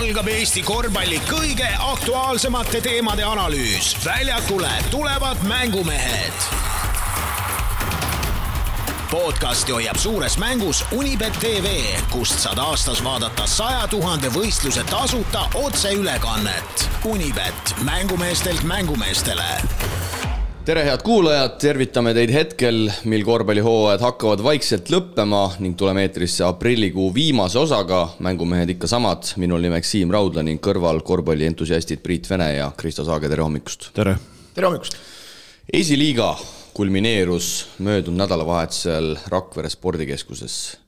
algab Eesti korvpalli kõige aktuaalsemate teemade analüüs. Väljakule tulevad mängumehed. Podcasti hoiab suures mängus Unibet TV, kust saad aastas vaadata 100 000 võistluse tasuta otseülekannet. Unibet, mängumeestelt mängumeestele. Tere head kuulajad, tervitame teid hetkel, mil korvpallihooajad hakkavad vaikselt lõppema ning tuleme eetrisse aprillikuu viimase osaga. Mängumehed ikka samad, minul nimeks Siim Raudla ning kõrval korvpallientusiastid Priit Vene ja Kristo Saage, tere hommikust. Tere. Tere hommikust. Esiliiga kulmineerus möödunud nädalavahetusel Rakvere spordikeskuses.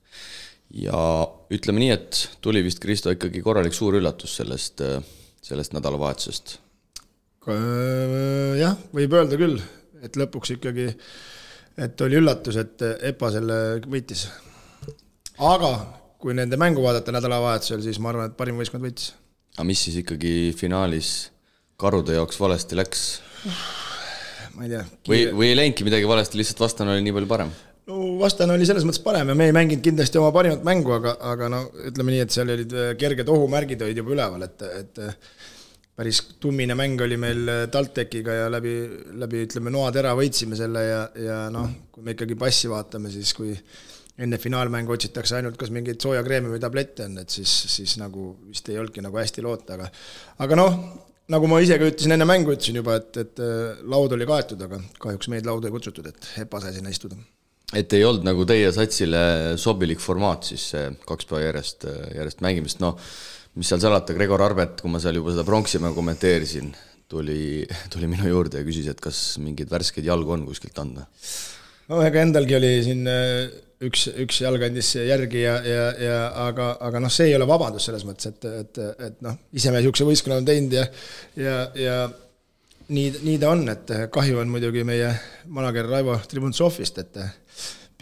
Ja ütleme nii, et tuli vist Kristo ikkagi korralik suur üllatus sellest nädalavahetusest. Jah, võib öelda küll, et lõpuks ikkagi, et oli üllatus, et EPA selle võitis. Aga kui nende mängu vaadata nädalavahetusel, siis ma arvan, et parim võistkond võitis. Aga mis siis ikkagi finaalis karude jaoks valesti läks? Ma ei tea. Või ei läinudki midagi valesti, lihtsalt vastane oli nii palju parem? No vastane oli selles mõttes parem ja me ei mänginud kindlasti oma parimat mängu, aga no, ütleme nii, et seal olid kerged ohumärgid olid juba üleval, et päris tummine mäng oli meil TalTechiga ja läbi ütleme noatera võitsime selle ja noh, kui me ikkagi passi vaatame, siis kui enne finaalmängu otsitakse ainult kas mingeid sooja kreemi või tablette on, et siis nagu vist ei olnudki nagu hästi loota, aga noh, nagu ma ise ka ütlesin enne mängu, ütlesin juba, et laud oli kaetud, aga kahjuks meid lauda ei kutsutud, et EPA sai sinna istuda. Et ei olnud nagu teie satsile sobilik formaat siis 2 päeva järjest mängimist, no mis seal salata, Gregor Arbet, kui ma seal juba seda pronksimäe kommenteerisin, tuli minu juurde ja küsis, et kas mingid värskeid jalgu on kuskilt anda. No ega endalgi oli siin üks jalg andis järgi, aga noh, see ei ole vabandus selles mõttes, et noh, ise me niisuguse võistkonna on teinud ja nii ta on, et kahju on muidugi meie manager Raivo Tribuntsovist, et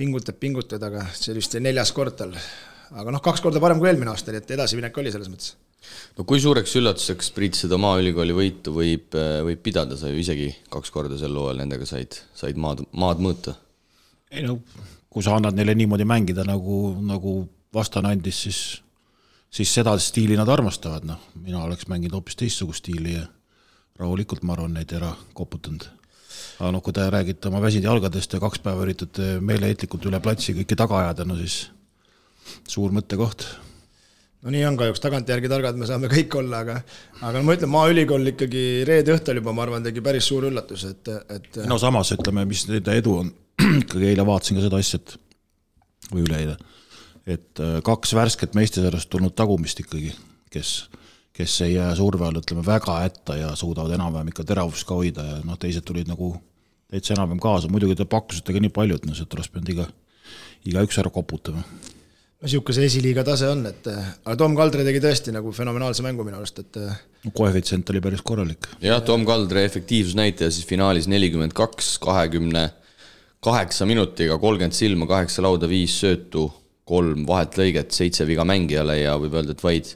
pingutab, aga see oli vist 4. kord tal. Aga noh, 2 korda parem kui eelmine aasta, et edasiminek oli selles mõttes. No kui suureks üllatuseks Priit seda maaülikooli võitu võib pidada, sa ju isegi 2 korda sel loel nendega said maad mõõta? Ei no, kui sa annad neile niimoodi mängida, nagu vastane andis, siis seda stiili nad armastavad. No, mina oleks mänginud hoopis teistsugust stiili ja rahulikult ma arvan neid ära koputanud. Aga noh, kui te räägite oma väsid jalgadest ja 2 päeva üritate meeleheitlikult üle platsi kõiki taga ajada, no siis suur mõttekoht. No nii on kahjuks, tagantjärgi targad me saame kõik olla, aga ma ütlen, maaülikool ikkagi reede õhtul juba, ma arvan, tegi päris suur üllatus. No samas, ütleme, mis nende edu on, ikkagi eile vaatasin ka seda asjat, või üleeile, et 2 värsket meistesarjast tulnud tagumist ikkagi, kes ei jää surve all, ütleme, väga hätta ja suudavad enam-vähem ikka teravust ka hoida ja noh, teised tulid nagu täitsa enam-vähem kaasa. Muidugi te pakkusite ka nii palju, et see oleks pidanud iga üks ära koputama. No niisuguse esiliiga tase on, aga Tom Kaldre tegi tõesti nagu fenomenaalse mängu minu arust, et koefitsient oli päris korralik. Jah, Tom Kaldre efektiivsusnäitaja siis finaalis 42, 28 minutiga, 30 silma, 8 lauda, 5 söötu, 3 vahet lõiget, 7 viga mängijale ja võib öelda, et vaid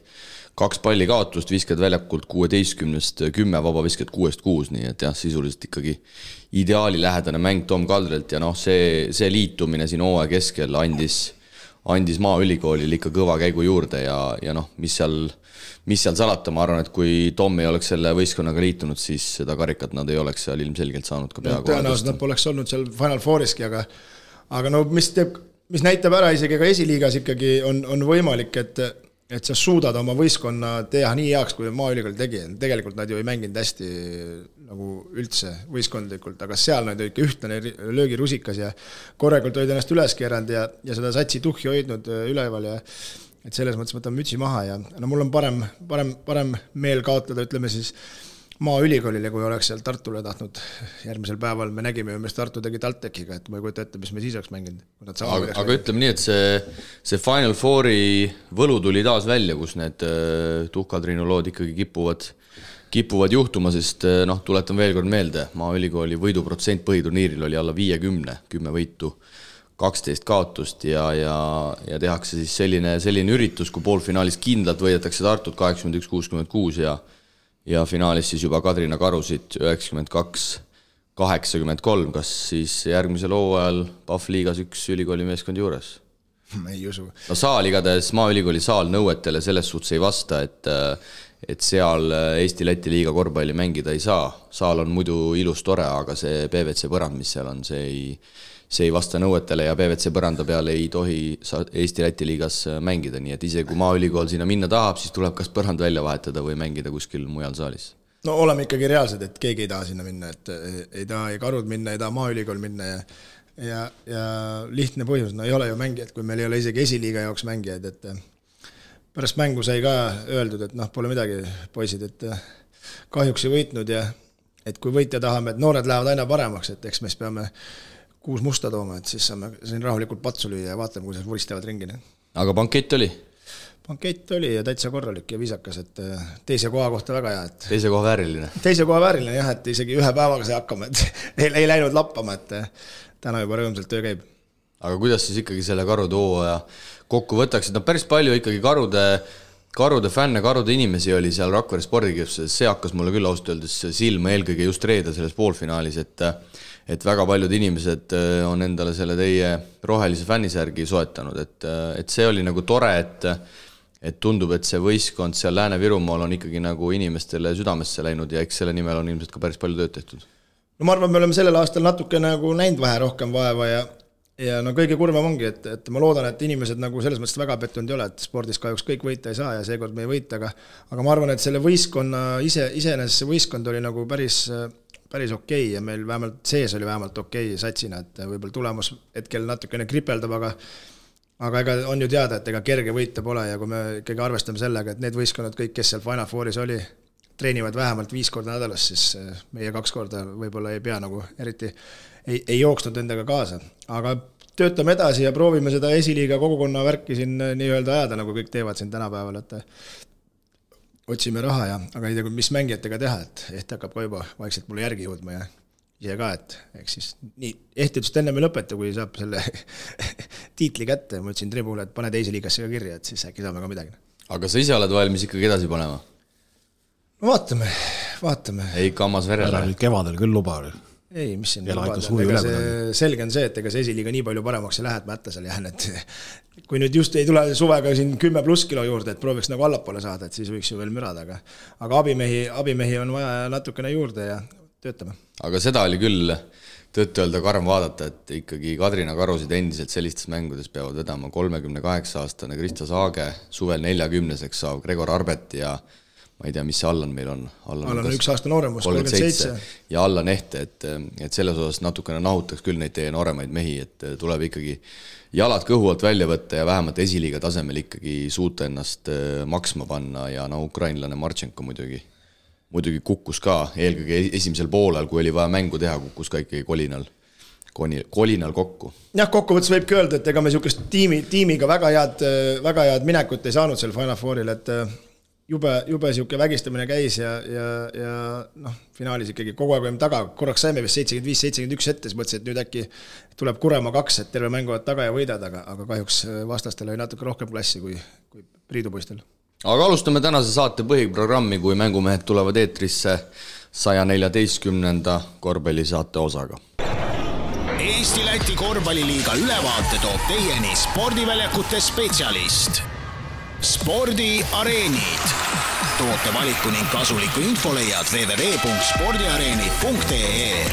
2 palli kaotust, viskad väljakult 16-st 10, vaba viskad 6-6, nii et jah, sisuliselt ikkagi ideaali lähedane mäng Tom Kaldrelt ja noh, see liitumine siin hooaja keskel andis maaülikoolil ikka kõva käigu juurde ja noh, mis seal salata, ma arvan, et kui Tom ei oleks selle võistkonnaga liitunud, siis seda karikat nad ei oleks seal ilmselgelt saanud ka peaaegu. Tõenäoliselt nad poleks olnud seal Final Fouriski, aga no mis näitab ära isegi ka esiliigas ikkagi on võimalik, et sa suudad oma võistkonna teha nii heaks, kui maaülikool tegi. Tegelikult nad ju ei mänginud hästi nagu üldse võistkondlikult, aga seal nad olid ikka ühtlane löögirusikas ja korrekult olid ennast üles keeranud ja seda satsi tuhhi hoidnud üleval ja et selles mõttes võtan mütsi maha ja no mul on parem meel kaotada, ütleme siis maaülikoolile, kui oleks seal Tartule tahtnud järgmisel päeval. Me nägime ju, mis Tartu tegi TalTechiga, et ma ei kujuta ette, mis me siis oleks mänginud. Aga ütleme nii, et see Final Fouri võlu tuli taas välja, kus need tuhkadriinulood ikkagi kipuvad juhtuma, sest noh, tuletan veel kord meelde, maaülikooli võiduprotsent põhiturniiril oli alla 50, 10 võitu, 12 kaotust ja tehakse siis selline üritus, kui poolfinaalis kindlalt võidetakse Tartut 81-66 ja finaalis siis juba Kadrina Karusid 92-83, kas siis järgmisel hooajal PAF liigas üks ülikooli meeskond juures? ma ei usu. No saal igatahes Maaülikooli saal nõuetele selles suhtes ei vasta, et seal Eesti-Läti liiga korvpalli mängida ei saa. Saal on muidu ilus tore, aga see PVC põrand, mis seal on, see ei vasta nõuetele ja PVC põranda peale ei tohi Eesti-Läti liigas mängida, nii et ise kui Maaülikool sinna minna tahab, siis tuleb kas põrand välja vahetada või mängida kuskil mujal saalis. No oleme ikkagi reaalsed, et keegi ei taha sinna minna, et ei taha ei Karud minna, ei taha Maaülikool minna ja lihtne põhjus, no ei ole ju mängijad, kui meil ei ole isegi esiliiga jaoks mängijaid, et pärast mängu sai ka öeldud, et pole midagi, poisid, et kahjuks ei võitnud ja et kui võitja tahame, et noored lähevad aina paremaks, et eks meist peame 6 musta tooma, et siis saame siin rahulikult patsu lüüa ja vaatame, kuidas vuristavad ringina. Aga bankett oli? Bankett oli ja täitsa korralik ja viisakas, et teise koha kohta väga hea. Et teise koha vääriline? Teise koha vääriline jah, et isegi ühe päevaga sai hakkama, et ei läinud lappama, et täna juba rõõmsalt töö käib. Aga kuidas siis ikkagi selle Karude hooaja kokku võtaksid? No päris palju ikkagi Karude fänne, Karude inimesi oli seal Rakvere spordikeskuses, see hakkas mulle küll ausalt öeldes silma eelkõige just reede selles poolfinaalis, et väga paljud inimesed on endale selle teie rohelise fännisärgi soetanud, et see oli nagu tore, et tundub, et see võistkond seal Lääne-Virumaal on ikkagi nagu inimestele südamesse läinud ja eks selle nimel on ilmselt ka päris palju tööd tehtud. No ma arvan, me oleme sellel aastal natuke nagu näinud vähe rohkem vaeva ja no kõige kurvem ongi, et ma loodan, et inimesed nagu selles mõttes väga pettunud ei ole, et spordis kahjuks kõik võita ei saa ja seekord me ei võita, aga ma arvan, et selle võistkonna iseenesest see võistkond oli nagu päris okei ja meil vähemalt sees oli vähemalt okei satsina, et võib-olla tulemus hetkel natukene kripeldab, aga ega on ju teada, et ega kerge võita pole ja kui me ikkagi arvestame sellega, et need võistkonnad kõik, kes seal Final Fouris oli, treenivad vähemalt 5 korda nädalas, siis meie 2 korda võib-olla ei pea nagu eriti ei jooksnud endaga kaasa. Aga töötame edasi ja proovime seda esiliiga kogukonna värki siin nii-öelda ajada, nagu kõik teevad siin tänapäeval, et otsime raha aga ei tea, mis mängijatega teha, et Ehti hakkab ka juba vaikselt mulle järgi jõudma ja ise ka, et eks siis nii, Ehti ütles, et enne me lõpeta, kui saab selle tiitli kätte, ma ütlesin Tribule, et pane teise liigasse ka kirja, et siis äkki saame ka midagi. Aga sa ise oled valmis ikkagi edasi panema? No vaatame. Ei kammas verele? Kevadel küll luba oli. Ei, mis siin lubada. Selge on see, et ega see esiliiga nii palju paremaks ei lähe, et ma ätta seal jään, et kui nüüd just ei tule suvega siin 10+ kilo juurde, et prooviks nagu allapoole saada, et siis võiks ju veel mürada, aga abimehi on vaja natukene juurde ja töötame. Aga seda oli küll tõtt-öelda karm vaadata, et ikkagi Kadrina Karusid endiselt sellistes mängudes peavad vedama 38-aastane Krista Saage, suvel 40-seks saav Gregor Arbet ja ma ei tea, mis see Allan meil on. Allan on 1 aasta nooremus, 37. Ja Allan Ehte, et selles osas natukene nahutaks küll neid teie nooremaid mehi, et tuleb ikkagi jalad kõhu alt välja võtta ja vähemalt esiliiga tasemel ikkagi suuta ennast maksma panna ja ukrainlane Marchenko muidugi kukkus ka eelkõige esimesel poolel, kui oli vaja mängu teha, kukkus ka ikkagi kolinal kokku. Jah, kokkuvõttes võibki öelda, et ega me niisugust tiimiga väga head minekut ei saanud seal Final Fouril, et jube siuke vägistamine käis ja finaalis ikkagi kogu aeg olime taga, korraks saime vist 75-71 ette, siis mõtlesin, et nüüd äkki tuleb Kurema 2, et terve mänguvad taga ja võidad, aga kahjuks vastastel oli natuke rohkem klassi kui Priidupoistel. Aga alustame tänase saate põhiprogrammi, kui mängumehed tulevad eetrisse 114. korvpallisaate osaga. Eesti-Läti korvpalliliiga ülevaate toob teieni spordiväljakute spetsialist Spordiareenid. Toote valiku ning kasuliku info leiad www.spordiareenid.ee.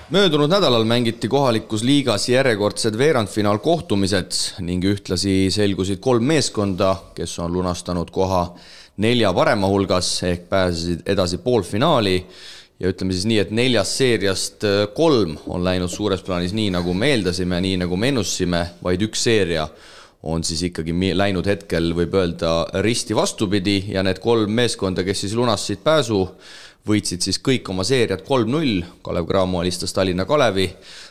Möödunud nädalal mängiti kohalikus liigas järjekordsed veerandfinaal kohtumised ning ühtlasi selgusid 3 meeskonda, kes on lunastanud koha 4 parema hulgas ehk pääsesid edasi poolfinaali. Ja ütleme siis nii, et 4 seeriast 3 on läinud suures plaanis nii, nagu me eeldasime, nii nagu me ennustasime, vaid 1 seeria on siis ikkagi läinud hetkel, võib öelda, risti vastupidi ja need 3 meeskonda, kes siis lunastasid pääsu, võitsid siis kõik oma seeriad 3-0, Kalev Cramo alistas Tallinna Kalevi,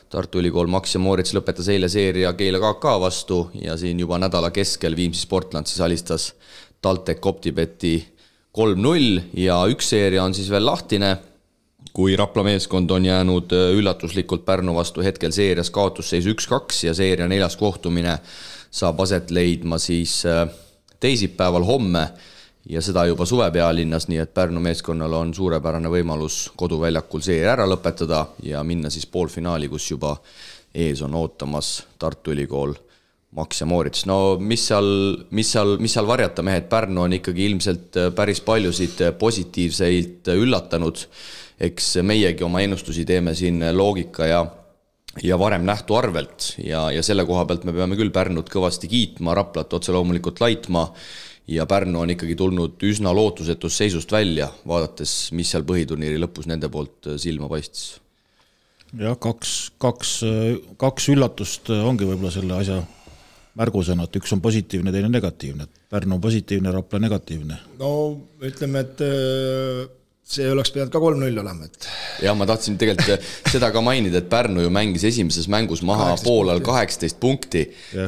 Tartu Ülikool Max ja Moorits lõpetas eile seeria Keila KK vastu ja siin juba nädala keskel Viimsi Sportland siis alistas TalTech Optibeti 3-0 ja 1 seeria on siis veel lahtine, kui Rapla meeskond on jäänud üllatuslikult Pärnu vastu hetkel seerias kaotusseis 1-2 ja seeria 4. kohtumine saab aset leidma siis teisipäeval homme ja seda juba suve pealinnas, nii et Pärnu meeskonnal on suurepärane võimalus koduväljakul seeria ära lõpetada ja minna siis poolfinaali, kus juba ees on ootamas Tartu Ülikool Max ja Moorits. No mis seal varjata, mehed, Pärnu on ikkagi ilmselt päris paljusid positiivseid üllatanud. Eks meiegi oma ennustusi teeme siin loogika ja varem nähtu arvelt ja selle koha pealt me peame küll Pärnut kõvasti kiitma, Raplat otse loomulikult laitma ja Pärnu on ikkagi tulnud üsna lootusetus seisust välja, vaadates, mis seal põhiturniiri lõpus nende poolt silma paistis. Jah, kaks üllatust ongi võib-olla selle asja märgusõna, et üks on positiivne, teine negatiivne. Pärnu on positiivne, Rapla negatiivne. No ütleme, et see oleks pidanud ka 3-0 olema. Ja ma tahtsin tegelikult seda ka mainida, et Pärnu ju mängis esimeses mängus maha poolal 18 punkti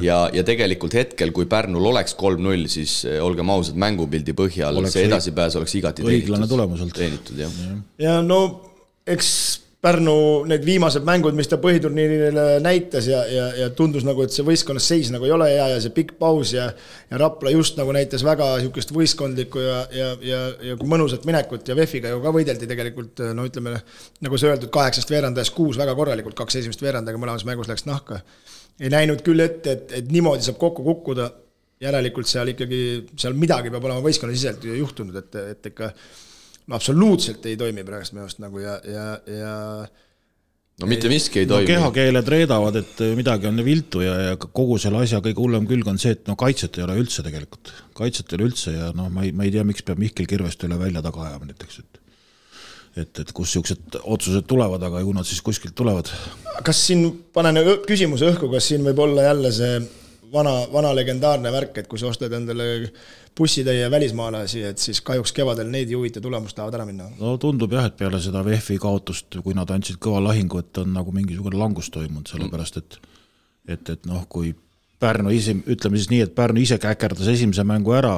ja tegelikult hetkel, kui Pärnul oleks 3-0, siis olgem ausad mängupildi põhjal, see edasipääs oleks igati teenitud. Ja no eks Pärnu need viimased mängud, mis ta põhiturniirile näitas ja tundus nagu, et see võistkonnas seis nagu ei ole hea ja see pikk paus ja Rapla just nagu näitas väga niisugust võistkondlikku ja mõnusat minekut ja VEF-iga ju ka võideldi tegelikult, no ütleme, nagu see öeldud, 8 veerandajast 6 väga korralikult, 2 esimest veerandaga mõlemas mängus läks nahka. Ei näinud küll ette, et niimoodi saab kokku kukkuda, järelikult seal ikkagi, seal midagi peab olema võistkonna siselt juhtunud, et ikka no absoluutselt ei toimi praegust meelest nagu ja no mitte miski ei toimi. No kehakeeled reedavad, et midagi on viltu ja kogu selle asja kõige hullem külg on see, et no kaitset ei ole üldse tegelikult. Kaitset ei ole üldse ja no ma ei tea, miks peab Mihkel Kirvest üle välja taga ajama näiteks, et kus siuksed otsused tulevad, aga ju nad siis kuskilt tulevad. Kas siin panen küsimuse õhku, kas siin võib olla jälle see vana legendaarne värk, et kui sa ostad endale bussitäie välismaalasi, et siis kahjuks kevadel neid juhite tulemust tahavad ära minna? No tundub jah, et peale seda VEF-i kaotust, kui nad andsid kõva lahingu, et on nagu mingisugune langus toimunud, sellepärast et noh, kui Pärnu ise, ütleme siis nii, et Pärnu ise käkerdas esimese mängu ära,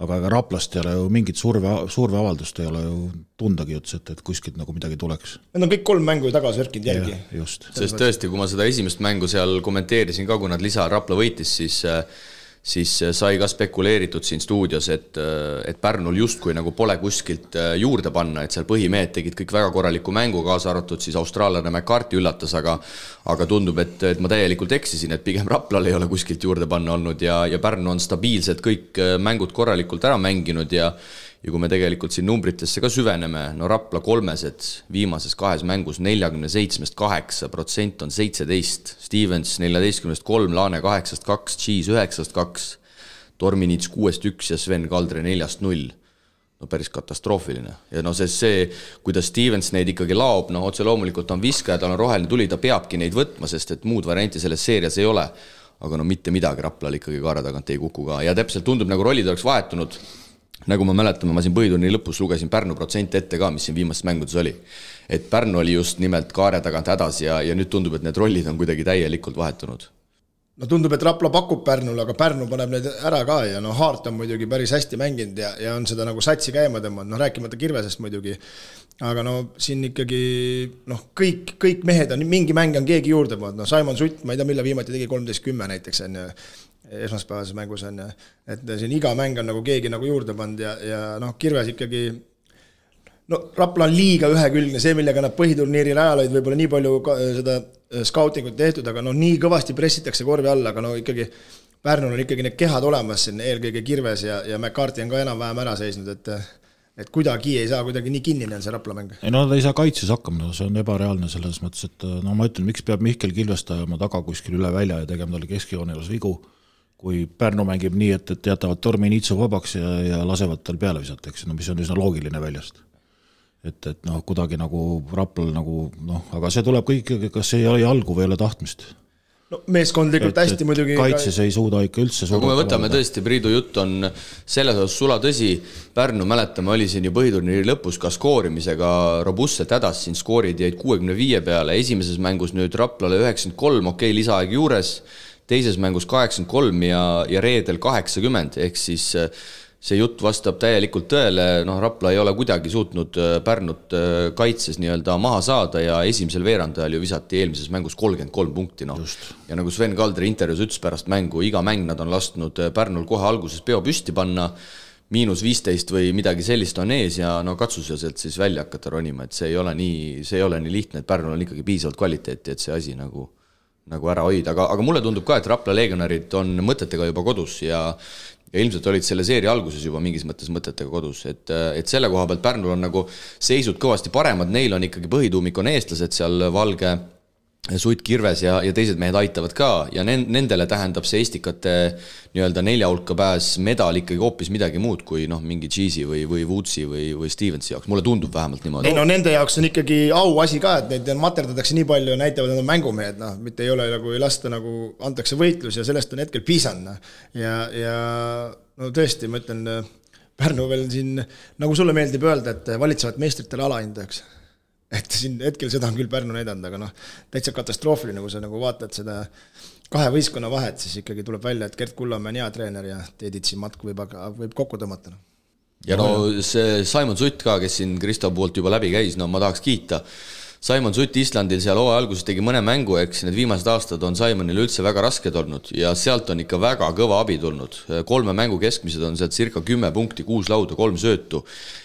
aga Raplast ei ole ju mingit surveavaldust ei ole ju tundagi üldse, et kuskilt nagu midagi tuleks. Need on kõik 3 mängu tagasi värkinud järgi. Just. Sest tõesti, kui ma seda esimest mängu seal kommenteerisin ka, kui nad lisa Rapla võitis, siis sai ka spekuleeritud siin stuudios, et Pärnul justkui nagu pole kuskilt juurde panna, et seal põhimehed tegid kõik väga korraliku mängu, kaasa arvatud siis austraallane McCarthy üllatas, aga tundub, et ma täielikult eksisin, et pigem Raplal ei ole kuskilt juurde panna olnud ja Pärnu on stabiilselt kõik mängud korralikult ära mänginud ja kui me tegelikult siin numbritesse ka süveneme, no Rapla kolmesed viimases 2 mängus 47-8% on 17, Stevens 14-3, Laane 8-2, Cheese 9-2, Torminits 6-1 ja Sven Kaldre 4-0. No päris katastroofiline. Ja no see, kuidas Stevens neid ikkagi laob, no otse loomulikult on viskaja, tal on roheline tuli, ta peabki neid võtma, sest et muud varianti selles seerias ei ole. Aga no mitte midagi Raplal ikkagi kaara tagant ei kuku ka. Ja täpselt tundub, nagu rollid oleks vahetunud. Nagu ma mäletame, ma siin põhiturniiri lõpus lugesin Pärnu protsent ette ka, mis siin viimastes mängudes oli. Et Pärnu oli just nimelt kaare tagant hädas ja nüüd tundub, et need rollid on kuidagi täielikult vahetunud. No tundub, et Rapla pakub Pärnule, aga Pärnu paneb need ära ka ja no Haart on muidugi päris hästi mänginud ja on seda nagu satsi käima tõmmanud, no rääkimata Kirvesest muidugi. Aga no siin ikkagi kõik mehed on, mingi mäng on keegi juurde pannud, no Simon Sutt, ma ei tea, mille viimati tegi 13-10 näiteks on esmaspäevases mängus on, et siin iga mäng on nagu keegi nagu juurde pannud ja noh, Kirves ikkagi, no Rapla on liiga ühekülgne, see, millega nad põhiturniiril ajal olid võib-olla nii palju seda scoutingut tehtud, aga no nii kõvasti pressitakse korvi alla, aga no ikkagi Pärnul on ikkagi need kehad olemas siin, eelkõige Kirves ja McCarthy on ka enam-vähem ära seisnud, et kuidagi ei saa kuidagi nii kinnine on see Rapla mäng. Ei no ta ei saa kaitses hakkama, see on ebareaalne selles mõttes, et no ma ütlen, miks peab Mihkel Kilvest ajama taga kuskil üle välja ja tegema talle keskjoonelas vigu, kui Pärnu mängib nii, et jätavad Torminitsu vabaks ja lasevad tal peale visata, eks, no mis on üsna loogiline väljast. Et noh, kuidagi nagu Raplal nagu, noh, aga see tuleb kõik, kas ei ole jalgu või ei ole tahtmist. No meeskondlikult hästi muidugi. Kaitses ei suuda ikka üldse suuda. Kui me võtame tõesti, Priidu jutt on selles osas sula tõsi, Pärnu mäletame, oli siin ju põhiturniiri lõpus ka skoorimisega robustselt hädas, siin skoorid jäid 65 peale, esimeses mängus nüüd Raplale 93, okei, lisaaeg juures, teises mängus 83 ja reedel 80, ehk siis see jutt vastab täielikult tõele, noh Rapla ei ole kuidagi suutnud Pärnut kaitses nii-öelda maha saada ja esimesel veerandajal ju visati eelmises mängus 33 punkti, noh. Ja nagu Sven Kaldre intervjuus ütles pärast mängu, iga mäng nad on lasknud Pärnul kohe alguses peo püsti panna, -15 või midagi sellist on ees ja no katsus ja sealt siis välja hakata ronima, et see ei ole nii lihtne, et Pärnul on ikkagi piisavalt kvaliteeti, et see asi nagu ära hoida, aga mulle tundub ka, et Rapla Legionarid on mõtetega juba kodus ja ilmselt olid selle seeria alguses juba mingis mõttes mõtetega kodus, et selle koha pealt Pärnul on nagu seisud kõvasti paremad, neil on ikkagi põhituumik on eestlased seal Valge, Sutt, Kirves ja teised mehed aitavad ka ja nendele tähendab see Estikate nii-öelda 4 hulka pääs medal ikkagi hoopis midagi muud kui mingi Cheesy või Woodsi või Stevensi jaoks, mulle tundub vähemalt niimoodi. Ei no nende jaoks on ikkagi auasi ka, et neid materdatakse nii palju ja näitavad, et nad on mängumehed, mitte ei ole nagu ei lasta nagu antakse võitlus ja sellest on hetkel piisanud. Ja no tõesti, ma ütlen, Pärnu veel siin, nagu sulle meeldib öelda, et valitsevat meistritele alahindajaks. Et siin hetkel seda on küll Pärnu näidanud, aga täitsa katastroofiline, kui sa nagu vaatad seda 2 võistkonna vahet, siis ikkagi tuleb välja, et Gert Kullamäe on hea treener ja Teeditsi matk võib kokku tõmmata. Ja see Simon Sutt ka, kes siin Kristo poolt juba läbi käis, ma tahaks kiita. Simon Sutt Islandil seal hooaja alguses tegi mõne mängu, eks need viimased aastad on Simonil üldse väga rasked olnud ja sealt on ikka väga kõva abi tulnud. 3 mängu keskmised on sealt circa 10 punkti, 6 lauda, 3 söötu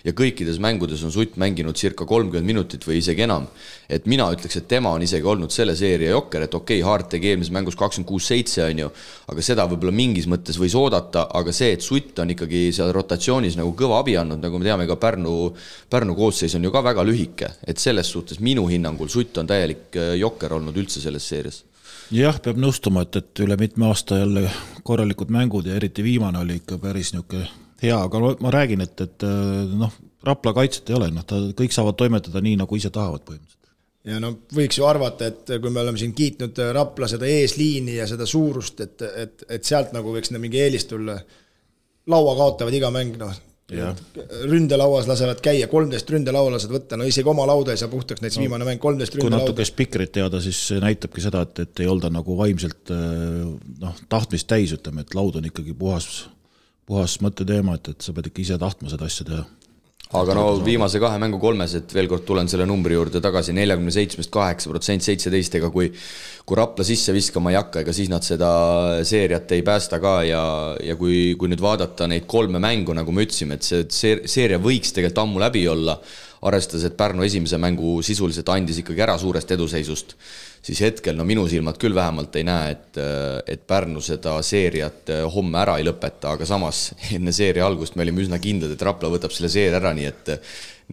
ja kõikides mängudes on Sutt mänginud circa 30 minutit või isegi enam. Et mina ütleks, et tema on isegi olnud selle seeria jokker, et okei, Hart tegi eelmises mängus 26-7 on ju, aga seda võib-olla mingis mõttes võis oodata, aga see, et Sutt on ikkagi seal rotatsioonis nagu kõva abi andnud, nagu me teame ka Pärnu koosseis on ju ka väga lühike, et selles suhtes minu hinnangul Sutt on täielik jokker olnud üldse selles seerias. Jah, peab nõustuma, et üle mitme aasta jälle korralikud mängud ja eriti viimane oli ikka päris niisugune hea, aga ma räägin, et Rapla kaitset ei ole, kõik saavad toimetada nii, nagu ise tahavad põhimõtteliselt. Ja võiks ju arvata, et kui me oleme siin kiitnud Rapla seda eesliini ja seda suurust, et sealt nagu võiks mingi eelis tulla, laua kaotavad iga mäng, ründelauas lasevad käia, 13 ründelaua lased võtta, isegi oma lauda ei saa puhtaks, näiteks viimane mäng 13 ründelauda. Kui natuke spikrit teada, siis näitabki seda, et ei olda nagu vaimselt tahtmist täis, ütleme, et laud on ikkagi puhas mõtteteema, et sa pead ikka ise tahtma seda asja teha. Aga viimase 2 mängu 3, et veel kord tulen selle numbri juurde tagasi, 47-8%, 17, ega kui Rapla sisse viskama ei hakka, ega siis nad seda seeriat ei päästa ka ja kui nüüd vaadata neid 3 mängu, nagu me ütlesime, et see seeria võiks tegelikult ammu läbi olla, arvestades, et Pärnu esimese mängu sisuliselt andis ikkagi ära suurest eduseisust, siis hetkel minu silmad küll vähemalt ei näe, et Pärnu seda seeriat homme ära ei lõpeta, aga samas enne seeria algust me olime üsna kindlad, et Rapla võtab selle seeria ära, nii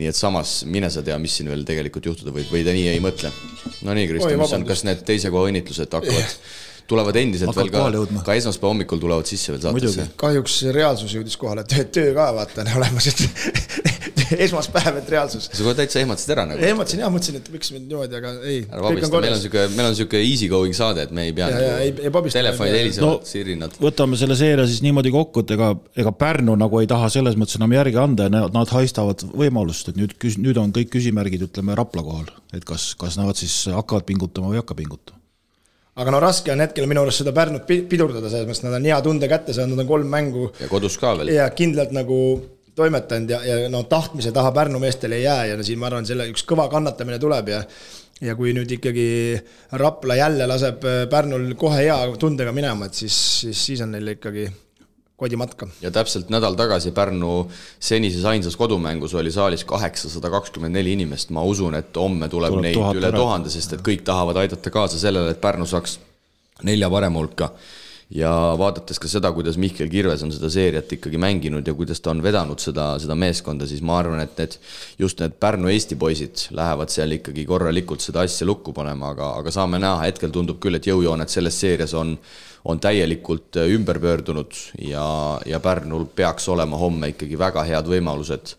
et samas mine sa tea, mis siin veel tegelikult juhtuda või ta nii ei mõtle. No nii, Kristo, kas need teise koha õnnitlused tulevad endiselt veel ka esmaspäeva hommikul tulevad sisse veel saatesse? Kahjuks reaalsus jõudis kohale, töö ka vaata olemas, et esmaspäev, et reaalsus. Sa kohe täitsa ehmatasid ära nagu? Ehmatasin jah, mõtlesin, et miks me niimoodi, aga ei. Meil on siuke easy going saade, et me ei pea telefonid helisevad, sirinad. Võtame selle seeria siis niimoodi kokku, et ega Pärnu nagu ei taha selles mõttes enam järgi anda ja nad haistavad võimalust, et nüüd on kõik küsimärgid, ütleme, Rapla kohal, et kas nad siis hakkavad pingutama või hakka pingutama. Aga raske on hetkel minu arust seda Pärnut pidurdada, selles mõttes nad on hea tunde kätte saanud, nad on 3 mängu. Ja kodus ka veel. Ja kindlalt nagu toimetanud ja tahtmise taha Pärnu meestel ei jää ja siin ma arvan, selle üks kõva kannatamine tuleb ja kui nüüd ikkagi Rapla jälle laseb Pärnul kohe hea tundega minema, et siis on neil ikkagi kodimatka. Ja täpselt nädal tagasi Pärnu senises ainsas kodumängus oli saalis 824 inimest. Ma usun, et homme tuleb neid üle 1000, sest et kõik tahavad aidata kaasa sellele, et Pärnu saaks 4 parema hulka. Ja vaadates ka seda, kuidas Mihkel Kirves on seda seeriat ikkagi mänginud ja kuidas ta on vedanud seda meeskonda, siis ma arvan, et just need Pärnu Eesti poisid lähevad seal ikkagi korralikult seda asja lukku panema, aga saame näha, hetkel tundub küll, et jõujoonet selles seerias on täielikult ümber pöördunud ja Pärnul peaks olema homme ikkagi väga head võimalused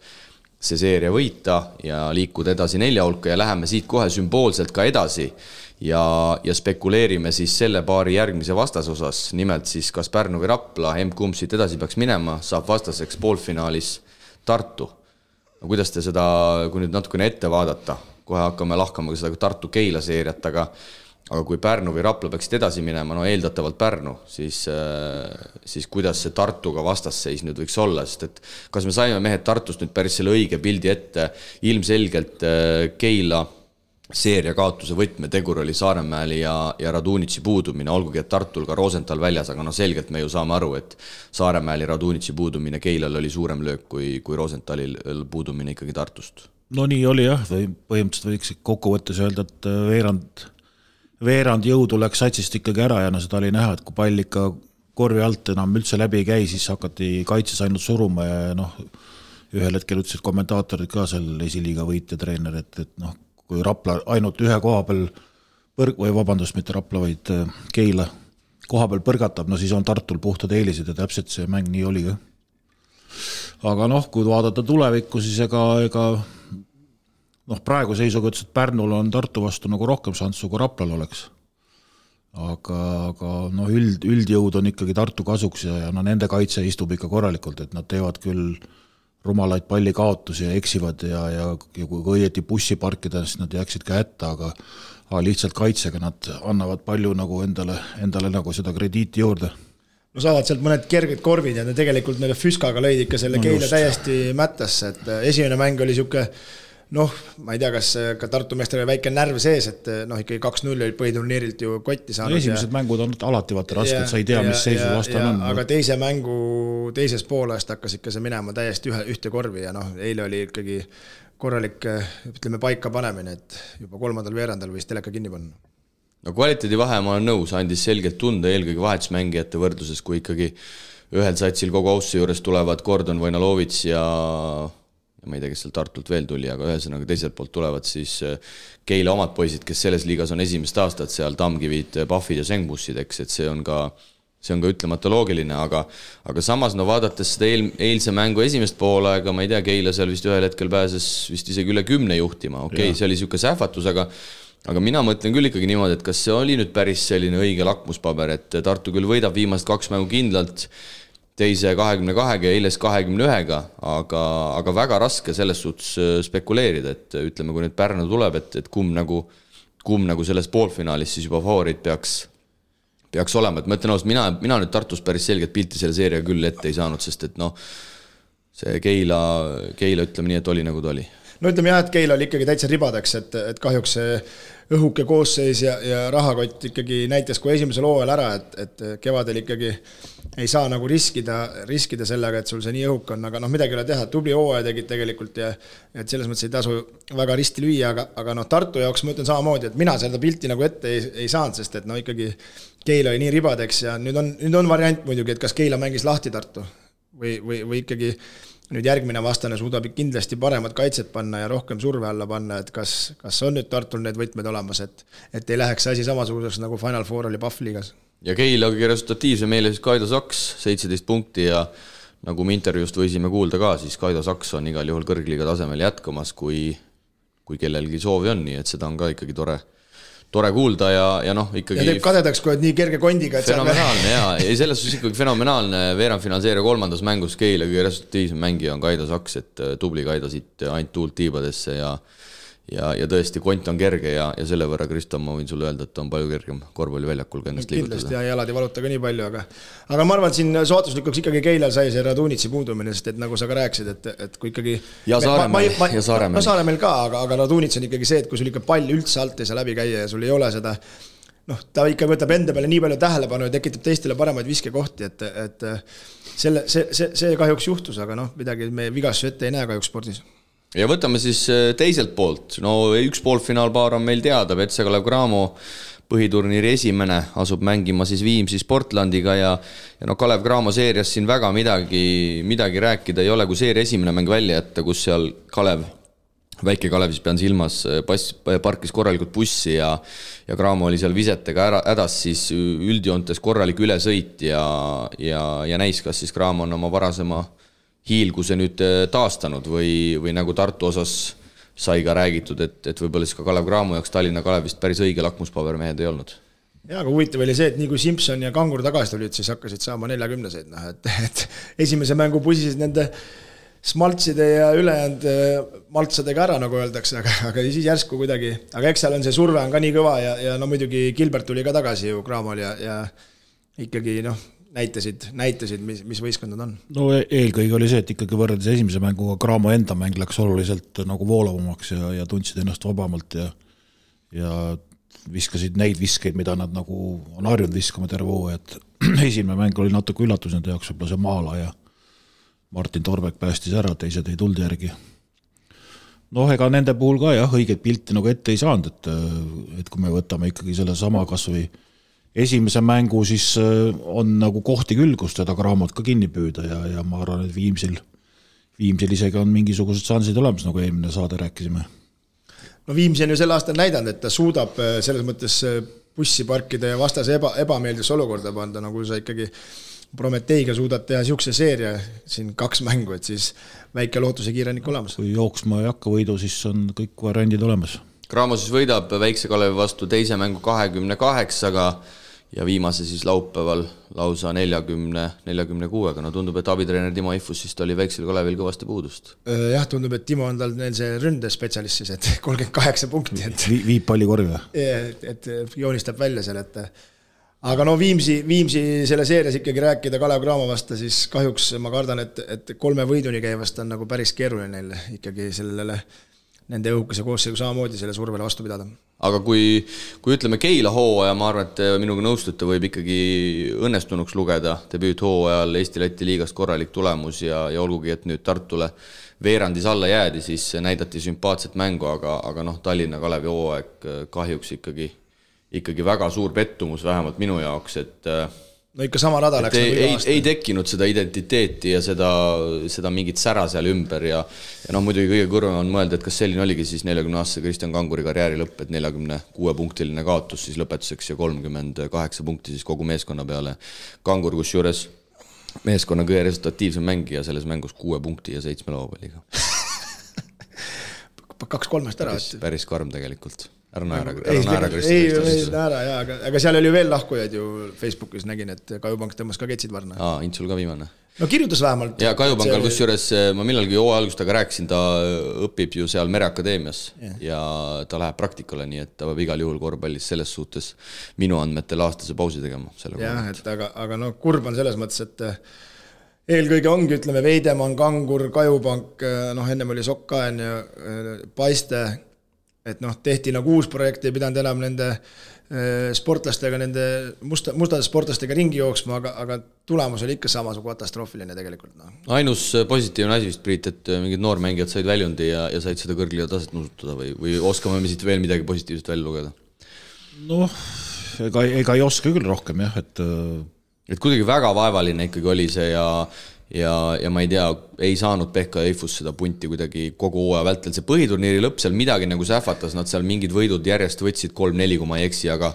see seeria võita ja liikuda edasi 4 hulka ja läheme siit kohe sümboolselt ka edasi ja spekuleerime siis selle paari järgmise vastasosas, nimelt siis kas Pärnu või Rapla, kumb siit edasi peaks minema, saab vastaseks poolfinaalis Tartu. No, kuidas te seda, kui nüüd natukene ette vaadata, kohe hakkame lahkama ka seda Tartu Keila seeriat, aga kui Pärnu või Rapla peaksid edasi minema, eeldatavalt Pärnu, siis kuidas see Tartuga vastasseis nüüd võiks olla, sest et kas me saime mehed Tartust nüüd päris selle õige pildi ette, ilmselgelt Keila seeria kaotuse võtmetegur oli Saaremäel ja Radunitši puudumine, olgugi et Tartul ka Rosenthal väljas, aga selgelt me ju saame aru, et Saaremäel ja Radunitši puudumine Keilal oli suurem löök kui Rosenthalil puudumine ikkagi Tartust. No nii oli jah, või põhimõtteliselt võiks kokkuvõttes öelda, et veerand jõudu läks satsist ikkagi ära ja seda oli näha, et kui pall ikka korvi alt enam üldse läbi ei käi, siis hakati kaitses ainult suruma ja ühel hetkel ütlesid kommentaatorid ka seal esiliiga võitja treener, et kui Rapla ainult ühe koha peal mitte Rapla, vaid Keila koha peal põrgatab, siis on Tartul puhtad eelised ja täpselt see mäng nii oli ka. Aga kui vaadata tulevikku, siis ega praegu seisuga ütles, et Pärnul on Tartu vastu nagu rohkem šanssu kui Raplal oleks. Aga üldjõud on ikkagi Tartu kasuks ja nende kaitse istub ikka korralikult, et nad teevad küll rumalaid pallikaotusi ja eksivad ja kui õieti bussi parkida, siis nad jääksid ka hätta, aga lihtsalt kaitsega nad annavad palju nagu endale nagu seda krediiti juurde. Saavad sealt mõned kerged korvid ja tegelikult neile Füskaga lõid ikka selle Keila täiesti mättasse, et esimene mäng oli siuke ma ei tea, kas ka Tartu meestel oli väike närv sees, et ikkagi 2-0 oli põhiturniirilt ju kotti saanud. Esimesed mängud on alati vaata rasked, sa ei tea, mis seisu vastan on. Aga teise mängu teises poolest hakkas ikka see minema täiesti ühte korvi ja eile oli ikkagi korralik, ütleme, paika panemine, et juba 3. veerandal võis teleka kinni panna. Kvaliteedi vahe ma olen nõus, andis selgelt tunda eelkõige vahetusmängijate võrdluses, kui ikkagi ühel satsil kogu austuse juures tulevad Gordon Vojnalovits ja ma ei tea, kes seal Tartult veel tuli, aga ühesõnaga teiselt poolt tulevad siis Keila omad poisid, kes selles liigas on esimest aastat seal Tamkivid, Pahvid ja Sengbussid, eks, et see on ka ütlemata loogiline, aga samas vaadates seda eilse mängu esimest poolega, ma ei tea, Keila seal vist ühel hetkel pääses vist isegi üle 10 juhtima, see oli siuke sähvatus, aga mina mõtlen küll ikkagi niimoodi, et kas see oli nüüd päris selline õige lakmuspaber, et Tartu küll võidab viimast 2 mängu kindlalt, teise 22 ja eiles 21, aga väga raske selles suhtes spekuleerida, et ütleme, kui nüüd Pärnu tuleb, et kumb nagu selles poolfinaalis siis juba favoriit peaks olema, et ma ütlen ausalt, mina nüüd Tartus päris selget pilti selle seeria küll ette ei saanud, sest et see Keila ütleme nii, et oli nagu ta oli. Ütleme jah, et Keila oli ikkagi täitsa ribadeks, et kahjuks see õhuke koosseis ja rahakott ikkagi näitas kui esimesel hooajal ära, et kevadel ikkagi ei saa nagu riskida sellega, et sul see nii õhuk on, aga midagi ei ole teha, tubli hooaja tegid tegelikult ja et selles mõttes ei tasu väga risti lüüa, aga Tartu jaoks ma ütlen samamoodi, et mina seda pilti nagu ette ei saanud, sest et ikkagi Keila oli nii ribadeks ja nüüd on variant muidugi, et kas Keila mängis lahti Tartu või ikkagi nüüd järgmine vastane suudab kindlasti paremat kaitset panna ja rohkem surve alla panna, et kas on nüüd Tartul need võtmed olemas, et ei läheks asi samasuguseks nagu Final Four oli Pahvliigas. Ja Keila kõige resultatiivse meile siis Kaido Saks, 17 punkti ja nagu me intervjuust võisime kuulda ka, siis Kaido Saks on igal juhul kõrgliiga tasemel jätkamas, kui kellelgi soovi on, nii et seda on ka ikkagi tore kuulda ja ikkagi... Ja teeb kadedaks, kui nii kerge kondiga, et fenomenaalne, jaa. Ja selles suhtes ikkagi fenomenaalne veerandfinaalseeria 3. mängus Keila kõige resultatiivsem mängija on Kaido Saks, et tubli Kaido siit ainult tuult tiibadesse ja tõesti kont on kerge ja selle võrra, Kristo, ma võin sulle öelda, et on palju kergem korvpalliväljakul ka ennast liigutada. Kindlasti ja jalad ei valuta ka nii palju, aga ma arvan, et siin sootuslikuks ikkagi Keilal sai see Radunitši puudumine, sest et nagu sa ka rääkisid, et kui ikkagi... Ja Saaremäel. Saaremäel ka, aga Radunitš on ikkagi see, et kui sul ikka pall üldse alt ei saa läbi käia ja sul ei ole seda... ta ikka võtab enda peale nii palju tähelepanu ja tekitab teistele paremaid viskekohti, et see kahjuks juhtus, aga midagi me vigastusi ette ei näe kahjuks spordis. Ja võtame siis teiselt poolt. Üks poolfinaalpaar on meil teada, Petse Kalev Cramo põhiturniiri esimene asub mängima siis Viimsis Portlandiga ja Kalev Cramo seerias siin väga midagi rääkida ei ole, kui seeria esimene mäng välja jätta, kus seal väike Kalev siis pean silmas, parkis korralikult bussi ja Cramo oli seal visetega hädas, siis üldjoontes korralik ülesõit ja näis, kas siis Cramo on oma varasema hiilguse nüüd taastanud või nagu Tartu osas sai ka räägitud, et võib-olla siis ka Kalev Cramo jaoks Tallinna Kalevist päris õige lakmuspabermehed ei olnud. Ja, aga huvitav oli see, et nii kui Simson ja Kangur tagasi tulid, siis hakkasid saama 40-seid, et esimese mängu pusisid nende smaltside ja ülejäänud maltsadega ära, nagu öeldakse, aga siis järsku kuidagi, aga eks seal on see surve on ka nii kõva ja muidugi Gilbert tuli ka tagasi ju Cramol ja ikkagi näitasid, mis võistkond on. Eelkõige oli see, et ikkagi võrreldes esimese mänguga Cramo enda mäng läks oluliselt nagu voolavamaks ja tundsid ennast vabamalt ja viskasid neid viskeid, mida nad nagu on harjunud viskama terve hooaja, et esimene mäng oli natuke üllatus nende jaoks, võib-olla see Maala ja Martin Torbek päästis ära, teised ei tulnud järgi. Noh, ega nende puhul ka jah, õiget pilti nagu ette ei saanud, et kui me võtame ikkagi selle sama kas või esimese mängu, siis on nagu kohti küll, kus teda Cramot ka kinni püüda ja ma arvan, et Viimsil isegi on mingisugused šansid olemas, nagu eelmine saade rääkisime. No Viimsi on ju sel aastal näidanud, et ta suudab selles mõttes bussi parkida ja vastase ebameeldisse olukorda panda, nagu sa ikkagi Prometeiga suudad teha siukse seeria siin 2 mängu, et siis väike lootuse kiirenik olemas. Kui jooksma ei hakka võidu, siis on kõik variandid olemas. Cramo siis võidab Väikse Kalevi vastu teise mängu 28-ga ja viimase siis laupäeval lausa 40-46-ga. No tundub, et abitreener Timo Ifus siis oli Väiksel Kalevil kõvasti puudust. Jah, tundub, et Timo on tal neil see ründespetsialist siis, et 38 punkti. Et viib palli korvi. Et joonistab välja seal, et aga no Viimsi selle seerias ikkagi rääkida Kalev Cramo vasta, siis kahjuks ma kardan, et 3 võiduni käivast on nagu päris keeruline neil ikkagi sellele nende õhukese koosseigu samamoodi selle survele vastu pidada. Aga kui ütleme Keila hooaja, ma arvan, et minuga nõustute, võib ikkagi õnnestunuks lugeda debüüt hooajal Eesti-Läti liigast korralik tulemus ja olgugi, et nüüd Tartule veerandis alla jäädi, siis näidati sümpaatset mängu, aga noh, Tallinna Kalevi hooaeg kahjuks ikkagi väga suur pettumus, vähemalt minu jaoks, et no ikka sama rada läks nagu ei tekkinud seda identiteeti ja seda mingit sära seal ümber ja noh, muidugi kõige kõrvem on mõelda, et kas selline oligi siis 40-aastase Kristjan Kanguri karjääri lõpp, et 46-punktiline kaotus siis lõpetuseks ja 38 punkti siis kogu meeskonna peale. Kangur, kus juures meeskonna kõige resultatiivsem mängija selles mängus 6 punkti ja 7 lauapalliga. 2-3 ära. Päris karm tegelikult. Ära naera, aga seal oli veel lahkujaid ju Facebookis nägin, et Kajupank tõmbas ka ketsid varna. Intsul ka viimane. No kirjutas vähemalt. Ja Kajupankal, kus juures ma millalgi hooaja algustaga rääkisin, ta õpib ju seal Mereakadeemias ja ta läheb praktikale, nii et ta peab igal juhul korvpallis selles suhtes minu andmetel aastase pausi tegema. Jah, et aga no kurb on selles mõttes, et eelkõige ongi, ütleme, Veidemann, Kangur, Kajupank, noh, ennem oli Sokkaen ja Paiste, et noh, tehti nagu uus projekt, ei pidanud enam nende sportlastega, nende mustade sportlastega ringi jooksma, aga tulemus oli ikka samasugune katastroofiline tegelikult. No. Ainus positiivne asi vist, Priit, et mingid noormängijad said väljundi ja said seda kõrgliga taset nusutada või oskame me siit veel midagi positiivset välja lugeda? Noh, ega ei oska küll rohkem, jah, et kuidagi väga vaevaline ikkagi oli see ja ma ei tea, ei saanud Pehka ja Eifus seda punti kuidagi kogu hooaja vältel. See põhiturniiri lõpp seal midagi nagu sähvatas, nad seal mingid võidud järjest võtsid 3-4, kui ma ei eksi, aga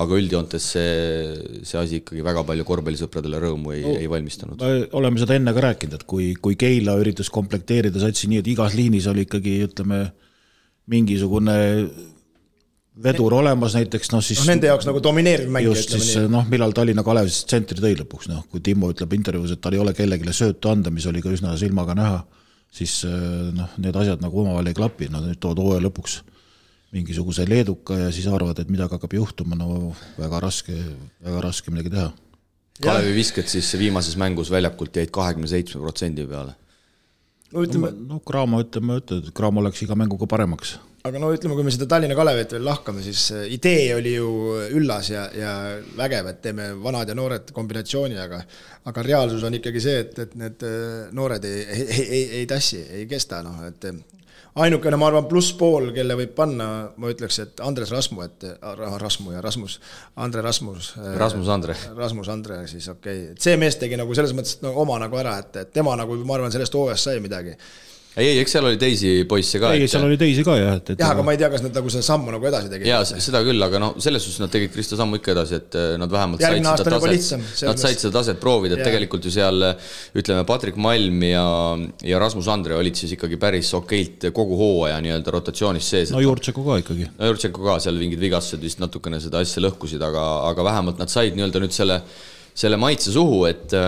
üldjoontes see asi ikkagi väga palju korvpallisõpradele rõõmu ei valmistanud. Oleme seda enne ka rääkinud, et kui Keila üritas komplekteerida satsi nii, et igas liinis oli ikkagi, ütleme, mingisugune vedur olemas näiteks, noh siis nende jaoks nagu domineeriv mäng. Just siis, noh, millal Tallinna Kalev siis tsentri tõi lõpuks, noh, kui Timo ütleb intervjuus, et tal ei ole kellegile söötu anda, mis oli ka üsna silmaga näha, siis noh, need asjad nagu omavahel ei klapi, no nüüd tood hooaja lõpuks mingisuguse leeduka ja siis arvad, et midagi hakkab juhtuma, no väga raske midagi teha. Kalevi visked siis viimases mängus väljakult jäid 27% peale. No Cramo Cramo läks iga mänguga paremaks. Aga no ütleme, kui me seda Tallinna Kalevet veel lahkame, siis idee oli ju üllas ja vägev, et teeme vanad ja noored kombinatsiooni, aga reaalsus on ikkagi see, et need noored ei tassi, ei kesta. No, et ainukene, ma arvan, plusspool, kelle võib panna, ma ütleks, et Andres Rasmu, Rasmus Andre, siis okei. Et see mees tegi nagu selles mõttes oma nagu ära, et tema nagu, ma arvan, sellest hooajast sai midagi. Ei, eks seal oli teisi poisse ka. Ei, seal oli teisi ka, jah. Jah, aga ma ei tea, kas nad nagu seda sammu nagu edasi tegid. Jaa, seda küll, aga no selles suhtes nad tegid Kristo sammu ikka edasi, et nad vähemalt said seda taset proovida, et tegelikult ju seal, ütleme, Patrik Malm ja Rasmus Andre olid siis ikkagi päris okeilt kogu hooaja nii-öelda rotatsioonis sees. No Jurtšenko ka ikkagi. No Jurtšenko ka, seal mingid vigastused vist natukene seda asja lõhkusid, aga vähemalt nad said nii-öelda nüüd selle maitse suhu, et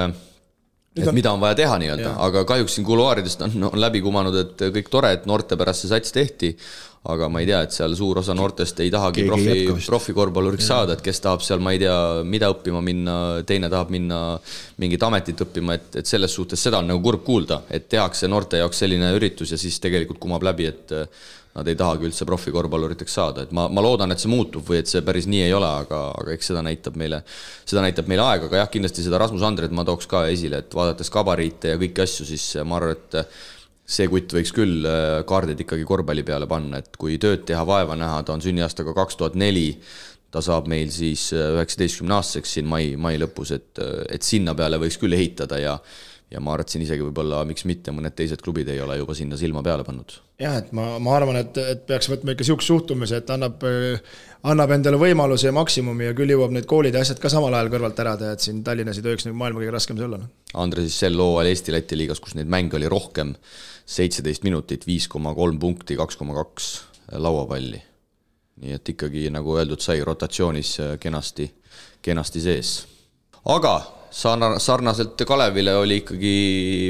mida on vaja teha nii-öelda, aga kahjuks siin kuluaaridest on läbi kumanud, et kõik tore, et noorte pärast see sats tehti, aga ma ei tea, et seal suur osa noortest ei tahagi profikorvpalluriks saada, et kes tahab seal, ma ei tea, mida õppima minna, teine tahab minna mingit ametit õppima, et selles suhtes seda on nagu kurb kuulda, et tehakse noorte jaoks selline üritus ja siis tegelikult kumab läbi, et nad ei tahagi üldse profikorvpalluriteks saada, et ma loodan, et see muutub või et see päris nii ei ole, aga eks seda näitab meile aeg, aga jah, kindlasti seda Rasmus Andret ma tooks ka esile, et vaadates kabariite ja kõiki asju, siis ma arvan, et see kutt võiks küll kaardid ikkagi korvpalli peale panna, et kui tööd teha, vaeva näha, ta on sünniaastaga 2004, ta saab meil siis 19-aastaseks siin mai lõpus, et sinna peale võiks küll ehitada ja ma arvan, et siin isegi võib-olla, miks mitte, mõned teised klubid ei ole juba sinna silma peale pannud. Jah, et ma arvan, et peaks võtma ikka siukse suhtumise, et annab endale võimaluse ja maksimumi ja küll jõuab need koolid ja asjad ka samal ajal kõrvalt ära teha, et siin Tallinnas ei tohiks maailma kõige raskem see olla. Andre siis sel hooajal Eesti-Läti liigas, kus neid mänge oli rohkem, 17 minutit, 5,3 punkti, 2,2 lauapalli. Nii et ikkagi, nagu öeldud, sai rotatsioonis kenasti sees. Aga sarnaselt Kalevile oli ikkagi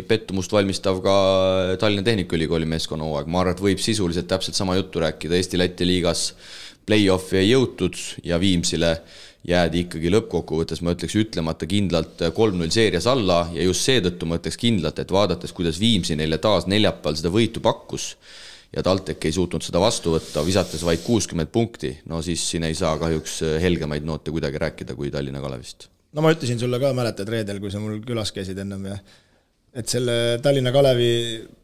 pettumust valmistav ka Tallinna Tehnikaülikooli meeskonna hooaeg. Ma arvan, et võib sisuliselt täpselt sama juttu rääkida. Eesti-Läti liigas play-offi ei jõutud ja Viimsile jäädi ikkagi lõppkokkuvõttes, ma ütleks ütlemata kindlalt 3-0 seerias alla ja just seetõttu ma ütleks kindlalt, et vaadates, kuidas Viimsi neile taas neljapäeval seda võitu pakkus ja TalTech ei suutnud seda vastu võtta, visates vaid 60 punkti, no siis siin ei saa kahjuks helgemaid noote kuidagi rääkida kui Tallinna Kalevist. No ma ütlesin sulle ka, mäletad reedel, kui sa mul külas käisid ennem ja et selle Tallinna Kalevi,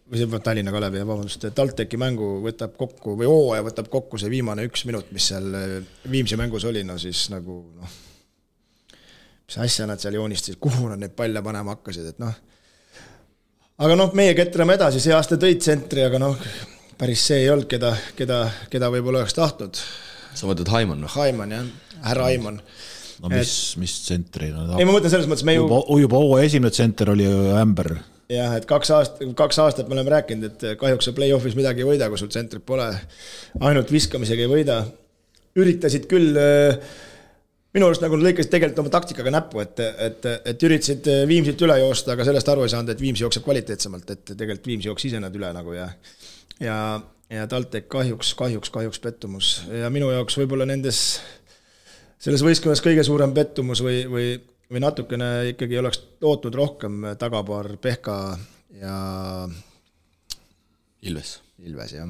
TalTechi mängu võtab kokku või hooaja võtab kokku see viimane 1 minut, mis seal Viimsi mängus oli, no siis nagu mis asja nad seal joonistasid, kuhu nad neid palle panema hakkasid, et aga meie ketrame edasi, see aasta tõid tsentri, aga päris see ei olnud, keda võib-olla oleks tahtnud. Sa mõtled Haimann? Haimann, jah, härra Haimann. No mis tsentri? Ei, ma mõtlen selles mõttes, me juba esimene tsenter oli ju Ämber. Jah, et 2 aastat me oleme rääkinud, et kahjuks play-offis midagi ei võida, kui sul tsentrit pole. Ainult viskamisega ei võida. Üritasid küll, minu arust nagu lõikasid tegelikult oma taktikaga näppu, et üritasid Viimsilt üle joosta, aga sellest aru ei saanud, et Viimsi jookseb kvaliteetsemalt, et tegelikult Viimsi jooks ise nad üle nagu ja TalTech kahjuks pettumus. Ja minu jaoks võib-olla selles võistkonnas kõige suurem pettumus või natukene ikkagi oleks lootnud rohkem tagapaar Pehka ja Ilves, jah.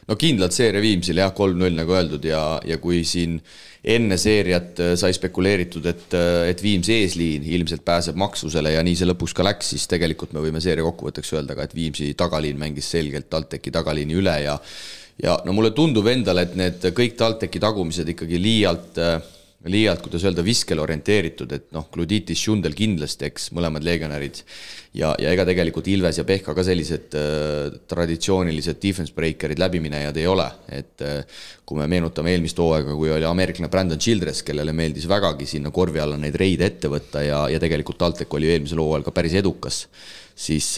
No kindlalt seeria Viimsil, jah, 3-0 nagu öeldud ja kui siin enne seeriat sai spekuleeritud, et Viimsi eesliin ilmselt pääseb maksusele ja nii see lõpuks ka läks, siis tegelikult me võime seeria kokkuvõtteks öelda ka, et Viimsi tagaliin mängis selgelt TalTechi tagaliini üle ja no mulle tundub endale, et need kõik TalTechi tagumised ikkagi liialt, kuidas öelda, viskel orienteeritud, et Gluditis, Šundel kindlasti, eks mõlemad legionärid ja ega tegelikult Ilves ja Pehka ka sellised traditsioonilised defense breakerid läbiminejad ei ole, et kui me meenutame eelmist hooaega, kui oli ameeriklane Brandon Childress, kellele meeldis vägagi sinna korvi alla neid reide ette võtta ja tegelikult TalTech oli eelmisel hooajal ka päris edukas, siis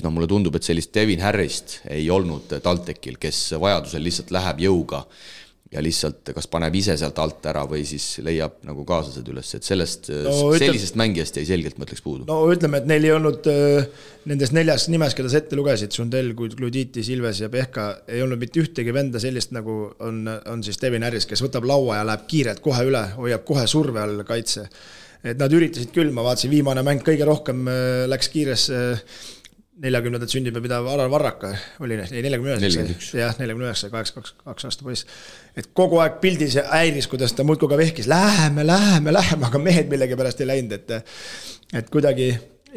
mulle tundub, et sellist Devin Harrist ei olnud TalTechil, kes vajadusel lihtsalt läheb jõuga ja lihtsalt kas paneb ise sealt alt ära või siis leiab nagu kaaslased üles, et sellisest mängijast jäi selgelt mõtleks puudu. No ütleme, et neil ei olnud nendest 4 nimes, keda sa ette lugesid, Šundel, Gluditis, Ilves ja Pehka, ei olnud mitte ühtegi venda sellist, nagu on siis Devin Harris, kes võtab laua ja läheb kiirelt kohe üle, hoiab kohe surve all kaitse. Et nad üritasid küll, ma vaatasin, viimane mäng kõige rohkem läks kiires 40. sünnipäev pidav Alar Varraka oli 49. Jah, 49, 2 aasta poiss. Et kogu aeg pildis ja häiris, kuidas ta muudku ka vehkis. Läheme, aga mehed millegi pärast ei läinud. Et kuidagi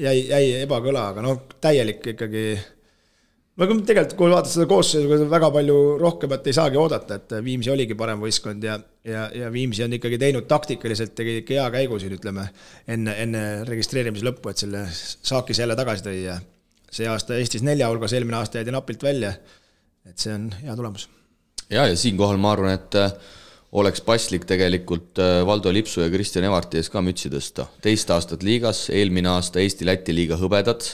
jäi ebakõla, aga täielik ikkagi. Tegelikult, kui vaatad seda koosseisu, väga palju rohkemat ei saagi oodata, et Viimsi oligi parem võistkond ja Viimsi on ikkagi teinud taktikaliselt, tegi hea käigu siin, ütleme, enne registreerimise lõppu, et selle saakis jälle tagasi tõi ja see aasta Eestis 4 hulgas, eelmine aasta jäidi napilt välja, et see on hea tulemus. Ja siinkohal ma arvan, et oleks paslik tegelikult Valdo Lipsu ja Kristjan Evarti ees ka mütsi tõsta. 2 aastat liigas, eelmine aasta Eesti-Läti liiga hõbedad,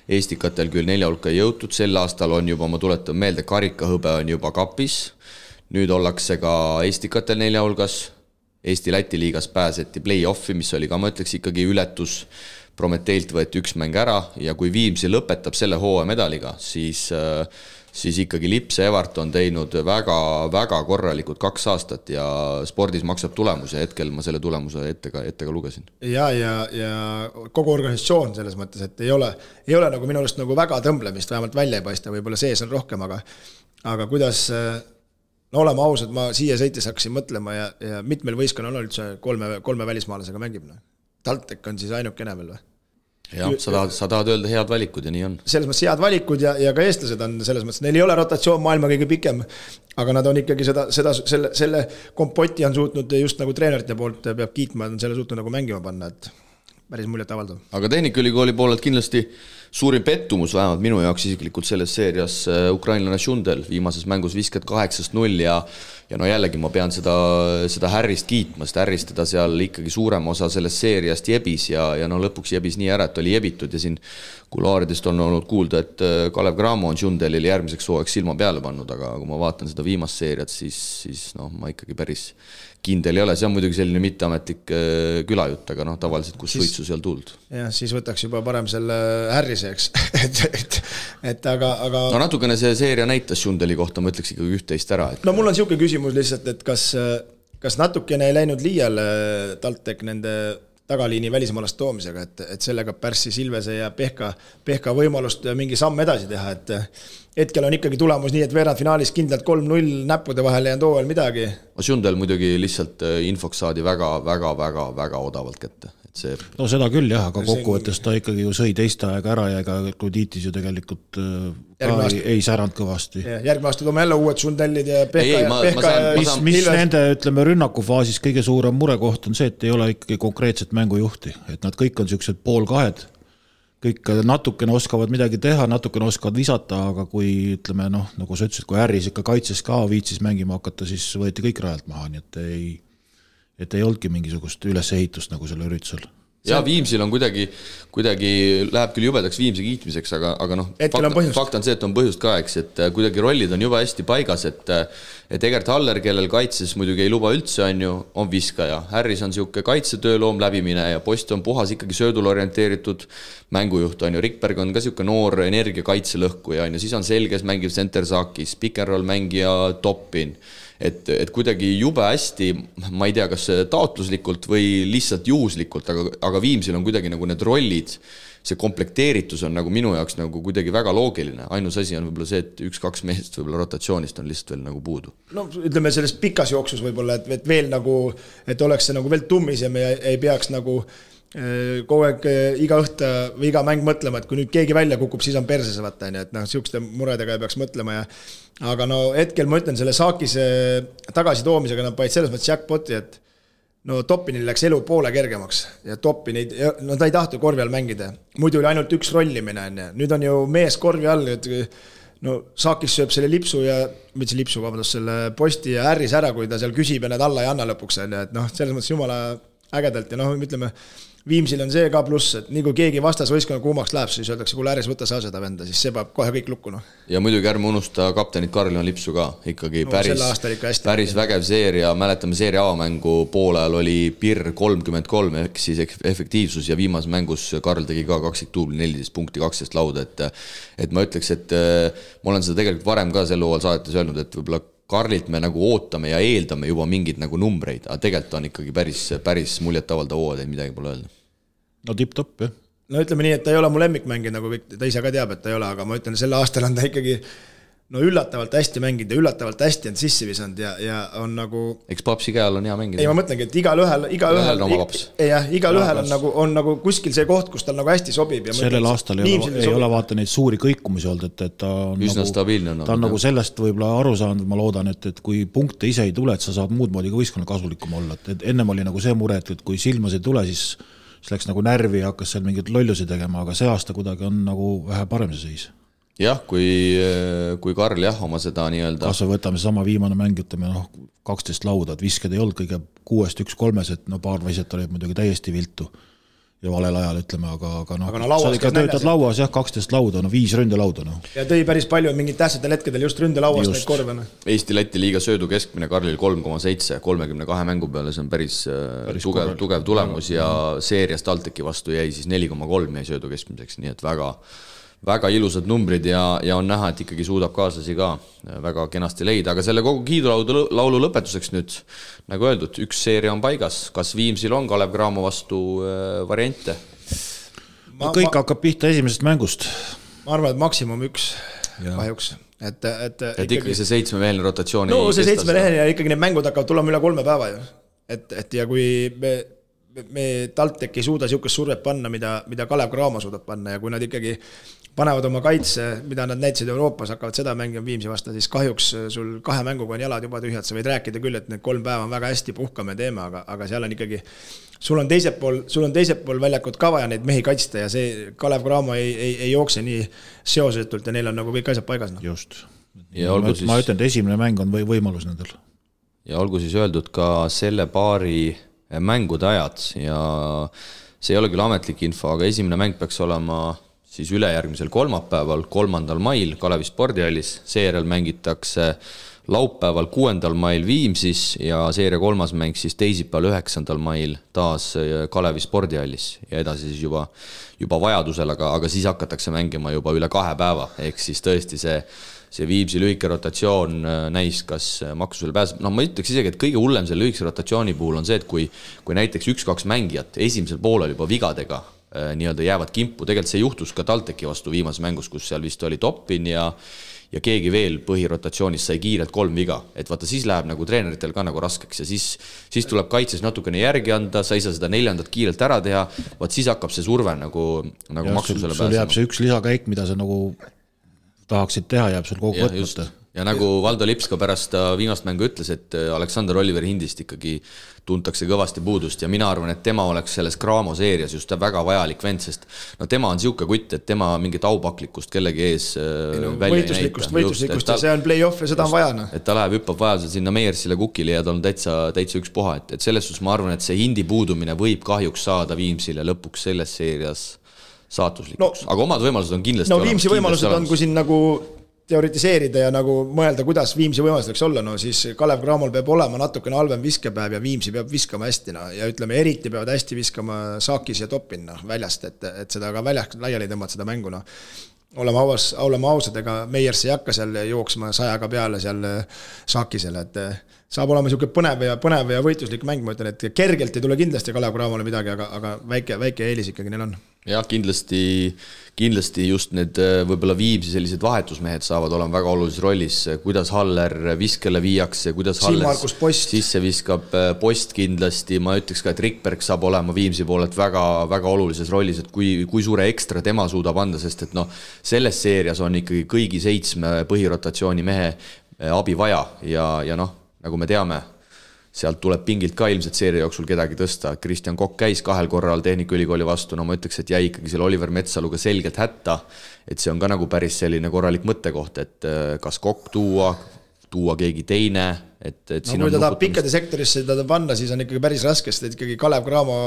Eestikatel küll 4 hulka ei jõutud, sel aastal on juba, ma tuletan meelde, karikahõbe on juba kapis, nüüd ollakse ka Eestikatel 4 hulgas, Eesti-Läti liigas pääseti play-offi, mis oli ka, ma ütleks, ikkagi ületus, Prometeilt võeti 1 mäng ära ja kui Viimsi lõpetab selle hooaja medaliga, siis ikkagi Lips ja Evart on teinud väga korralikud 2 aastat ja spordis maksab tulemus ja hetkel ma selle tulemuse ette ka lugesin. Ja kogu organisatsioon selles mõttes, et ei ole nagu minu arust nagu väga tõmblemist, vähemalt välja ei paista, võib-olla sees on rohkem, aga kuidas, no oleme ausad, ma siia sõites hakkasin mõtlema ja mitmel võistkonnal on üldse kolme välismaalasega mängib. TalTech on siis ainukene veel või? Jah, sa tahad öelda head valikud ja nii on. Selles mõttes head valikud ja ka eestlased on selles mõttes, neil ei ole rotatsioon maailma kõige pikem, aga nad on ikkagi selle kompoti on suutnud just nagu treenerite poolt peab kiitma, on selle suutnud nagu mängima panna, et päris muljet avaldav. Aga Tehnikaülikooli poolelt kindlasti suurim pettumus vähemalt minu jaoks isiklikult selles seerias ukrainlane Šundel viimases mängus 58-0 ja no jällegi ma pean seda Härrist kiitma, sest Härrist teda seal ikkagi suurem osa sellest seeriast jebis ja no lõpuks jebis nii ära, et oli jebitud ja siin kulaaridest on olnud kuulda, et Kalev Cramo on Šundelil järgmiseks hooajaks silma peale pannud, aga kui ma vaatan seda viimast seeriat, siis no ma ikkagi päris kindel ei ole, see on muidugi selline mitteametlik külajutt, aga noh, tavaliselt kus suitsu seal tuld. Jah, siis võtaks juba parem selle Härriseks, aga... No natukene see seeria näitas Šundeli kohta, ma ütleks ikkagi üht-teist ära. No mul on siuke küsimus lihtsalt, et kas natukene ei läinud liiale TalTech nende tagaliini välismaalast toomisega, et sellega pärssi Silvese ja Pehka võimalust mingi samm edasi teha, et hetkel on ikkagi tulemus nii, et veerandfinaalis kindlalt 3-0 näppude vahel jäänud hooajal midagi. Šundel muidugi lihtsalt infoks saadi väga odavalt kätte. No seda küll jah, aga kokkuvõttes ta ikkagi ju sõi teiste aega ära ja ega Kluditis ju tegelikult ei säranud kõvasti. Järgmine aasta toome jälle uued Šundellid ja Pehka mis nende, ütleme, rünnakufaasis kõige suurem murekoht on see, et ei ole ikkagi konkreetset mängujuhti, et nad kõik on sellised poolkahed, kõik natukene oskavad midagi teha, natukene oskavad visata, aga kui ütleme, noh, nagu sa ütlesid, kui Härris ikka kaitses ka viitsis mängima hakata, siis võeti kõik rajalt maha, nii et ei olnudki mingisugust ülesehitust nagu selle üritusel. Ja Viimsil on kuidagi läheb küll jubedaks Viimsi kiitmiseks, aga noh, fakt on see, et on põhjust ka, eks, et kuidagi rollid on juba hästi paigas, et Egert Haller, kellel kaitses muidugi ei luba üldse, on viskaja. Härris on siuke kaitsetööloom läbimine ja Post on puhas ikkagi söödul orienteeritud mängujuht, Rikberg on ka siuke noor energia kaitselõhkuja, siis on selges mängiv center Sakis, pick and roll mängija Toppin. Et kuidagi jube hästi, ma ei tea, kas taotluslikult või lihtsalt juhuslikult, aga Viimsil on kuidagi nagu need rollid, see komplekteeritus on nagu minu jaoks nagu kuidagi väga loogiline. Ainus asi on võib-olla see, et 1-2 mehest võib-olla rotatsioonist on lihtsalt veel nagu puudu. No ütleme selles pikas jooksus võib-olla, et veel nagu, et oleks see nagu veel tummisem ja ei peaks nagu kogu aeg iga õhta või iga mäng mõtlema, et kui nüüd keegi välja kukub, siis on perses vaata, et noh, siukeste muredega ei peaks mõtlema aga no hetkel ma ütlen selle Saakise tagasi toomisega nad paid selles mõttes jackpoti, et no Toppinil läks elu poole kergemaks ja Toppin no ta ei tahtu korvi all mängida, muidu oli ainult üks rollimine, nüüd on ju mees korvi all, et no Saakis sööb selle lipsu ja selle Posti ja Härris ära, kui ta seal küsib ja need alla ei anna lõpuks, et noh, selles mõttes jumala ägedalt ja noh, ütleme Viimsil on see ka pluss, et nii kui keegi vastas võistkonna kuumaks läheb, siis öeldakse, kui Härris võtta sa seda venda, siis see peab kohe kõik lukku. No. Ja muidugi ärme unusta kaptenit Karl-Johan Lipsu ka, ikkagi no, päris vägev seeria, mäletame seeria avamängu poolel oli PIR 33 ehk siis efektiivsus ja viimas mängus Karl tegi ka 20 14 punkti 12 lauda, et ma ütleks, et ma olen seda tegelikult varem ka sel hooajal saadetes öelnud, et võib-olla Karlilt me nagu ootame ja eeldame juba mingid nagu numbreid, aga tegelikult on ikkagi päris muljetavaldav hooaja, midagi pole öelda. No tipp-topp, jah. No ütleme nii, et ta ei ole mu lemmikmängija, nagu ta ise ka teab, et ta ei ole, aga ma ütlen, selle aastal on ta ikkagi no üllatavalt hästi mänginud ja üllatavalt hästi on sissi visanud ja on nagu... Eks papsi käel on hea mängida. Ei, ma mõtlengi, et igal ühel on nagu kuskil see koht, kus tal nagu hästi sobib. Ja sellel aastal ei ole vaata neid suuri kõikumisi olnud, et ta on, üsna nagu, stabiilne, ta on nagu sellest võib-olla aru saanud, ma loodan, et kui punkte ise ei tule, et sa saad muud moodi ka võistkonna kasulikum olla. Et ennem oli nagu see mure, et kui silmas ei tule, siis läks nagu närvi ja hakkas seal mingid lollusi tegema, aga see aasta kuidagi on nagu vähe parem see seis. Jah, kui Karl oma seda nii-öelda... Kas me võtame sama viimane mäng, ütleme 12 lauda, et visked ei olnud kõige 6-1-3, et paar vaiset olid muidugi täiesti viltu ja valel ajal, ütleme, aga sa ikka töötad lauas, 12 lauda, 5 ründelauda. Ja tõi päris palju mingid tähtsatel hetkedel just ründelauas neid korve. Eesti-Läti liiga söödu keskmine Karlil 3,7, 32 mängu peale, see on päris tugev tulemus ja seerias TalTechi vastu jäi siis 4,3 jäi söödu keskmiseks, nii et väga ilusad numbrid ja on näha, et ikkagi suudab kaaslasi ka väga kenasti leida, aga selle kogu kiidulaulu lõpetuseks nüüd, nagu öeldud, üks seeria on paigas, kas Viimsil on Kalev Cramo vastu variante? Kõik hakkab pihta esimesest mängust. Ma arvan, et maksimum üks. kahjuks. Et ikkagi see 7-meheline rotatsioon no see 7-meheline ikkagi need mängud hakkavad tulema üle 3 päeva ju. Et ja kui me TalTech ei suuda niisugust survet panna, mida Kalev Cramo suudab panna ja kui nad ikkagi panevad oma kaitse, mida nad näitasid Euroopas, hakkavad seda mängima Viimsi vasta, siis kahjuks sul 2 mänguga on jalad juba tühjad, sa võid rääkida küll, et need 3 päeva on väga hästi puhkame teeme, aga seal on ikkagi, sul on teiselt pool väljakut ka vaja neid mehi kaitsta ja see Kalev Cramo ei jookse nii seosetult ja neil on nagu kõik asjad paigas. No. Just. Ma ütlen, et esimene mäng on võimalus nendel. Ja olgu siis öeldud ka selle paari mängude ajad ja see ei ole küll ametlik info, aga esimene mäng peaks olema siis ülejärgmisel kolmapäeval, 3. mail Kalevi spordihallis, seejärel mängitakse laupäeval 6. mail Viimsis ja seeria 3. mäng siis teisipäeval 9. mail taas Kalevi spordihallis ja edasi siis juba vajadusel, aga siis hakatakse mängima juba üle 2 päeva, ehk siis tõesti see Viimsi lühike rotatsioon näis, kas maksusele pääseb. No ma ütleks isegi, et kõige hullem selle lühikese rotatsiooni puhul on see, et kui näiteks 1-2 mängijat esimesel poolel juba vigadega nii-öelda jäävad kimpu, tegelikult see juhtus ka TalTechi vastu viimases mängus, kus seal vist oli Toppin ja keegi veel põhirotatsioonis sai kiirelt 3 viga, et vaata siis läheb nagu treeneritel ka nagu raskeks ja siis tuleb kaitses natukene järgi anda, sa ei saa seda 4. kiirelt ära teha, vaat siis hakkab see surve nagu maksusele pääsema. Sul jääb see üks lisakäik, mida sa nagu tahaksid teha, jääb sul kogu võtmata. Ja nagu Valdo Lips ka pärast viimast mängu ütles, et Aleksander Oliver Hindist ikkagi tuntakse kõvasti puudust ja mina arvan, et tema oleks selles Cramo seerias just väga vajalik vend, sest no tema on siuke kutt, et tema mingit aupaklikkust kellegi ees välja ei näita. Võitluslikkust ja see on play-off ja seda on vaja. Et ta läheb hüppab vajadusel sinna Meiersile Kukile ja ta on täitsa üks puha, et selles suhtes ma arvan, et see Hindi puudumine võib kahjuks saada Viimsile lõpuks selles seerias saatuslikuks, aga omad võimalused on kindlasti olemas. No Viimsi võimalused on, kui siin nagu teoritiseerida ja nagu mõelda, kuidas Viimsi võimalused võiks olla, no siis Kalev Cramol peab olema natukene halvem viskepäev ja Viimsi peab viskama hästi, no ja ütleme, eriti peavad hästi viskama Saakis ja Toppin väljast, et seda ka väljast laiali tõmmata seda mängu, no. Olema ausad, ega Meiers ei hakka seal jooksma 100 peale seal Saakisele, et saab olema niisugune põnev ja võitluslik mäng, ma ütlen, et kergelt ei tule kindlasti Kalev Cramole midagi, aga väike eelis ikkagi neil on. Jah, kindlasti just need võib-olla Viimsi sellised vahetusmehed saavad olema väga olulises rollis, kuidas Haller viskele viiakse, kuidas Haller sisse viskab post kindlasti, ma ütleks ka, et Rikberg saab olema Viimsi poolelt väga, väga olulises rollis, et kui suure ekstra tema suudab anda, sest et selles seerias on ikkagi kõigi 7 põhirotatsiooni mehe abi vaja ja nagu me teame, sealt tuleb pingilt ka ilmselt seeria jooksul kedagi tõsta. Kristjan Kokk käis 2 korral Tehnikaülikooli vastu, ma ütleks, et jäi ikkagi selle Oliver Metsaluga selgelt hätta, et see on ka nagu päris selline korralik mõttekoht, et kas Kokk tuua keegi teine, et siin kui ta tahab pikkade sektorisse teda panna, siis on ikkagi päris raske, sest ikkagi Kalev Cramo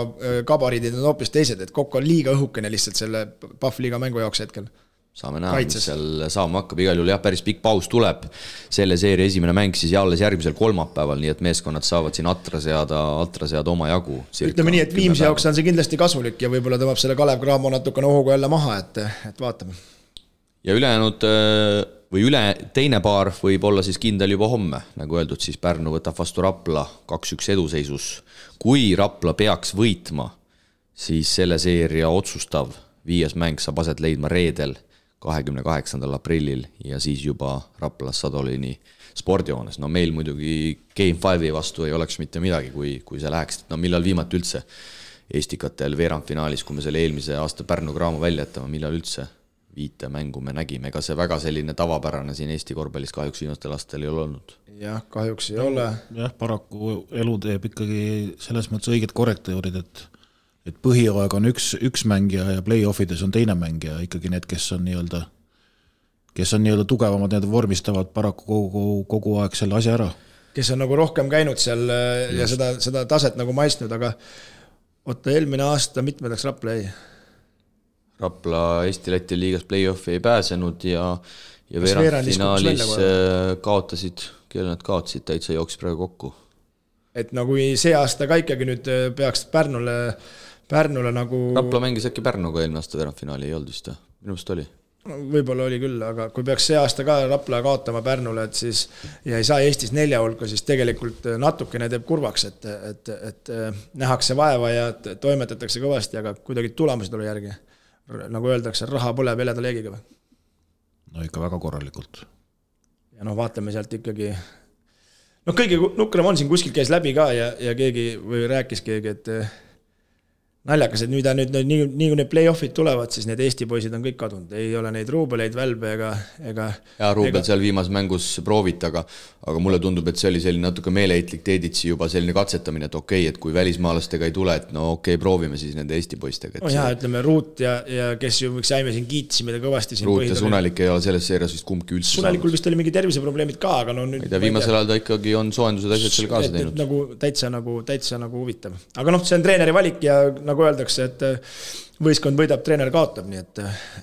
kabariidid on hoopis teised, et Kokk on liiga õhukene lihtsalt selle Pahvliiga mängu jaoks hetkel. Saame näha, mis seal saama hakkab, igal juhul jah, päris pikk paus tuleb, selle seeria esimene mäng siis alles järgmisel kolmapäeval, nii et meeskonnad saavad siin atra seada oma jagu. Ütleme nii, et Viimsi jaoks on see kindlasti kasulik ja võib-olla tõmbab selle Kalev Cramo natukene ohuga jälle maha, et vaatame. Ja ülejäänud või teine paar võib olla siis kindel juba homme, nagu öeldud, siis Pärnu võtab vastu Rapla 2-1 eduseisus. Kui Rapla peaks võitma, siis selle seeria otsustav 5. mäng saab aset leidma reedel 28. aprillil ja siis juba Raplas Sadolini spordijoones. No meil muidugi Game 5 vastu ei oleks mitte midagi, kui see läheks. No millal viimati üldse Estikatel veerandfinaalis, kui me selle eelmise aasta Pärnu Cramo välja jätame, millal üldse 5 mängu me nägime. Ega see väga selline tavapärane siin Eesti korvpallis kahjuks viimastel aastatel ei ole olnud. Jah, kahjuks ei ole. Jah, paraku elu teeb ikkagi selles mõttes õiged korrektuurid, et põhiaeg on üks mängija ja play-offides on teine mängija, ikkagi need, kes on nii-öelda tugevamad, need vormistavad paraku kogu aeg selle asja ära. Kes on nagu rohkem käinud seal ja seda taset nagu maistnud, aga eelmine aasta mitmedaks Rapla jäi? Rapla Eesti-Läti liigas play-offi ei pääsenud ja veerandfinaalis kaotasid, kelle nad kaotasid, täitsa jooksis praegu kokku. Et nagu see aasta ka ikkagi nüüd peaks Pärnule nagu... Rapla mängis äkki Pärnuga eelmine aasta veerandfinaali, ei olnud vist, minu meelest oli. Võib-olla oli küll, aga kui peaks see aasta ka Rapla kaotama Pärnule, et siis ja ei saa Eestis 4 hulka, siis tegelikult natukene teeb kurvaks, et nähakse vaeva ja toimetatakse kõvasti, aga kuidagi tulemused oli järgi. Nagu öeldakse, raha põleb heleda leegiga või? no ikka väga korralikult. Ja vaatame sealt ikkagi, kõige nukram on siin kuskil käis läbi ka ja keegi või rääkis keegi, et naljakas, et nüüd nii kui need play-offid tulevad, siis need Eesti poisid on kõik kadunud. Ei ole neid Ruubeleid, Välbe ega... Ja Ruubel seal viimas mängus proovit, aga mulle tundub, et see oli selline natuke meeleheitlik Teeditsi juba selline katsetamine, et okei, et kui välismaalastega ei tule, et proovime siis nende Eesti poistega. Ütleme Ruut ja kes ju võiks jäime siin kiitsime kõvasti. Ruut ja Sunelik ei ole selles seerias vist kumbki üldse Sunelikul vist oli mingi terviseprobleemid ka, aga nüüd... Viimasel ajal ta ikkagi on soojendused asjad seal kaasa teinud. Täitsa huvitav. Aga see on treeneri valik ja nagu öeldakse, et võistkond võidab, treener kaotab, nii et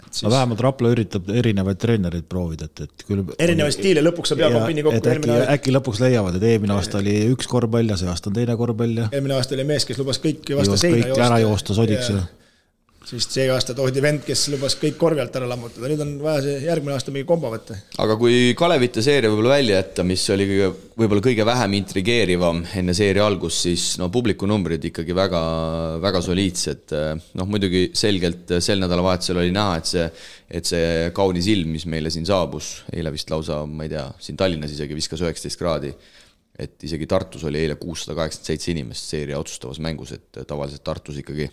siis... vähemalt Rapla üritab erinevaid treenereid proovida, et küll... Erinevaid stiile, lõpuks saab Jakob Pinni kokku. Äkki lõpuks leiavad, et eelmine aasta oli üks korvpall ja see aasta on teine korvpall. Eelmine aasta oli mees, kes lubas kõik vastu seina joosta. Kõik ära joosta sodiks. Siis see aasta toodi vend, kes lubas kõik korvi alt ära lammutada. Nüüd on vaja see järgmine aasta mingi kombo võtta. Aga kui Kalevite seeria võib-olla välja jätta, mis oli võib-olla kõige vähem intrigeerivam enne seeria algus, siis publiku numbrid ikkagi väga, väga soliidsed. Muidugi selgelt sel nädalavahetusel oli näha, et see kaunis ilm, mis meile siin saabus, eile vist lausa, ma ei tea, siin Tallinnas isegi viskas 19 kraadi, et isegi Tartus oli eile 687 inimest seeria otsustavas mängus, et tavaliselt Tartus ikkagi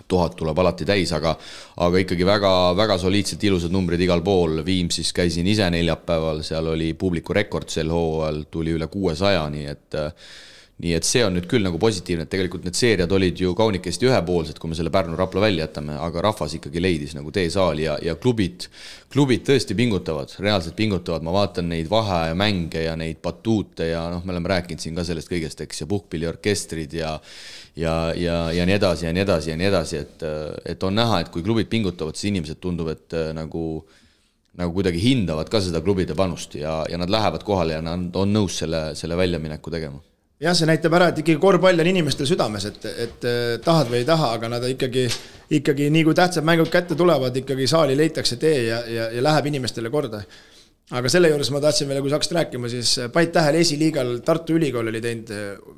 1000 tuleb alati täis, aga ikkagi väga, väga soliidselt ilusad numbrid igal pool. Viimsis käisin ise neljapäeval, seal oli publiku rekord sel hooajal, tuli üle 600, nii et see on nüüd küll nagu positiivne, et tegelikult need seeriad olid ju kaunikesti ühepoolsed, kui me selle Pärnu-Rapla välja jätame, aga rahvas ikkagi leidis nagu teesaali ja klubid tõesti pingutavad, reaalselt pingutavad, ma vaatan neid vahe ja mänge ja neid batuute ja me oleme rääkinud siin ka sellest kõigest, eks, ja puhkpilliorkestrid ja nii edasi ja nii edasi ja nii edasi, et on näha, et kui klubid pingutavad, siis inimesed tundub, et nagu kuidagi hindavad ka seda klubide panust ja nad lähevad kohale ja nad on nõus selle väljamineku tegema. Jah, see näitab ära, et ikkagi korvpall on inimestel südames, et tahad või ei taha, aga nad ikkagi nii kui tähtsad mängud kätte tulevad, ikkagi saali leitakse tee ja läheb inimestele korda. Aga selle juures ma tahtsin veel, kui saaksid rääkima, siis Pait Tähel esiliigal Tartu Ülikool oli teinud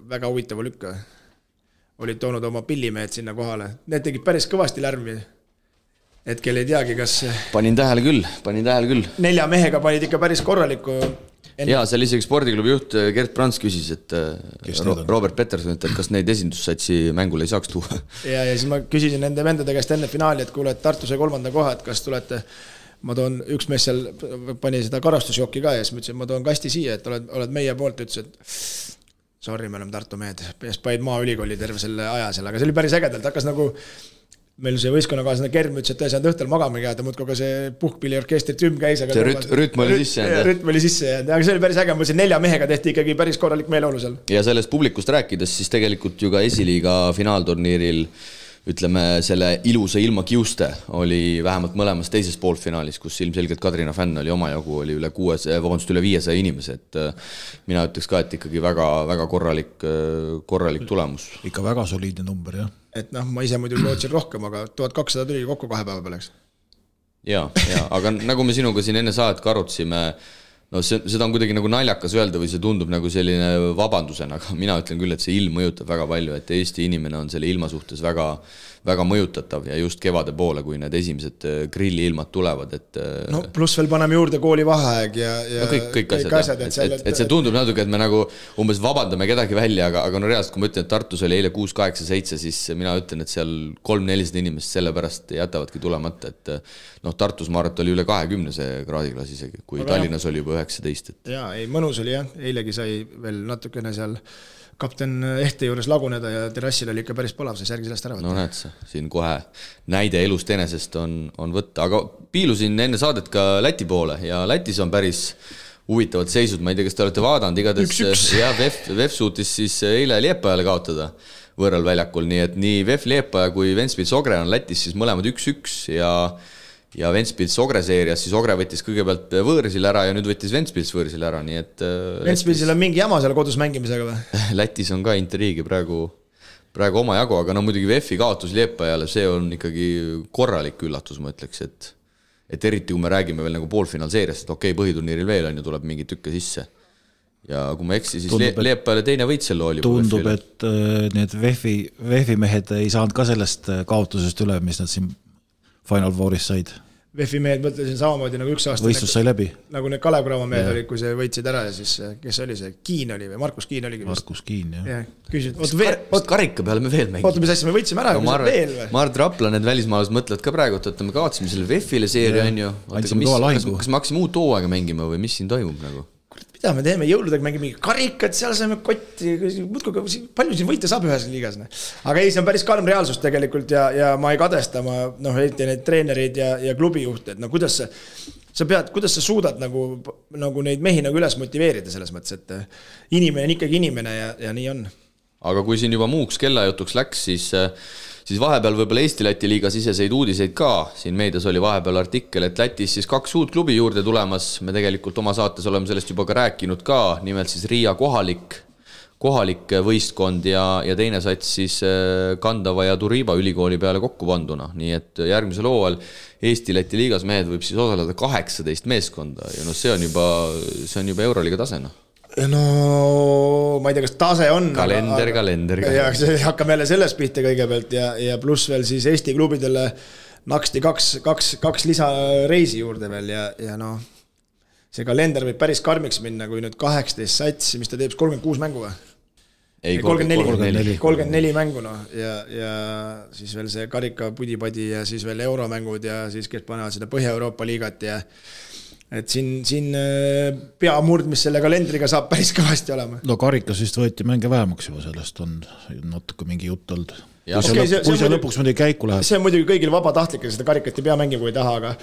väga huvitava lükka. Olid toonud oma pillimehed sinna kohale. Need tegid päris kõvasti lärmi. Hetkel ei teagi, kas... Panin tähele küll. 4 mehega panid ikka päris korralikku... Ja seal isegi spordiklubi juht Gert Brans küsis, et Robert Peterson, et kas neid esindussatsi mängule ei saaks tuua. Ja siis ma küsisin nende vendade käest enne finaali, et kuule, et Tartu sai 3. koha, et kas tulete, ma toon, üks mees seal pani seda karastusjokki ka ja siis ma ütlesin, ma toon kasti siia, et oled meie poolt, ütles, et sorry, me oleme Tartu mehed, paid Maaülikooli terve selle aja seal, aga see oli päris ägedalt, hakkas nagu meil see võistkonnakaaslane Kerm ütles, et ta ei saanud õhtul magama jääda, muudkui ka see puhkpilliorkestri trüm käis. See rütm oli sisse jäänud. Rütm oli sisse jäänud, aga see oli päris äge, ma ütlesin 4 mehega tehti ikkagi päris korralik meeleolu seal. Ja sellest publikust rääkides, siis tegelikult ju ka esiliiga finaalturniiril, ütleme, selle ilusa ilma kiuste oli vähemalt mõlemas teises poolfinaalis, kus ilmselgelt Kadrina fänn oli omajagu, oli üle 500 inimese, et mina ütleks ka, et ikkagi väga, väga korralik tulemus. Ikka väga soliidne number, jah. Et ma ise muidu lootsin rohkem, aga 1200 tuli kokku 2 päeva peale. Ja, aga nagu me sinuga siin enne saadet ka arutasime, seda on kuidagi nagu naljakas öelda või see tundub nagu selline vabandusena, aga mina ütlen küll, et see ilm mõjutab väga palju, et Eesti inimene on selle ilma suhtes väga, väga mõjutatav ja just kevade poole, kui need esimesed grilliilmad tulevad, et... Pluss veel paneme juurde kooli vaheaeg ja kõik asjad. Et see tundub natuke, et me nagu umbes vabandame kedagi välja, aga reaalselt, kui ma ütlen, et Tartus oli eile 6-8-7, siis mina ütlen, et seal 300-400 inimest sellepärast jätavadki tulemata, et Tartus maarat oli üle 20 see kraadiklaas isegi, kui Tallinnas oli juba 19. Jaa, ei, mõnus oli jah, eilegi sai veel natukene seal kapten Ehte juures laguneda ja terrassil oli ikka päris palav, see särgi sellest ära võtta. No näed sa, siin kohe näide elust enesest on võtta, aga piilusin enne saadet ka Läti poole ja Lätis on päris huvitavad seisud, ma ei tea, kas te olete vaadanud, igatahes ja VEF suutis siis eile Liepajale kaotada võõral väljakul, nii et nii VEF Liepaja kui Ventspils Ogre on Lätis siis mõlemad 1-1 ja Ventspils Ogre seerias, siis Ogre võttis kõigepealt võõrsil ära ja nüüd võttis Ventspils võõrsil ära, nii et... Ventspilsil on mingi jama seal kodus mängimisega või? Lätis on ka intriigi praegu oma jagu, aga muidugi VEF-i kaotus Liepajale, see on ikkagi korralik üllatus, ma ütleks, et eriti kui me räägime veel nagu poolfinaalseeriast, et okei, põhiturniiril veel on ju tuleb mingi tükke sisse. Ja kui ma eksi, siis Liepajale teine võit selle oli. Tundub, et need VEF-i mehed ei saanud ka sellest kaotusest üle, mis nad siin Final Fouris said. VEF-i mehed mõtlesin samamoodi nagu üks aasta. Võistlus sai läbi. Nagu need Kalev Cramo mehed olid, kui see võitsid ära ja siis, kes oli see, Kiin oli või Markus Kiin oligi. Markus Kiin, jah. Küsid, karika peale me veel mängime. Oota, mis asja, me võitsime ära, no, Mart Rapla, need välismaalased mõtlevad ka praegu, et me kaotsime selle VEF-ile seeria, on ju. Kas me hakkasime uut hooaega mängima või mis siin toimub nagu? Mida me teeme, jõuludega mängime mingi karikat, seal saame kotti, palju siin võita saab ühes liigas. Aga ei, see on päris karm reaalsus tegelikult ja ma ei kadesta, eriti neid treenereid ja klubijuhte, et kuidas sa suudad nagu neid mehi nagu üles motiveerida selles mõttes, et inimene on ikkagi inimene ja nii on. Aga kui siin juba muuks kellajutuks läks, siis vahepeal võib-olla Eesti-Läti liiga siseseid uudiseid ka. Siin meedias oli vahepeal artikkel, et Lätis siis 2 uut klubi juurde tulemas. Me tegelikult oma saates oleme sellest juba ka rääkinud ka. Nimelt siis Riia kohalik võistkond ja teine sats siis Kandava ja Turiiba ülikooli peale kokku panduna. Nii et järgmisel hooajal Eesti-Läti liigas mehed võib siis osaleda 18 meeskonda. Ja see on juba Euroliiga tasena. No ma ei tea, kas tase on kalender ja see hakkab jälle sellest pihta kõigepealt ja pluss veel siis Eesti klubidele naksti 2 lisareisi juurde veel ja see kalender võib päris karmiks minna, kui nüüd 18 satsi, mis ta teeb 36 mängu või? Ei, 34 mängu ja siis veel see karika pudipadi ja siis veel euromängud ja siis kes panevad seda Põhja-Euroopa liigat ja et siin peamurd, mis selle kalendriga saab päris kõvasti olema. No karikas vist võeti mänge vähemaks juba, sellest on natuke mingi jutt olnud. Kui see lõpuks mõnda käiku läheb. See on muidugi kõigil vabatahtlik, seda karikat ei pea mängima, kui ei taha,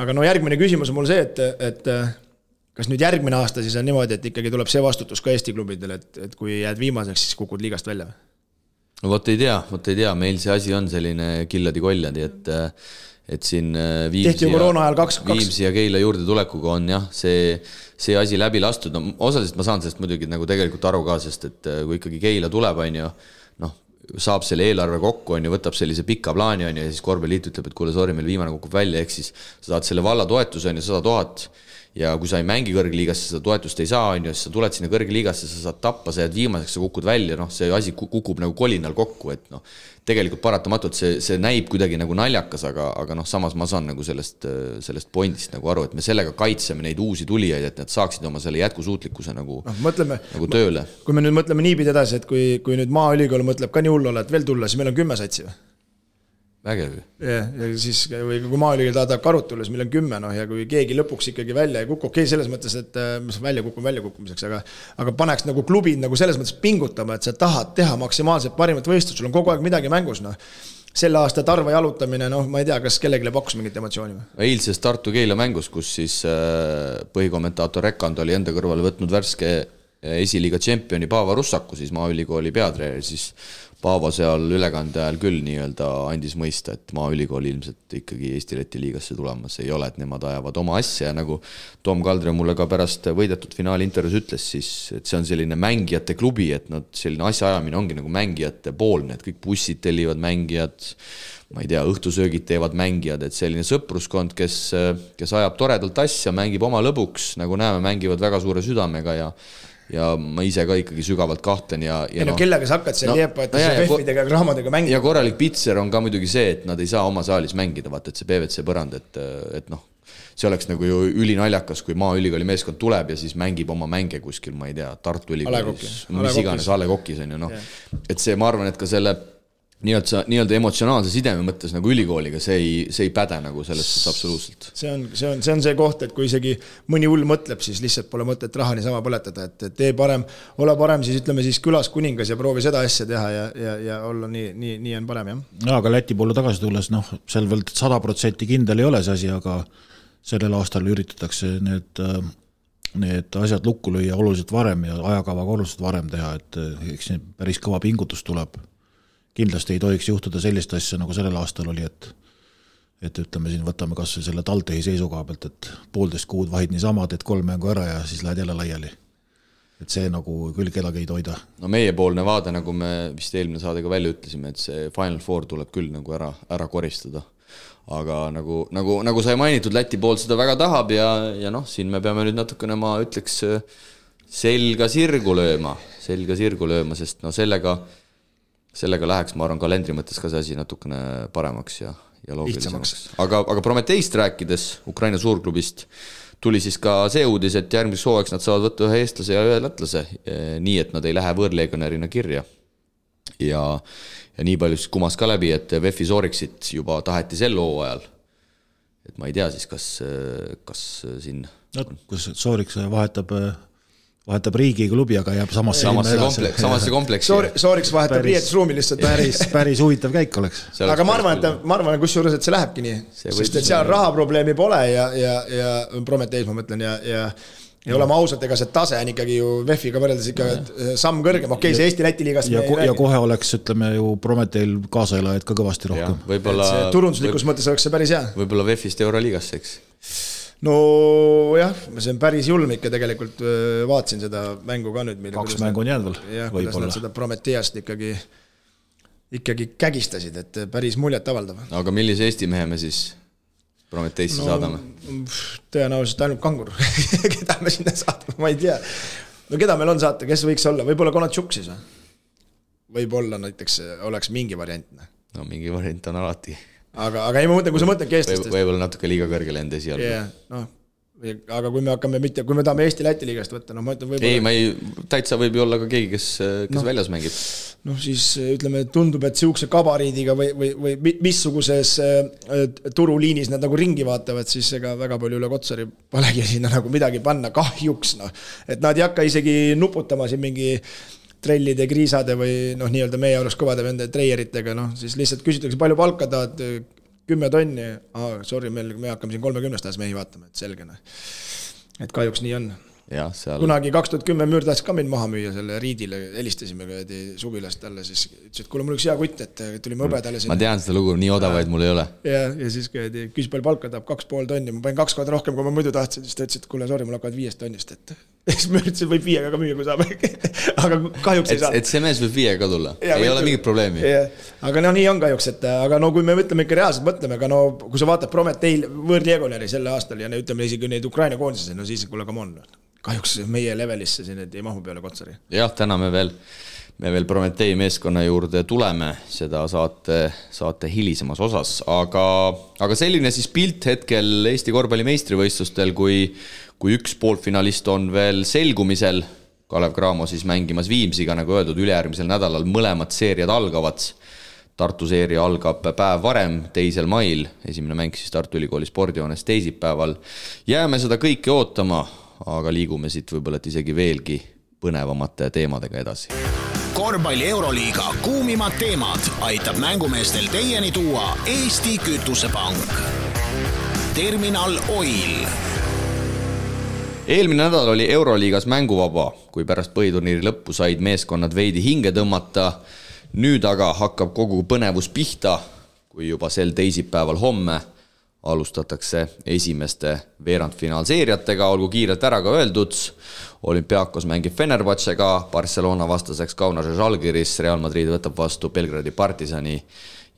aga järgmine küsimus on mul see, et kas nüüd järgmine aasta siis on niimoodi, et ikkagi tuleb see vastutus ka Eesti klubidel, et kui jääd viimaseks, siis kukud liigast välja? No vot ei tea, meil see asi on selline killadi-koljadi, et siin Viimsi ja Keila juurde tulekuga on jah, see asi läbi lastud. No, osaliselt ma saan sellest muidugi nagu tegelikult aru ka, sest et kui ikkagi Keila tuleb, on ju, saab selle eelarve kokku, on ju, võtab sellise pika plaani, on ju, ja siis Korvpalliliit ütleb, et kuule, sorry, meil viimane kukub välja, ehk siis sa saad selle valla toetuse, on ju, 100 000 ja kui sa ei mängi kõrgliigasse, seda toetust ei saa, on ju, siis sa tuled sinna kõrgliigasse, sa saad tappa, sa jääd viimaseks, sa kukud välja, see asi kukub nagu kolinal kokku, et tegelikult paratamatult see näib kuidagi nagu naljakas, aga samas ma saan nagu sellest pointist nagu aru, et me sellega kaitseme neid uusi tulijaid, et nad saaksid oma selle jätkusuutlikkuse nagu tööle. Kui me nüüd mõtleme niipidi edasi, et kui nüüd Maaülikool mõtleb ka nii hullu olla, et veel tulla, siis meil on 10 satsi või? Vägev. Ja siis kui Maaülikool tahab karut tulla, siis meil on 10 ja kui keegi lõpuks ikkagi välja ei kuku, okei, selles mõttes, et väljakukkumiseks, aga paneks nagu klubid nagu selles mõttes pingutama, et sa tahad teha maksimaalselt parimat võistlust, sul on kogu aeg midagi mängus, selle aasta Tarva jalutamine, ma ei tea, kas kellelegi pakkus mingit emotsiooni või? Eilses Tartu Keila mängus, kus siis põhikommentaator Rekand oli enda kõrvale võtnud värske esiliiga tšempioni Paava Russaku, siis Maaülikooli peatreener, siis Paavo seal ülekande ajal küll nii-öelda andis mõista, et Maaülikool ilmselt ikkagi Eesti-Läti liigasse tulemas ei ole, et nemad ajavad oma asja ja nagu Tom Kaldre mulle ka pärast võidetud finaali intervjuus ütles, siis et see on selline mängijate klubi, et selline asjaajamine ongi nagu mängijate poolne, et kõik bussid tellivad mängijad, ma ei tea, õhtusöögid teevad mängijad, et selline sõpruskond, kes ajab toredalt asja, mängib oma lõbuks, nagu näeme, mängivad väga suure südamega ja ma ise ka ikkagi sügavalt kahtlen ja kellega sa hakkad seal FF-idega ja raamadega mängida. Ja korralik pitser on ka muidugi see, et nad ei saa oma saalis mängida, vaata, et see PVC põrand, et see oleks nagu ju ülinaljakas, kui Maaülikooli meeskond tuleb ja siis mängib oma mänge kuskil, ma ei tea, Tartu Ülikoolis, mis iganes A Le Coq'is on ju, et see, ma arvan, et ka selle nii-öelda emotsionaalse sideme mõttes nagu ülikooliga, see ei päde nagu sellest absoluutselt. See on see koht, et kui isegi mõni hull mõtleb, siis lihtsalt pole mõtet raha niisama põletada, et tee parem, ole parem, siis ütleme siis külas kuningas ja proovi seda asja teha ja olla nii on parem, jah. Ja, aga Läti poole tagasi tulles, seal veel 100% kindel ei ole see asi, aga sellel aastal üritatakse need asjad lukku lüüa oluliselt varem ja ajakavaga oluliselt varem teha, et eks päris kõva pingutus tuleb. Kindlasti ei tohiks juhtuda sellist asja, nagu sellel aastal oli, et ütleme siin, võtame kas või selle Taltehi seisukoha pealt, et 1,5 kuud vahid niisama, teed 3 mängu ära ja siis lähed jälle laiali. Et see nagu küll kedagi ei toida. No meiepoolne vaade, nagu me vist eelmine saadega välja ütlesime, et see Final Four tuleb küll nagu ära koristada. Aga nagu sai mainitud, Läti pool seda väga tahab ja siin me peame nüüd natukene, ma ütleks, selga sirgu lööma, sest sellega läheks, ma arvan, kalendri mõttes ka see asi natukene paremaks ja ja loogilisemaks. Aga Prometeist rääkides, Ukraina suurklubist, tuli siis ka see uudis, et järgmiseks hooajaks nad saavad võtta ühe eestlase ja ühe lätlase, nii et nad ei lähe võõrlegionärina kirja. Ja nii palju siis kumas ka läbi, et VEF-i Sooriksit juba taheti sel hooajal. Et ma ei tea siis, kas siin... No, kus Sooriks vahetab riigi klubi, aga jääb samasse kompleksi. Sooriks vahetab riietusruumi lihtsalt. Päris huvitav käik oleks. Aga ma arvan, kusjuures, et see lähebki nii. Sest et seal rahaprobleemi pole ja Prometeis ma mõtlen ja oleme ausalt, ega see tase on ikkagi ju VEF-iga võrreldes ikka samm kõrgem. Okei, see Eesti-Läti liigast ja kohe oleks, ütleme ju Prometeil kaasaelajaid ka kõvasti rohkem. Turunduslikus mõttes oleks see päris hea. Võib-olla VEF-ist Euroliigasse, eks? No jah, see on päris julm ikka tegelikult, vaatsin seda mängu ka nüüd. 2 mängu on jäänud veel. Jah, kuidas nad seda Prometeast ikkagi kägistasid, et päris muljet avaldav. Aga millise Eesti mehe me siis Prometeisse saadame? Tõenäoliselt ainult Kangur. Keda me sinna saadame, ma ei tea. No keda meil on saata, kes võiks olla? Võib-olla Konatšuk siis või? Võib-olla näiteks oleks mingi variant. No mingi variant on alati. Aga ei ma mõtlen, kui sa mõtled keestest. Võib-olla natuke liiga kõrgele enda esialgu. Aga kui me tahame Eesti-Läti liigast võtta, ma ütlen võib-olla... Ei, täitsa võib ju olla ka keegi, kes väljas mängib. Siis ütleme, tundub, et siukse kabariidiga või missuguses turuliinis nad nagu ringi vaatavad, siis ega väga palju üle Kotsari polegi sinna nagu midagi panna, kahjuks. Et nad ei hakka isegi nuputama siin mingi trellide, kriisade või nii-öelda meie oleks kõvade vende treieritega, siis lihtsalt küsitakse palju palka tahad, 10 tonni, sorry, me hakkame siin 30 aastas mehi vaatama, et selge. Et kahjuks nii on. Ja, seal... Kunagi 2010 müür tahtis ka mind maha müüa selle Riidile, helistasime suvilast talle, siis ütles, et kuule, mul üks hea kutt, et tulime õbedale sinna. Ma tean seda lugu, nii odavaid mul ei ole. Ja siis küsis palju palka, tahab 2,5 tonni, ma panin 2 korda rohkem, kui ma muidu tahtsin, siis ta ütles, et kuule, sorry, mul hakkavad 5 tonnist, et siis ma ütlesin, võib 5 ka müüa, kui saab. Aga kahjuks ei saa. Et see mees võib 5 ka tulla, ei ole mingit probleemi. Aga nii on kahjuks, et aga kui me mõtleme ikka reaalselt mõtleme, aga kui sa vaatad Prometeil võõrlegionäri selle aastal ja ütleme isegi neid Ukraina koondised, siis kuule, come on. Kahjuks meie levelisse siin ei mahu peale Kotsari. Jah, täna me veel Prometei meeskonna juurde tuleme seda saate hilisemas osas, aga selline siis pilt hetkel Eesti korvpalli meistrivõistlustel, kui üks poolfinalist on veel selgumisel, Kalev Cramo siis mängimas Viimsiga, nagu öeldud, ülejärgmisel nädalal mõlemad seeriad algavad. Tartu seeria algab päev varem, 2. mail, esimene mäng siis Tartu Ülikooli spordihoones teisipäeval. Jääme seda kõike ootama, aga liigume siit võib-olla isegi veelgi põnevamate teemadega edasi. Korvpalli Euroliiga kuumimad teemad aitab mängumeestel teieni tuua Eesti Kütusepank. Terminal Oil. Eelmine nädal oli Euroliigas mänguvaba, kui pärast põhiturniiri lõppu said meeskonnad veidi hinge tõmmata. Nüüd aga hakkab kogu põnevus pihta, kui juba sel teisipäeval homme alustatakse esimeste veerandfinaalseeriatega, olgu kiirelt ära ka öeldud. Olympiakos mängib Fenerbahcega, Barcelona vastaseks Kaunase Žalgiris, Real Madrid võtab vastu Belgradi Partisani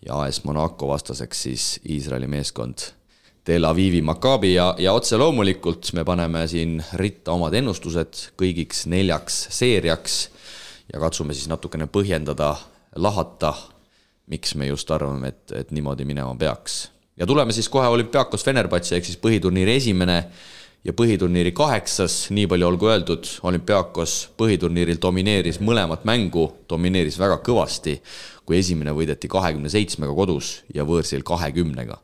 ja AS Monaco vastaseks siis Iisraeli meeskond Tel Avivi Maccabi ja otse loomulikult me paneme siin ritta omad ennustused kõigiks 4 seeriaks ja katsume siis natukene põhjendada, lahata, miks me just arvame, et niimoodi minema peaks. Ja tuleme siis kohe Olympiakos Fenerbahce ehk siis põhiturniiri esimene ja põhiturniiri 8, nii palju olgu öeldud, Olympiakos põhiturniiril domineeris mõlemat mängu, domineeris väga kõvasti, kui esimene võideti 27-ga kodus ja võõrsil 20-ga.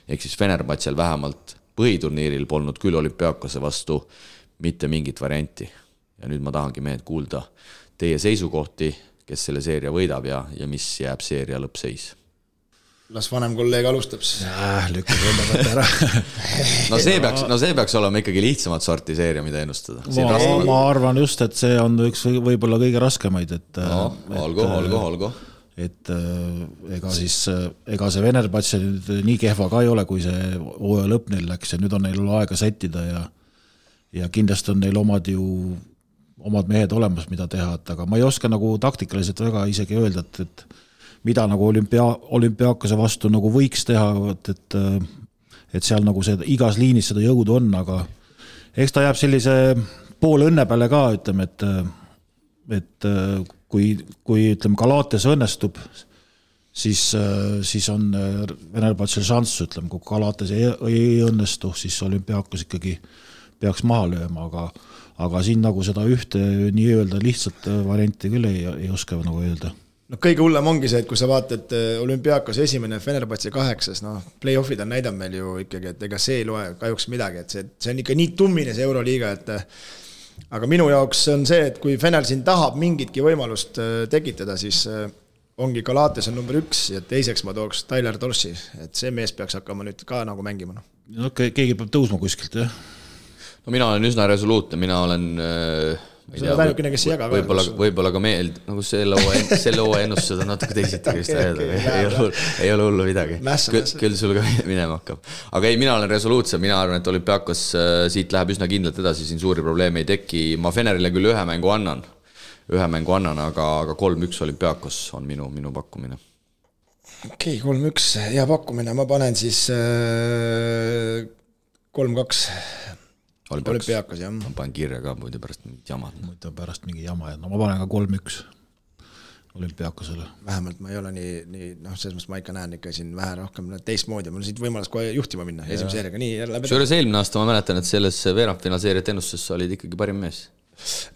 Ehk siis Fenerbahcel vähemalt põhiturniiril polnud küll Olympiakose vastu mitte mingit varianti. Ja nüüd ma tahangi mehed kuulda teie seisukohti, kes selle seeria võidab ja mis jääb seeria lõppseis. Las vanem kolleeg alustab. Lükkab võndavalt ära. No see peaks olema ikkagi lihtsamat sorti seeria, mida ennustada. Ma arvan just, et see on üks võib-olla kõige raskemaid. Olgu. Et ega see Fenerbahce nii kehva ka ei ole, kui see hooaja lõpp neil läks ja nüüd on neil aega sättida ja kindlasti on neil omad mehed olemas, mida teha, aga ma ei oska nagu taktikaliselt väga isegi öelda, et mida nagu olümpiaakose vastu nagu võiks teha, et seal nagu see, igas liinis seda jõudu on, aga eks ta jääb sellise pool õnne peale ka, ütleme, et kui ütleme, Galates õnnestub, siis on Venerbatsil šanss, ütleme, kui Galatas ei õnnestu, siis Olümpiakos ikkagi peaks maha lööma, aga siin nagu seda ühte nii-öelda lihtsalt varianti küll ei oska nagu öelda. No kõige hullem ongi see, et kui sa vaatad Olümpiakos esimene Fenerbahce 8, play-offid on näidanud meil ju ikkagi, et ega see ei loe kahjuks midagi, et see on ikka nii tummine see Euroliiga, et aga minu jaoks on see, et kui Fener siin tahab mingitki võimalust tekitada, siis ongi Galatas on number 1 ja teiseks ma tooks Tyler Dorsey, et see mees peaks hakkama nüüd ka nagu mängima. No, keegi peab tõusma kuskilt, jah? No mina olen üsna resoluutne, mina olen võib-olla ka nagu selle hooaja ennustused on natuke teisiti ei ole hullu midagi, küll sul ka minema hakkab, aga ei, mina olen resoluutsem, mina arvan, et Olümpiakos siit läheb üsna kindlalt edasi, siin suuri probleeme ei teki, ma Fenerile küll ühe mängu annan, aga 3-1 Olümpiakos on minu pakkumine. Okei, 3-1 hea pakkumine, ma panen siis 3-2 Olümpiakos, jah. Ma panen kirja ka muidu pärast mingit jama. No ma panen ka 3-1 Olümpiakosele. Vähemalt ma ei ole nii selles mõttes ma ikka näen ikka siin vähe rohkem teistmoodi, mul on siit võimalus kohe juhtima minna esimese seeriaga. Selles eelmine aasta ma mäletan, et selles veerandfinaalseeriat ennustusesse olid ikkagi parim mees.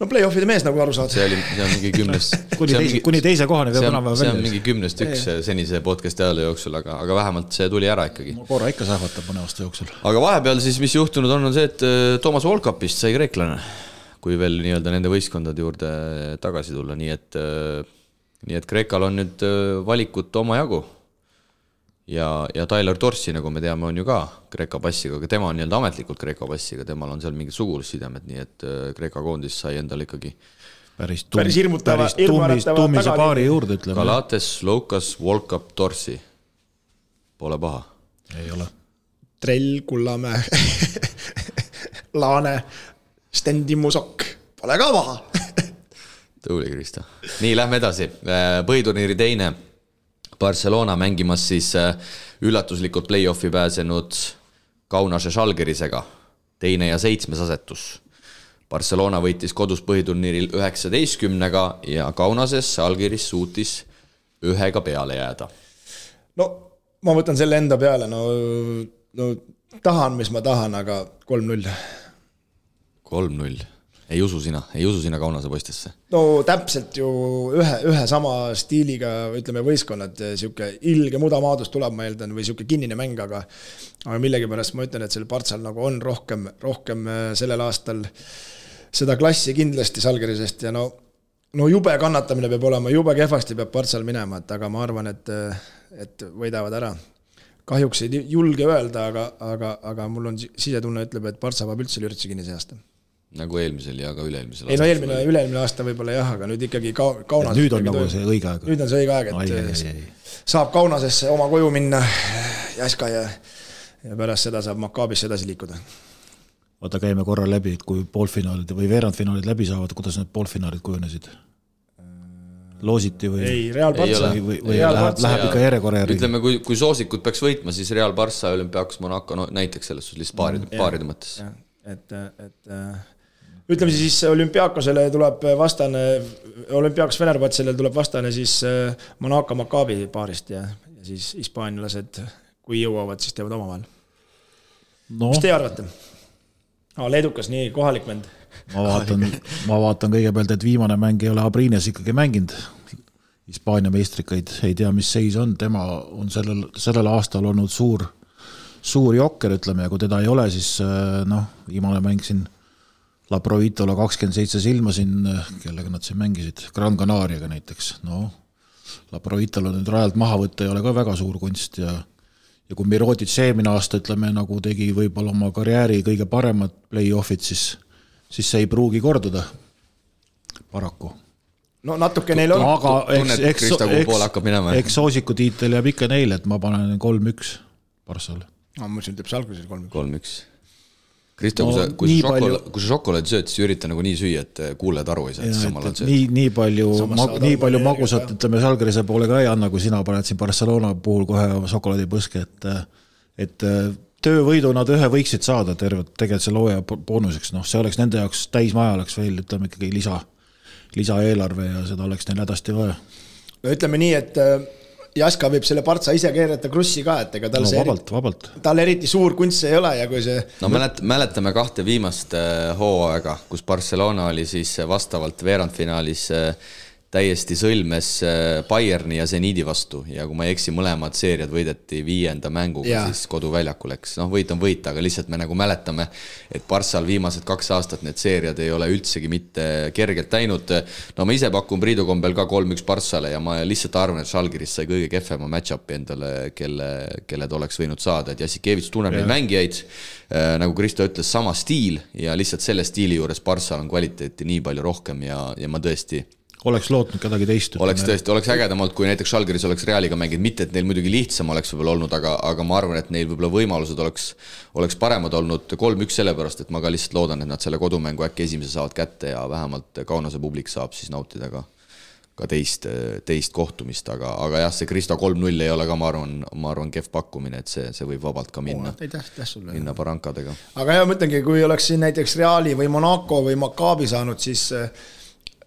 No play-offide mees nagu aru saad. See on mingi 10. Kuni teise kohani see on mingi 10-1 senise podcasti ajale jooksul, aga vähemalt see tuli ära ikkagi. Ma korra ikka sähvatab mõne aasta jooksul. Aga vahepeal siis, mis juhtunud on see, et Toomas Volkapist sai kreeklane, kui veel nii-öelda nende võistkondade juurde tagasi tulla, nii et Kreekal on nüüd valikut oma jagu. Ja Tyler Dorsey, nagu me teame, on ju ka Kreeka passiga, aga tema on nii-öelda ametlikult Kreeka passiga, temal on seal mingid sugulussidemed, nii et Kreeka koondis sai endal ikkagi päris hirmutava tuumise paari juurde, ütleme. Galates, Loukas, Volkap, Dorsey. Pole paha. Ei ole. Trell, Kullamäe, Laane, Stendimusok. Pole ka paha. Tuli, Kristo. Nii, lähme edasi. Põhiturniiri teine. Barcelona mängimas siis üllatuslikult play-offi pääsenud Kaunase Žalgirisega, 2. ja 7. asetus. Barcelona võitis kodus põhiturniiril 19-ga ja Kaunases Žalgiris suutis 1 peale jääda. No ma võtan selle enda peale, no tahan, mis ma tahan, aga 3-0. 3-0. Ei usu sina Kaunase poistesse? No täpselt ju ühe sama stiiliga, ütleme, võistkonnad, siuke ilge mudamaadus tuleb, ma eeldan, või siuke kinnine mäng, aga millegipärast ma ütlen, et selle Bartsal nagu on rohkem sellel aastal seda klassi kindlasti Žalgirisest ja no jube kannatamine peab olema, jube kehvasti peab Bartsal minema, aga ma arvan, et võidavad ära. Kahjuks ei julge öelda, aga mul on sisetunne ütleb, et Bartsa peab üldse lürtsi kinni see aasta. Nagu eelmisel ja ka üle-eelmisel aasta. Ei no üle-eelmine aasta võib-olla jah, aga nüüd ikkagi Kaunas. Nüüd on nagu see õige aeg. Nüüd on see õige aeg, et saab Kaunasesse oma koju minna Jaska ja pärast seda saab Makabisse edasi liikuda. Vaata, käime korra läbi, et kui poolfinaalid või veerandfinaalid läbi saavad, kuidas need poolfinaalid kujunesid? Loositi või? Ei, Real Barça. Või läheb ikka järjekorra järgi. Ütleme, kui soosikud peaks võitma, siis Real Barça, Olümpiakos, Monaco, näiteks selles lihtsalt paaride mõttes. Et ütleme siis Olümpiakosele tuleb vastane, Olümpiakos Fenerbahcele tuleb vastane siis Monaco Maccabi paarist ja siis hispaanilased, kui jõuavad, siis teevad omavahel. Mis te arvate? Leedukas, nii kohalik vend. Ma vaatan kõigepealt, et viimane mäng ei ole Abrines ikkagi mänginud. Hispaania meistrikaid ei tea, mis seis on. Tema on sellel aastal olnud suur jokker, ütleme, ja kui teda ei ole, siis viimane mäng siin La Provitola 27 silma siin, kellega nad siin mängisid, Gran Canariaga näiteks. La Provitola nüüd rajalt maha võtta ei ole ka väga suur kunst ja kui Mirotic eelmine aasta, ütleme, nagu tegi võib-olla oma karjääri kõige paremad play-offid, siis see ei pruugi korduda paraku. No natuke neil on. Tunnet Krista, kuhu poole hakkab minema. Eks soosiku tiitel jääb ikka neile, et ma panen 3-1 Barssale. Ma mõtlesin, ütleb Žalgirisel 3-1. Kristo, kui sa šokolaadi sööd, siis ürita nagu nii süüa, et kuuled aru ei saa, et samal on sööd. Nii palju magusat, ütleme, Žalgirise poole ka ei anna, kui sina paned siin Barcelona puhul kohe šokolaadipõske, et töövõidu nad ühe võiksid saada tegelikult selle hooaja boonuseks. See oleks nende jaoks täismaja, oleks veel, ütleme, ikkagi lisaeelarve ja seda oleks neil hädasti vaja. No ütleme nii, et Jaska võib selle Partsa ise keerata krussi ka, et ega tal vabalt. Tal eriti suur kunst ei ole ja kui see... No mäletame 2 viimast hooaega, kus Barcelona oli siis vastavalt veerandfinaalis täiesti sõlmes Bayerni ja Zenidi vastu ja kui ma ei eksi, mõlemad seeriad võideti 5. mänguga, siis koduväljaku läks. Võit on võit, aga lihtsalt me nagu mäletame, et Barssal viimased 2 aastat need seeriad ei ole üldsegi mitte kergelt läinud. No ma ise pakun Priidu kombel ka 3-1 Barssale ja ma lihtsalt arvan, et Žalgiris sai kõige kehvema match-upi endale, kelle ta oleks võinud saada. Et Jassikevits tunneb neid mängijaid, nagu Kristo ütles, sama stiil ja lihtsalt selle stiili juures Barssal on kvaliteeti nii palju rohkem ja ma tõesti oleks lootnud kedagi teist. Oleks ägedamalt, kui näiteks Žalgiris oleks Realiga mänginud, mitte et neil muidugi lihtsam oleks võib-olla olnud, aga ma arvan, et neil võib-olla võimalused oleks paremad olnud 3-1 sellepärast, et ma ka lihtsalt loodan, et nad selle kodumängu äkki esimese saavad kätte ja vähemalt Kaunase publik saab siis nautida ka teist kohtumist, aga jah, see Kristo 3-0 ei ole ka, ma arvan kehv pakkumine, et see võib vabalt ka minna Barrancadega. Aga jah, mõtlengi, kui oleks siin näiteks Reali või Monaco või Maccabi saanud, siis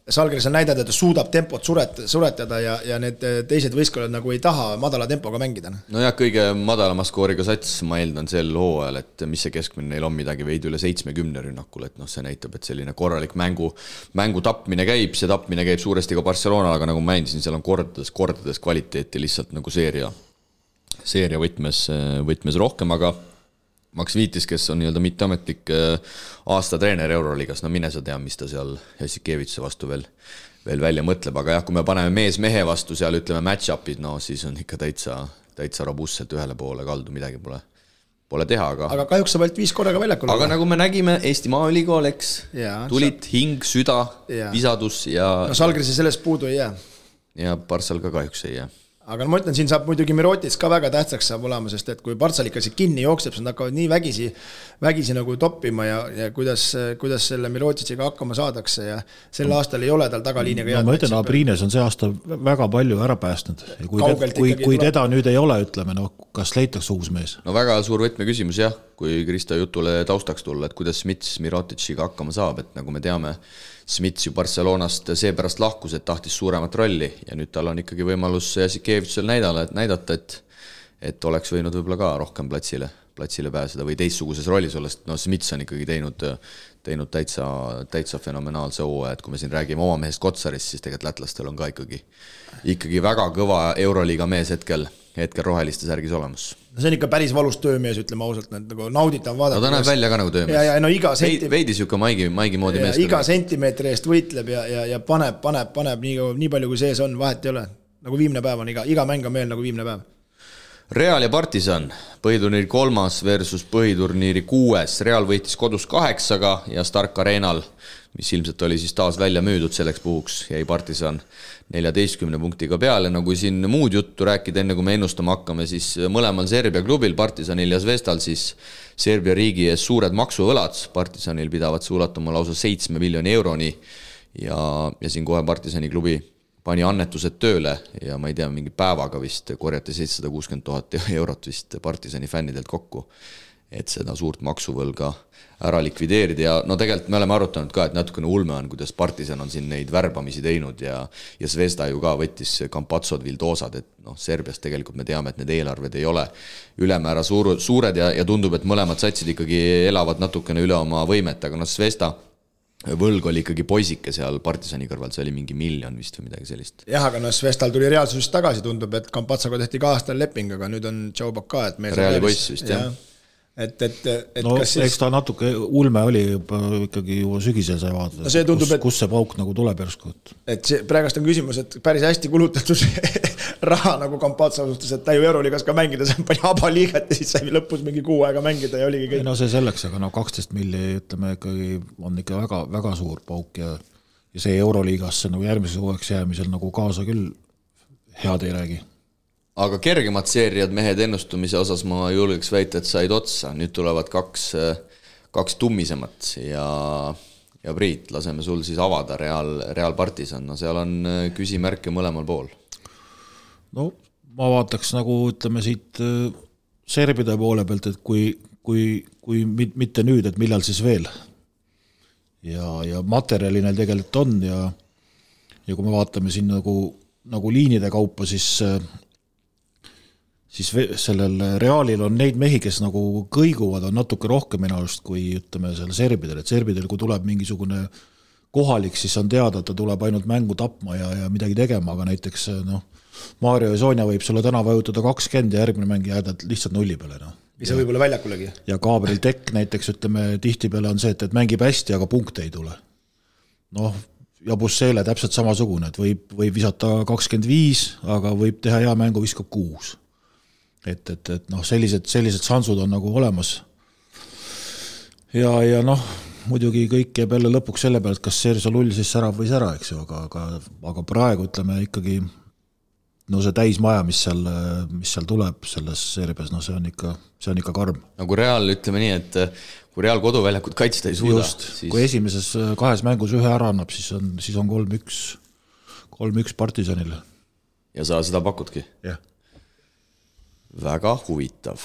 Žalgiris on näidanud, et ta suudab tempot suretada ja need teised võistkonnad nagu ei taha madala tempoga mängida. No jah, kõige madalama skooriga sats, ma eeldan sel hooajal, et mis see keskmine neil on midagi veidi üle 70 rünnakul, et see näitab, et selline korralik mängu tapmine käib, see tapmine käib suuresti ka Barcelona, aga nagu ma mainisin, seal on kordades kvaliteeti lihtsalt nagu seeria võtmes rohkem, aga Max Viitis, kes on nii-öelda mitteametlik aasta treener Euroliigas, no mine sa tea, mis ta seal Jassikevitse vastu veel välja mõtleb, aga jah, kui me paneme mehe vastu seal, ütleme match-upid, no siis on ikka täitsa robustselt ühele poole kaldu, midagi pole teha, aga kahjuks sa võid 5 korraga väljakul. Aga nagu me nägime, Eesti Maaülikool, eks, tulid hing, süda, visadus ja... No Žalgiris sellest puudu ei jää. Ja Barssal ka kahjuks ei jää. Aga ma ütlen, siin saab muidugi Mirotic ka väga tähtsaks saab olema, sest et kui Barssal ikka see kinni jookseb, siis nad hakkavad nii vägisi nagu toppima ja kuidas selle Miroticiga hakkama saadakse ja sel aastal ei ole tal tagaliiniga ma ütlen, Abrines on see aasta väga palju ära päästnud. Kui teda nüüd ei ole, ütleme, kas leitakse uus mees? No väga suur võtmeküsimus jah, kui Kristo jutule taustaks tulla, et kuidas Smits Miroticiga hakkama saab, et nagu me teame, Smits ju Barcelonast seepärast lahkus, et tahtis suuremat rolli ja nüüd tal on ikkagi võimalus Jassikevitsel näidata, et oleks võinud võib-olla ka rohkem platsile pääseda või teistsuguses rollis olles. No Smits on ikkagi teinud täitsa fenomenaalse hooaja, et kui me siin räägime oma mehest Kotsarist, siis tegelikult lätlastel on ka ikkagi väga kõva Euroliiga mees hetkel roheliste särgis olemas. See on ikka päris valus töömees, ütleme ausalt, nagu nauditav vaadata. No ta näeb välja ka nagu töömees. Ja no veidi siuke maigi moodi mees. Iga sentimeetri eest võitleb ja paneb nii palju kui sees on, vahet ei ole. Nagu viimne päev on, iga mäng on meil nagu viimne päev. Real ja Partisan, põhiturniiri 3. versus põhiturniiri 6. Real võitis kodus 8-ga ja Stark Arenal, mis ilmselt oli siis taas välja müüdud selleks puhuks, jäi Partisan 14 punktiga peale. No kui siin muud juttu rääkida, enne kui me ennustama hakkame, siis mõlemal Serbia klubil, Partisanil ja Zvezdal, siis Serbia riigi ees suured maksuvõlad. Partisanil pidavad see ulatuma lausa 7 miljoni euroni ja siin kohe Partisani klubi pani annetused tööle ja ma ei tea, mingi päevaga vist korjati 760 000 eurot vist Partisani fännidelt kokku, et seda suurt maksuvõlga ära likvideerida ja no tegelikult me oleme arutanud ka, et natukene ulme on, kuidas Partisan on siin neid värbamisi teinud ja Zvezda ju ka võttis Kampatsod, Vildosad, et Serbias tegelikult me teame, et need eelarved ei ole ülemäära suured ja tundub, et mõlemad satsid ikkagi elavad natukene üle oma võimet, aga Zvezda võlg oli ikkagi poisike seal Partisani kõrval, see oli mingi miljon vist või midagi sellist. Jah, aga Zvezdal tuli reaalsusest tagasi, tundub, et Kampatsaga tehti 2 aastal leping, aga nüüd on Tšaubak ka, et Reali poiss vist, jah. Et no kas siis... eks ta natuke ulme oli juba ikkagi juba sügisel sai vaadata, no tundub, kus see pauk nagu tuleb järsku. Et see praegast on küsimus, et päris hästi kulutatud raha nagu Kampatsa suhtes, et ta ju Euroliigas ka mängida, see pani abaliigat ja siis sai lõpus mingi 6 aega mängida ja oligi kõik. No see selleks, aga 12 milli, ütleme, ikkagi on ikka väga, väga suur pauk ja see Euroliigasse nagu järgmises uueks jäämisel nagu kaasa küll head ei räägi. Aga kergemad seeriad mehed ennustumise osas ma julgeks väita, et said otsa. Nüüd tulevad kaks tummisemat ja Priit, laseme sul siis avada Real Partisan. No seal on küsimärke mõlemal pool. No ma vaataks nagu, ütleme siit serbide poole pealt, et kui mitte nüüd, et millal siis veel. Ja materjali neil tegelikult on ja kui me vaatame siin nagu liinide kaupa, siis siis sellel Realil on neid mehi, kes nagu kõiguvad, on natuke rohkem minu arust kui ütleme selle serbidel, et serbidel kui tuleb mingisugune kohalik, siis on teada, et ta tuleb ainult mängu tapma ja midagi tegema, aga näiteks Mario ja Sonja võib sulle täna vajutada 20 ja järgmine mäng jääda lihtsalt nulli peale. Mis on võib-olla väljakulegi. Ja Gabriel Tekk näiteks, ütleme, tihtipeale on see, et mängib hästi, aga punkte ei tule. Ja Bussele täpselt samasugune, et võib visata 25, aga võib teha hea mängu, viskab 6. Et sellised sansud on nagu olemas. Ja muidugi kõik jääb jälle lõpuks selle pealt, kas Sergio Lull siis särav või sära, eks ju, aga praegu ütleme ikkagi see täismaja, mis seal tuleb selles seerias, see on ikka karm. Nagu Real, ütleme nii, et kui Real koduväljakut kaitsta ei suuda. Just, siis... kui esimeses 2 mängus ühe ära annab, siis on 3-1 Partisanile. Ja sa seda pakudki? Jah. Väga huvitav.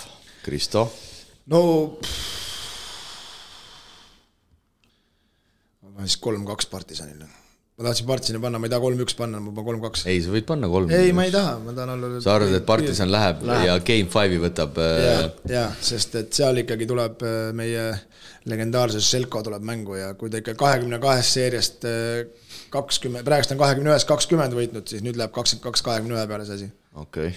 Kristo? Ma siis 3-2 Partisanile. Ma tahtsin Partisani panna, ma ei taha 3-1 panna, ma pean 3-2. Ei, sa võid panna 3-1. Ei, ma ei taha, ma tahan olla... Sa arvad, et Partisan läheb ja Game 5 võtab... Ja, sest et seal ikkagi tuleb meie legendaarses Selko tuleb mängu ja kui ta ikka 22 seeriast 20, praegust on 21-20 võitnud, siis nüüd läheb 22-21 peale see asi. Okei.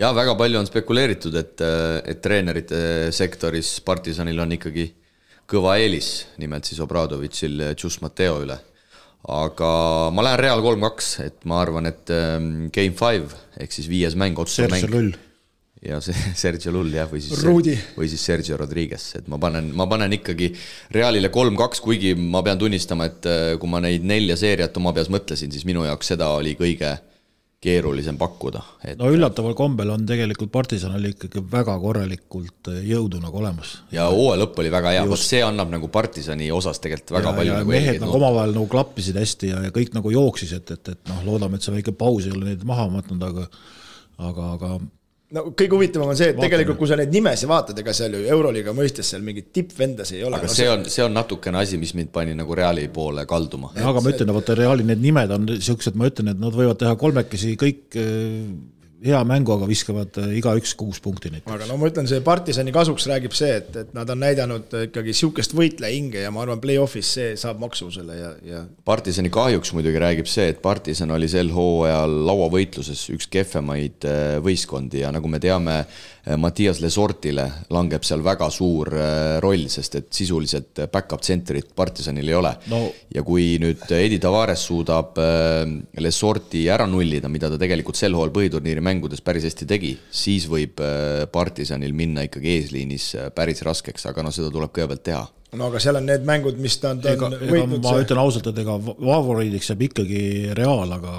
Ja väga palju on spekuleeritud, et treenerite sektoris Partisanil on ikkagi kõva eelis, nimelt siis Obradovitšil Just Mateo üle. Aga ma lähen Real 3-2, et ma arvan, et Game 5 ehk siis 5. mäng, otsumäng. Sergio Lull. Ja Sergio Lull, jah, või siis Sergio Rodriguez, et ma panen ikkagi Realile 3-2, kuigi ma pean tunnistama, et kui ma neid 4 seeriat oma peas mõtlesin, siis minu jaoks seda oli kõige keerulisem pakkuda. Üllataval kombel on tegelikult Partisan oli ikkagi väga korralikult jõudu nagu olemas. Ja hooaja lõpp oli väga hea, see annab nagu Partisani osas tegelikult väga palju. Ja mehed nagu omavahel nagu klappisid hästi ja kõik nagu jooksis, et loodame, et see väike paus ei ole neid maha matnud, aga kõige huvitavam on see, et tegelikult kui sa neid nimesi vaatad, ega seal ju Euroliiga mõistes seal mingit tippvendas ei ole. Aga see on natukene asi, mis mind pani nagu Reali poole kalduma. Aga ma ütlen, et Reali need nimed on siuksed, ma ütlen, et nad võivad teha 3 kõik hea mängu, aga viskavad iga 6 punkti neid. Aga ma ütlen, see Partisani kasuks räägib see, et nad on näidanud ikkagi siukest võitleja hinge ja ma arvan, play-offis see saab maksu selle ja... Partisani kahjuks muidugi räägib see, et Partisan oli sel hooajal lauavõitluses üks kehvemaid võistkondi ja nagu me teame, Mattias Lesortile langeb seal väga suur roll, sest et sisuliselt back-up centerit Partisanil ei ole. Ja kui nüüd Edi Tavares suudab Lesorti ära nullida, mida ta tegelikult sel hooajal põhiturniiri mängudes päris hästi tegi, siis võib Partisanil minna ikkagi eesliinis päris raskeks, aga seda tuleb kõigepealt teha. Aga seal on need mängud, mis ta on võitnud. Ma ütlen ausalt, et ega favoriidiks jääb ikkagi Real, aga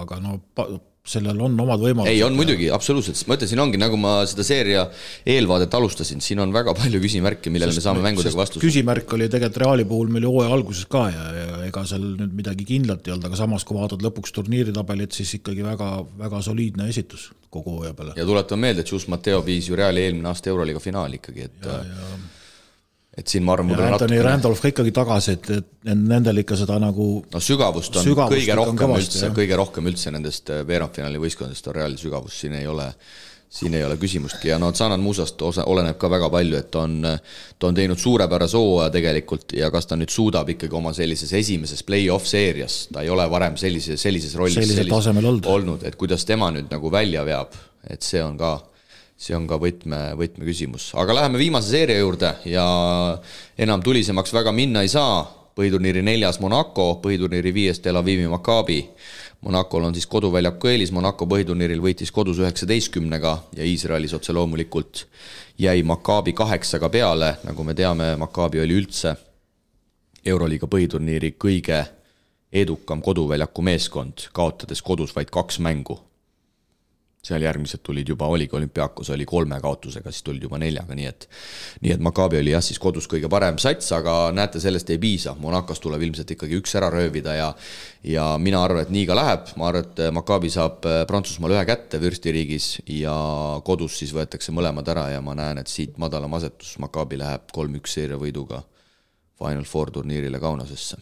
sellel on omad võimalused. Ei, on muidugi, absoluutselt. Ma ütlen, siin ongi, nagu ma seda seeria eelvaadet alustasin, siin on väga palju küsimärke, millele me saame mängudega vastus. Küsimärk oli tegelikult Reali puhul meil hooaja alguses ka ja ega seal nüüd midagi kindlat ei olnud, aga samas kui vaatad lõpuks turniiritabelit, siis ikkagi väga, väga soliidne esitus kogu hooaja peale. Ja tuletan meelde, et Just Mateo viis ju Reali eelmine aasta Euroliiga finaali ikkagi, et siin ma arvan, ja Anthony Randolph ikkagi tagasi, et nendel ikka seda nagu sügavust on kõige rohkem üldse nendest veerandfinaali võistkondadest on Reali sügavus, siin ei ole küsimustki ja Zanat Musast oleneb ka väga palju, et ta on teinud suurepärase hooaja tegelikult ja kas ta nüüd suudab ikkagi oma sellises esimeses play-off seerias, ta ei ole varem sellises rollis olnud, et kuidas tema nüüd nagu välja veab, et see on ka võtmeküsimus. Aga läheme viimase seeria juurde ja enam tulisemaks väga minna ei saa. Põhiturniiri 4. Monaco, põhiturniiri 5. Tel Avivi Maccabi. Monacol on siis koduväljaku eelis, Monaco põhiturniiril võitis kodus 19-ga ja Iisraelis otse loomulikult jäi Maccabi 8 peale. Nagu me teame, Maccabi oli üldse Euroliiga põhiturniiri kõige edukam koduväljaku meeskond, kaotades kodus vaid 2 mängu. Seal järgmised tulid juba, oligi Olümpiakos, oli 3 kaotusega, siis tulid juba 4, nii et Maccabi oli jah siis kodus kõige parem sats, aga näete, sellest ei piisa. Monacos tuleb ilmselt ikkagi 1 ära röövida ja mina arvan, et nii ka läheb. Ma arvan, et Maccabi saab Prantsusmaal 1 kätte vürstiriigis ja kodus siis võetakse mõlemad ära ja ma näen, et siit madalam asetus Maccabi läheb 3-1 seeria võiduga Final Four turniirile Kaunasesse.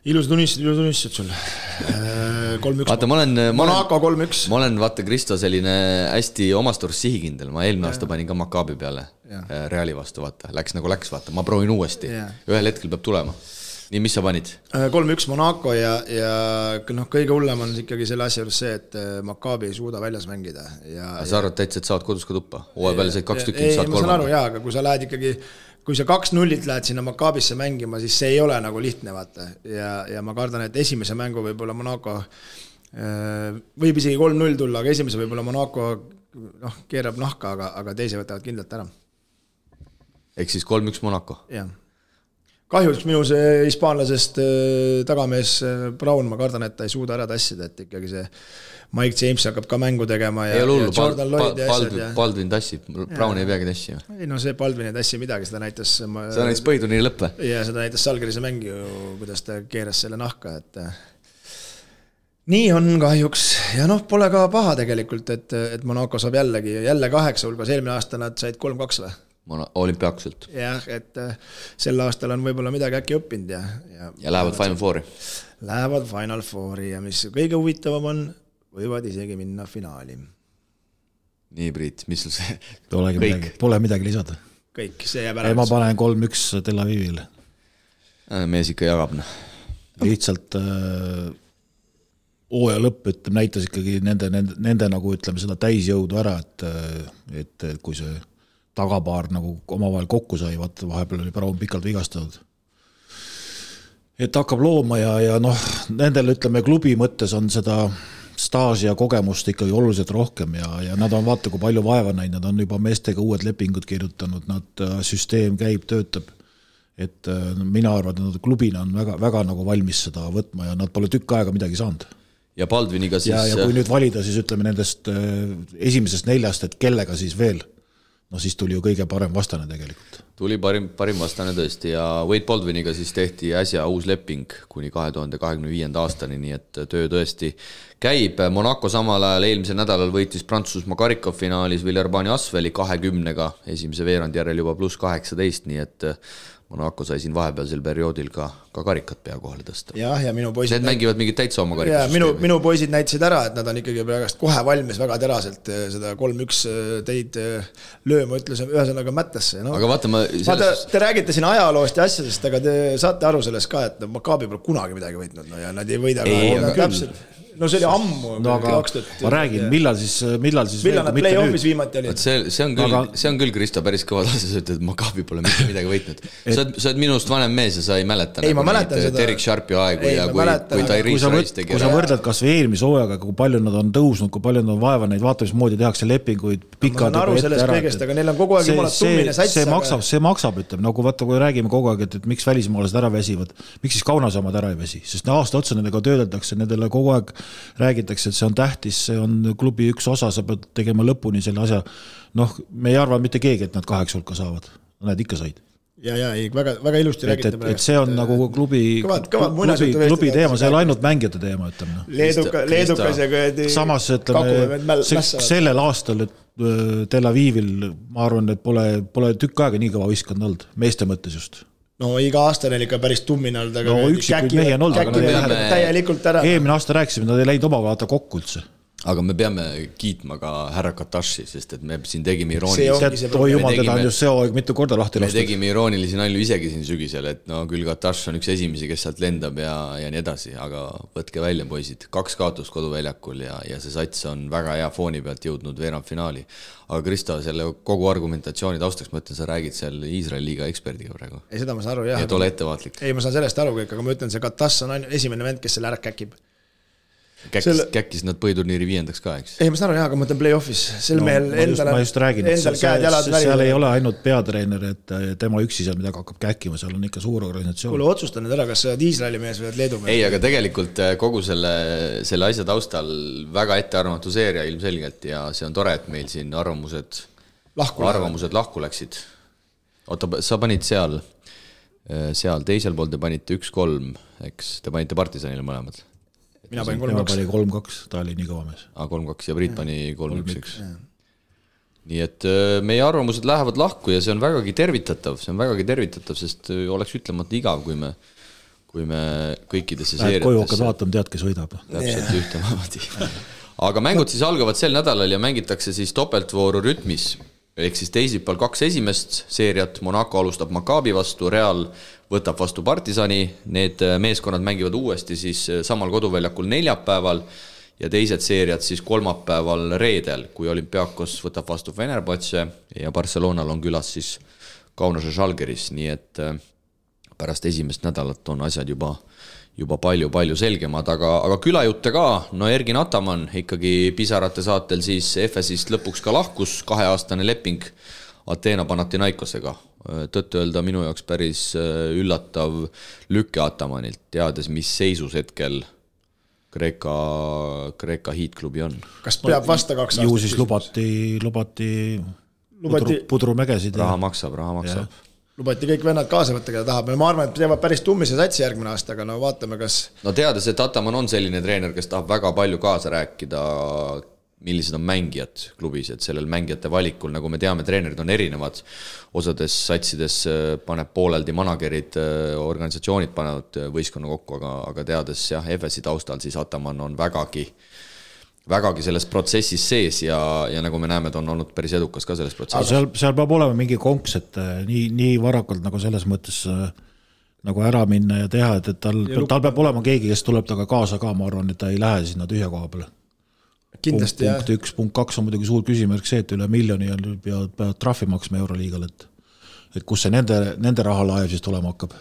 Ilusad unistused sul. 3-1. Vaata, Monaco 3-1. Ma olen, vaata, Kristo selline hästi omasturst sihikindel. Ma eelmine aasta panin ka Maccabi peale Reali vastu, vaata. Läks, vaata. Ma proovin uuesti. Ühel hetkel peab tulema. Nii, mis sa panid? 3-1 Monaco ja kõige hullem on ikkagi selle asja juures see, et Maccabi ei suuda väljas mängida. Sa arvad täitsa, et saad kodus ka tuppa? Hooaja peale said 2 tükki, saad 3. Ei, ma saan aru, aga kui sa lähed ikkagi kui sa 2-0 lähed sinna Maccabisse mängima, siis see ei ole nagu lihtne, vaata. Ja ma kardan, et esimese mängu võib-olla Monaco võib isegi 3-0 tulla, aga esimese võib-olla Monaco keerab nahka, aga teise võtavad kindlalt ära. Ehk siis 3-1 Monaco? Jah. Kahjuks minu see hispaanlasest tagamees Brown, ma kardan, et ta ei suuda ära tassida, et ikkagi see Mike James hakkab ka mängu tegema ja Jordan Lloyd ja asjad. Baldwin tassib, Brown ei peagi tassi. Ei, no see Baldwin ei tassi midagi, seda näitas... Seda näitas põhiturniiri lõppe. Ja seda näitas Salgerise mängi, kuidas ta keeras selle nahka, et nii on kahjuks. Ja pole ka paha tegelikult, et Monaco saab jälle 8 hulgas, eelmine aasta nad said 3-2 või? Olümpiakselt. Jah, et sel aastal on võib-olla midagi äkki õppinud ja lähevad Final Fouri. Lähevad Final Fouri ja mis kõige huvitavam on, võivad isegi minna finaali. Nii, Priit, mis sul see? Pole midagi lisada. Kõik, see jääb ära. Ma panen 3-1 Tel Avivile. Mees ikka jagab. Lihtsalt hooaja lõpp näitas ikkagi nende nagu ütleme seda täisjõudu ära, et kui see tagapaar nagu omavahel kokku sai, vahepeal oli Brown pikalt vigastatud. Et hakkab looma ja nendel ütleme klubi mõttes on seda staaži ja kogemust ikkagi oluliselt rohkem ja nad on vaata, kui palju vaeva näinud, nad on juba meestega uued lepingud kirjutanud, nad süsteem käib, töötab. Et mina arvan, et nad klubina on väga, väga nagu valmis seda võtma ja nad pole tükk aega midagi saanud. Ja Baldwiniga siis... Ja kui nüüd valida, siis ütleme nendest esimesest 4, et kellega siis veel, siis tuli ju kõige parem vastane tegelikult. Tuli parim vastane tõesti ja Wade Baldwiniga siis tehti äsja uus leping kuni 2025. aastani, nii et töö tõesti käib. Monaco samal ajal eelmisel nädalal võitis Prantsusmaa karikafinaalis Villeurbanne Asveli 20-ga, esimese veerandi järel juba +18, nii et Monaco sai siin vahepealsel perioodil ka karikat pea kohale tõsta. Ja minu poisid... Need mängivad mingid täitsa oma karikas. Minu poisid näitasid ära, et nad on ikkagi praegast kohe valmis väga teraselt seda 3-1 teid lööma, ütlesin ühesõnaga mättasse. Aga vaata, te räägite siin ajaloost ja asjadest, aga te saate aru sellest ka, et Maccabi pole kunagi midagi võitnud ja nad ei võida ka täpselt. No see oli ammu. Ma räägin, millal siis millal nad play-offis viimati olid? See on küll, Kristo, päris kõva tasa, sa ütled, et Maccabi pole mitte midagi võitnud. Sa oled minust vanem mees ja sa ei mäleta. Ei, ma mäletan seda. Derek Sharpi aegu ja kui Tyrese Rice tegi. Kui sa võrdled kas või eelmise hooajaga, kui palju nad on tõusnud, kui palju nad on vaeva neid, vaata mis moodi tehakse lepinguid pikad. Ma olen aru sellest kõigest, aga neil on kogu aeg jumala tummine sats. See maksab, ütleme, nagu vaata, kui räägime kogu aeg, et miks välismaalased ära väsivad, miks siis Kaunasamad ära ei väsi, sest aasta otsa nendega töödeldakse, nendele kogu aeg räägitakse, et see on tähtis, see on klubi üks osa, sa pead tegema lõpuni selle asja. Me ei arva mitte keegi, et nad 8 hulka saavad. Nad ikka said. Ja, väga ilusti räägite praegu. Et see on nagu klubi teema, see on ainult mängijate teema, ütleme. Leedukas ja kõedi... Samas, ütleme, sellel aastal Tel Avivil, ma arvan, et pole tükk aega nii kõva võistkond olnud, meeste mõttes just. No iga aasta neil ikka päris tummine olnud, aga üksikuid mehi on olnud, täielikult ära. Eelmine aasta rääkisime, nad ei läinud oma vaata kokku üldse. Aga me peame kiitma ka härra Kataši, sest et me siin tegime iroonilisi. Oi jumal, teda on just see aeg mitu korda lahti lastud. Me tegime iroonilisi nalju isegi siin sügisel, et küll Kataš on üks esimesi, kes sealt lendab ja nii edasi, aga võtke välja, poisid. 2 kaotust koduväljakul ja see sats on väga hea fooni pealt jõudnud veerandfinaali. Aga Kristo, selle kogu argumentatsiooni taustaks mõtlen, sa räägid seal Iisraeli liiga eksperdiga praegu. Ei, seda ma saan aru, jah. Et ole ettevaatlik. Ei, ma saan sellest aru kõik, aga ma ütlen, see Kataš on esimene vend, kes selle ära käkib. Käkkis nad põhiturniiri 5. ka, eks? Ei, ma saan aru, jah, aga ma ütlen play-offis. Ma just räägin, et seal ei ole ainult peatreener, et tema üksi seal midagi hakkab käkkima, seal on ikka suur organisatsioon. Kuule, otsustan nüüd ära, kas sa oled Iisraeli mees või oled Leedu mees? Ei, aga tegelikult kogu selle asja taustal väga ettearvamatu seeria ilmselgelt ja see on tore, et meil siin arvamused lahku läksid. Oota, sa panid seal teisel pool te panite 1-3, eks? Te panite Partisanile mõlemad. Mina panin 3-2, ta oli nii kõva mees. 3-2 ja Priit pani 3-1. Nii et meie arvamused lähevad lahku ja see on vägagi tervitatav, sest oleks ütlemata igav, kui kui me kõikidesse koju hakkad seeriatesse vaatama, tead, kes võidab. täpselt ühtemoodi. Aga mängud siis algavad sel nädalal ja mängitakse siis topeltvooru rütmis. Ehk siis teisipäeval 2 esimest seeriat, Monaco alustab Maccabi vastu, Real võtab vastu Partisani, need meeskonnad mängivad uuesti siis samal koduväljakul neljapäeval ja teised seeriad siis kolmapäeval reedel, kui Olympiakos võtab vastu Fenerbahce ja Barcelonal on külas siis Kaunase Žalgiris, nii et pärast esimest nädalat on asjad juba palju selgemad, aga külajutte ka, no Ergin Ataman ikkagi pisarate saatel siis FS-ist lõpuks ka lahkus, 2-aastane leping Ateena Panathinaikosega. Tõtt öelda minu jaoks päris üllatav lükke Atamanilt, teades, mis seisus hetkel Kreeka hiitklubi on. Kas peab vasta 2 aastat? Ju siis lubati pudrumägesid. Raha maksab. Lubati kõik vennad kaasa võtta, keda tahab. Ma arvan, et teevad päris tummise satsi järgmine aasta, aga no vaatame, kas... No teades, et Ataman on selline treener, kes tahab väga palju kaasa rääkida, millised on mängijad klubis, et sellel mängijate valikul, nagu me teame, treenerid on erinevad. Osades satsides paneb pooleldi managerid, organisatsioonid panevad võistkonna kokku, aga teades FS-i taustal, siis Ataman on vägagi selles protsessis sees ja nagu me näeme, ta on olnud päris edukas ka selles protsessis. Seal peab olema mingi konks, et nii varakult nagu selles mõttes nagu ära minna ja teha, et tal peab olema keegi, kes tuleb taga kaasa ka, ma arvan, et ta ei lähe sinna tühja koha peale. Kindlasti, punkt 1, punkt 2 on muidugi suur küsimärk see, et üle miljoni peavad trahvi maksma Euroliigal, et kus see nende rahalaev siis tulema hakkab.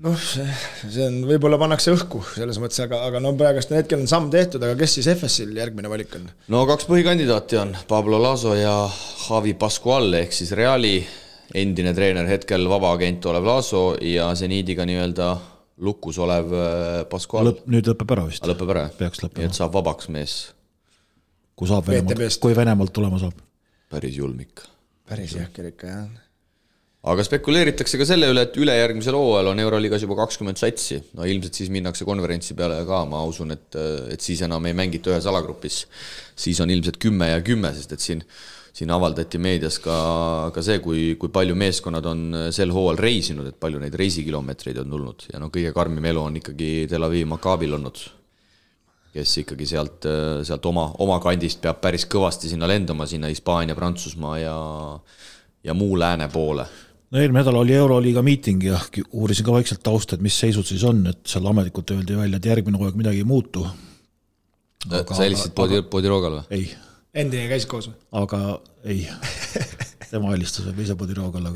Noh, see on, võib-olla pannakse õhku selles mõttes, aga no praegust hetkel on samm tehtud, aga kes siis FS-il järgmine valik on? No 2 põhikandidaati on Pablo Laso ja Javi Pascual, ehk siis Reali endine treener, hetkel vaba agent olev Laso ja Zeniidiga nii-öelda lukus olev Pascual. Nüüd lõpeb ära vist. Lõpeb ära, peaks lõppema. Et saab vabaks mees. Kui Venemaalt tulema saab. Päris julmik. Päris jahker ikka, jah. Aga spekuleeritakse ka selle üle, et ülejärgmisel hooajal on Euroliigas juba 20 satsi. No ilmselt siis minnakse konverentsi peale ka, ma usun, et siis enam ei mängita ühes alagrupis. Siis on ilmselt 10 ja 10, sest et siin avaldati meedias ka see, kui palju meeskonnad on sel hooajal reisinud, et palju neid reisikilomeetreid on tulnud. Ja no kõige karmim elu on ikkagi Tel Aviv Maccabil olnud, kes ikkagi sealt oma kandist peab päris kõvasti sinna lendama, sinna Hispaania, Prantsusmaa ja muu lääne poole. No eelmine nädal oli Euroliiga miiting ja uurisin ka vaikselt tausta, et mis seisud siis on, et seal ametlikult öeldi välja, et järgmine hooaeg midagi ei muutu. Sa helistasid Podirogal või? Ei. Endine käis koos või? Aga ei. Tema helistas või ise Podirogal,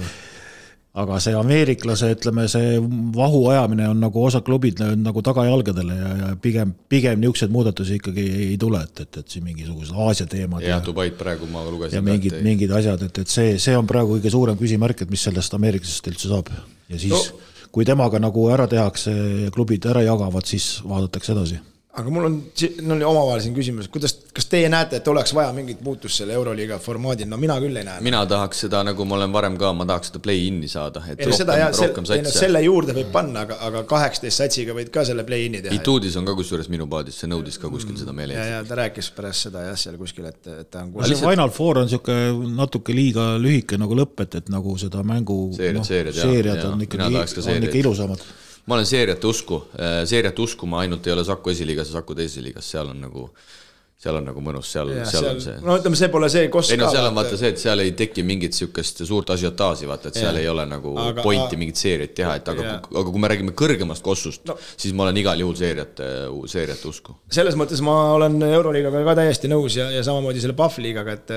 aga see ameeriklase, ütleme, see vahu ajamine on nagu osa klubid nagu tagajalgadele ja pigem niisugused muudatusi ikkagi ei tule, et siin mingisugused Aasia teemad. Ja Dubaid praegu ma lugesin. Ja mingid asjad, et see on praegu kõige suurem küsimärk, et mis sellest ameeriklasest üldse saab. Ja siis, kui temaga nagu ära tehakse ja klubid ära jagavad, siis vaadatakse edasi. Aga mul on omavahel siin küsimus, kas teie näete, et oleks vaja mingit muutust selle Euroliiga formaadil? No mina küll ei näe. Mina tahaks seda, nagu ma olen varem ka, ma tahaks seda play-in'i saada. Et rohkem satsi. Selle juurde võib panna, aga 18 satsiga võid ka selle play-in'i teha. Ituudis on ka kusjuures minu paadis, see nõudis ka kuskil seda meele. Ja ta rääkis pärast seda seal kuskil, et ta on kuskil. Final Four on natuke liiga lühike nagu lõpp, et nagu seda mängu seeriad on ikka ilusamad. Ma olen seeriate usku, ma ainult ei ole Saku esiliigas ja Saku teises liigas, seal on nagu mõnus, seal on see. No ütleme, see pole see kost ka. Ei no seal on vaata see, et seal ei teki mingit siukest suurt asiotaasi, vaata, et seal ei ole nagu pointi mingit seeriat teha, et aga kui me räägime kõrgemast kossust, siis ma olen igal juhul seeriate usku. Selles mõttes ma olen Euroliigaga ka täiesti nõus ja samamoodi selle Pahvliigaga, et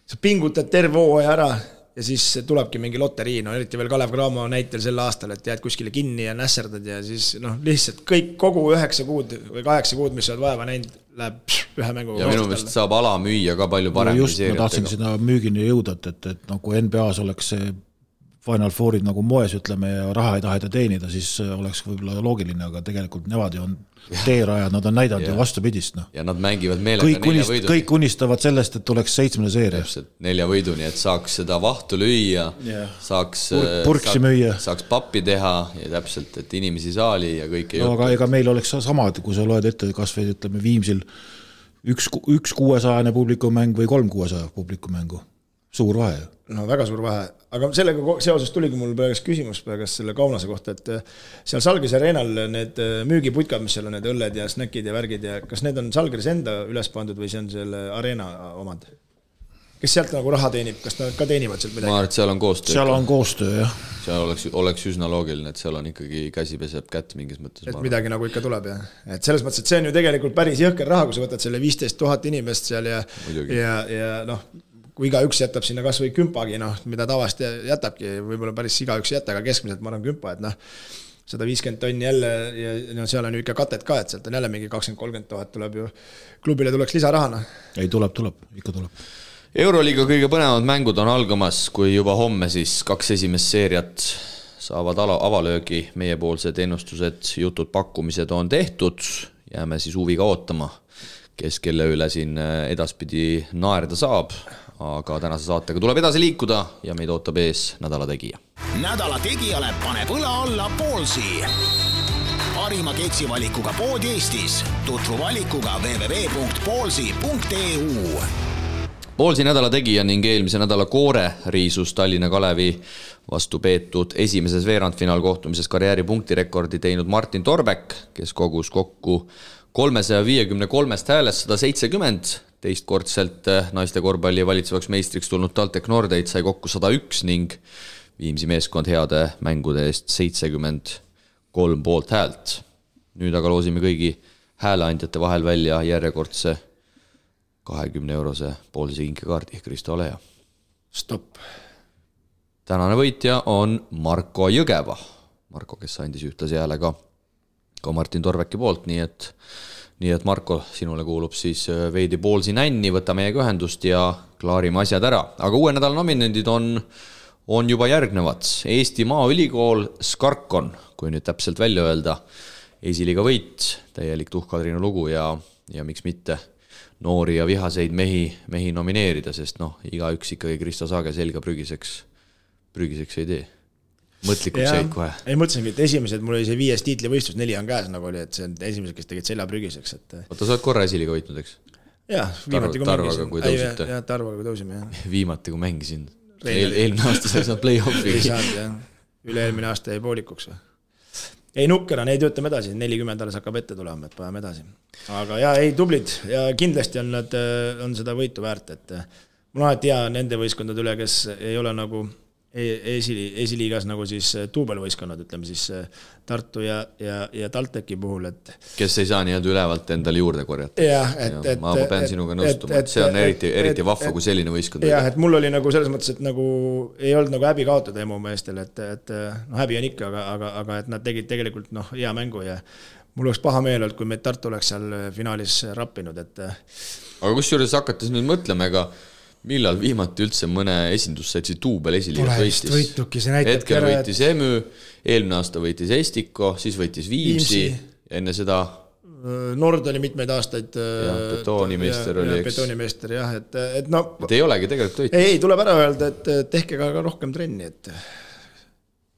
sa pingutad terve hooaja ära ja siis tulebki mingi loterii, no eriti veel Kalev Cramo näitel sel aastal, et jääd kuskile kinni ja nässerdad ja siis lihtsalt kogu 9 kuud või 8 kuud, mis sa oled vaeva näinud, läheb ühe mänguga. Ja minu meelest saab ala müüa ka palju paremini seeriatega. Ma tahtsin seda müügini jõuda, et nagu NBA-s oleks see Final Fourid nagu moes, ütleme, ja raha ei taheta teenida, siis oleks võib-olla loogiline, aga tegelikult nevad ju on teerajad, nad on näidanud ju vastupidist. Ja nad mängivad meelega 4 võiduni. Kõik unistavad sellest, et tuleks 7. seeria. 4 võiduni, et saaks seda vahtu lüüa, saaks pappi teha ja täpselt, et inimesi saali ja kõik ei aga ega meil oleks sama, et kui sa loed ette kas või ütleme Viimsil 1 600 publikumäng või 3 600 publikumängu. Suur vahe. no väga suur vahe, aga sellega seoses tuligi mul praegust küsimus praegust selle Kaunase kohta, et seal Salgris Areenal need müügiputkad, mis seal on, need õlled ja snäkid ja värgid ja kas need on Salgris enda üles pandud või see on selle Areena omad? Kes sealt nagu raha teenib, kas nad ka teenivad sealt midagi? Ma arvan, et seal on koostöö. Seal on koostöö, jah. Seal oleks üsna loogiline, et seal on ikkagi käsi peseb kätt mingis mõttes. Et midagi nagu ikka tuleb, jah. Et selles mõttes, et see on ju tegelikult päris jõhker raha, kui sa võtad selle 15 000 inimest seal ja noh, kui igaüks jätab sinna kas või kümpagi, noh, mida tavast jätabki, võib-olla päris igaüks jätta, aga keskmiselt ma arvan kümpa, et noh, 150 tonni jälle ja no, seal on ju ikka katet ka, et sealt on jälle mingi 20-30 000 tuleb ju, klubile tuleks lisarahana. Ei, tuleb, ikka tuleb. Euroliiga kõige põnevad mängud on algamas, kui juba homme siis 2 esimest seeriat saavad avalöögi, meiepoolsed ennustused, jutud, pakkumised on tehtud, jääme siis huviga ootama, kes kelle üle siin edaspidi naerda saab, aga tänase saatega tuleb edasi liikuda ja meid ootab ees nädala tegija. Nädala tegijale paneb õla alla Poolsi. Parima keksivalikuga pood Eestis. Tutvu valikuga www.poolsi.eu. Poolsi nädala tegija ning eelmise nädala koore riisus Tallinna Kalevi vastu peetud esimeses veerandfinaal kohtumises karjääri punktirekordi teinud Martin Torbek, kes kogus kokku 353 häälest 170, teistkordselt naiste korvpalli valitsevaks meistriks tulnud TalTech Nordeid sai kokku 101 ning Viimsi meeskond heade mängude eest 73 poolt häält. Nüüd aga loosime kõigi hääleandjate vahel välja järjekordse 20-eurose poolise kinkekaardi, Kristo Oleja. Stopp. Tänane võitja on Marko Jõgeva. Marko, kes andis ühtlasi hääle ka Martin Torveki poolt, nii et Marko, sinule kuulub siis veidi Poolsi nänni, võta meiega ühendust ja klaarime asjad ära. Aga uue nädala nominendid on juba järgnevad. Eesti Maaülikool Skarkon, kui nüüd täpselt välja öelda, esiliiga võit, täielik Tuhkadriinu lugu ja miks mitte noori ja vihaseid mehi nomineerida, sest igaüks ikkagi Kristo Saage selga prügiseks ei tee. Mõtlikult seid kohe. Ei mõtlesingi, et esimesed, mul oli see 5 tiitlivõistlus, 4 on käes, nagu oli, et see on esimesed, kes tegid selja prügiseks. Oota, sa oled korra esiliga võitnud, eks? Jah, viimati kui mängisin. Tarvaga kui tõusime, jah. Viimati kui mängisin. Eelmine aasta sai saanud play-offi. Ei saanud, jah. Üle-eelmine aasta jäi poolikuks. Ei nukkera, neid töötame edasi, 40 alles hakkab ette tulema, et paneme edasi. Aga jah, ei tublid ja kindlasti on nad on seda võitu väärt, et mul alati hea nende võistkondade üle, kes ei ole nagu esiliigas nagu siis tuubelvõistkonnad, ütleme siis Tartu ja TalTechi puhul, et kes ei saa nii-öelda ülevalt endale juurde korjata. Ma pean sinuga nõustuma, et see on eriti vahva kui selline võistkond. Jah, et mul oli nagu selles mõttes, et nagu ei olnud nagu häbi kaotada emu meestel, et häbi on ikka, aga et nad tegid tegelikult hea mängu ja mul oleks paha meel olnud, kui meid Tartu oleks seal finaalis rappinud. Aga kusjuures hakates nüüd mõtlema, ega millal viimati üldse mõne esindussaitsi tuubel esiliigat võistis? Hetkel võitis EMÜ, eelmine aasta võitis Estiko, siis võitis Viimsi, enne seda Nord oli mitmeid aastaid betoonimeister oli, eks? Betoonimeister, jah, et et ei olegi tegelikult võitis. Ei, tuleb ära öelda, et tehke ka rohkem trenni, et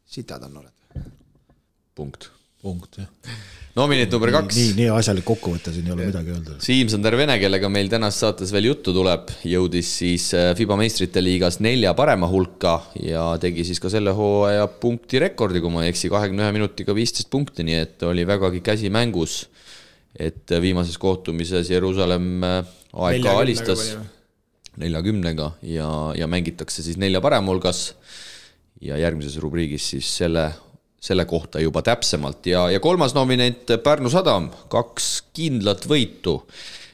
sitad on oled. Punkt, jah. Nominent number 2. Nii asjalik kokkuvõte, siin ei ole midagi öelda. Siim-Sander Vene, kellega meil tänast saates veel juttu tuleb, jõudis siis FIBA meistrite liigas 4 parema hulka ja tegi siis ka selle hooaja punktirekordi, kui ma ei eksi, 21 minutiga 15 punkti, nii et oli vägagi käsi mängus, et viimases kohtumises Jeruusalemm AEK alistas 40-ga ja mängitakse siis 4 parema hulgas ja järgmises rubriigis siis selle kohta juba täpsemalt ja 3. nominent Pärnu Sadam, 2 kindlat võitu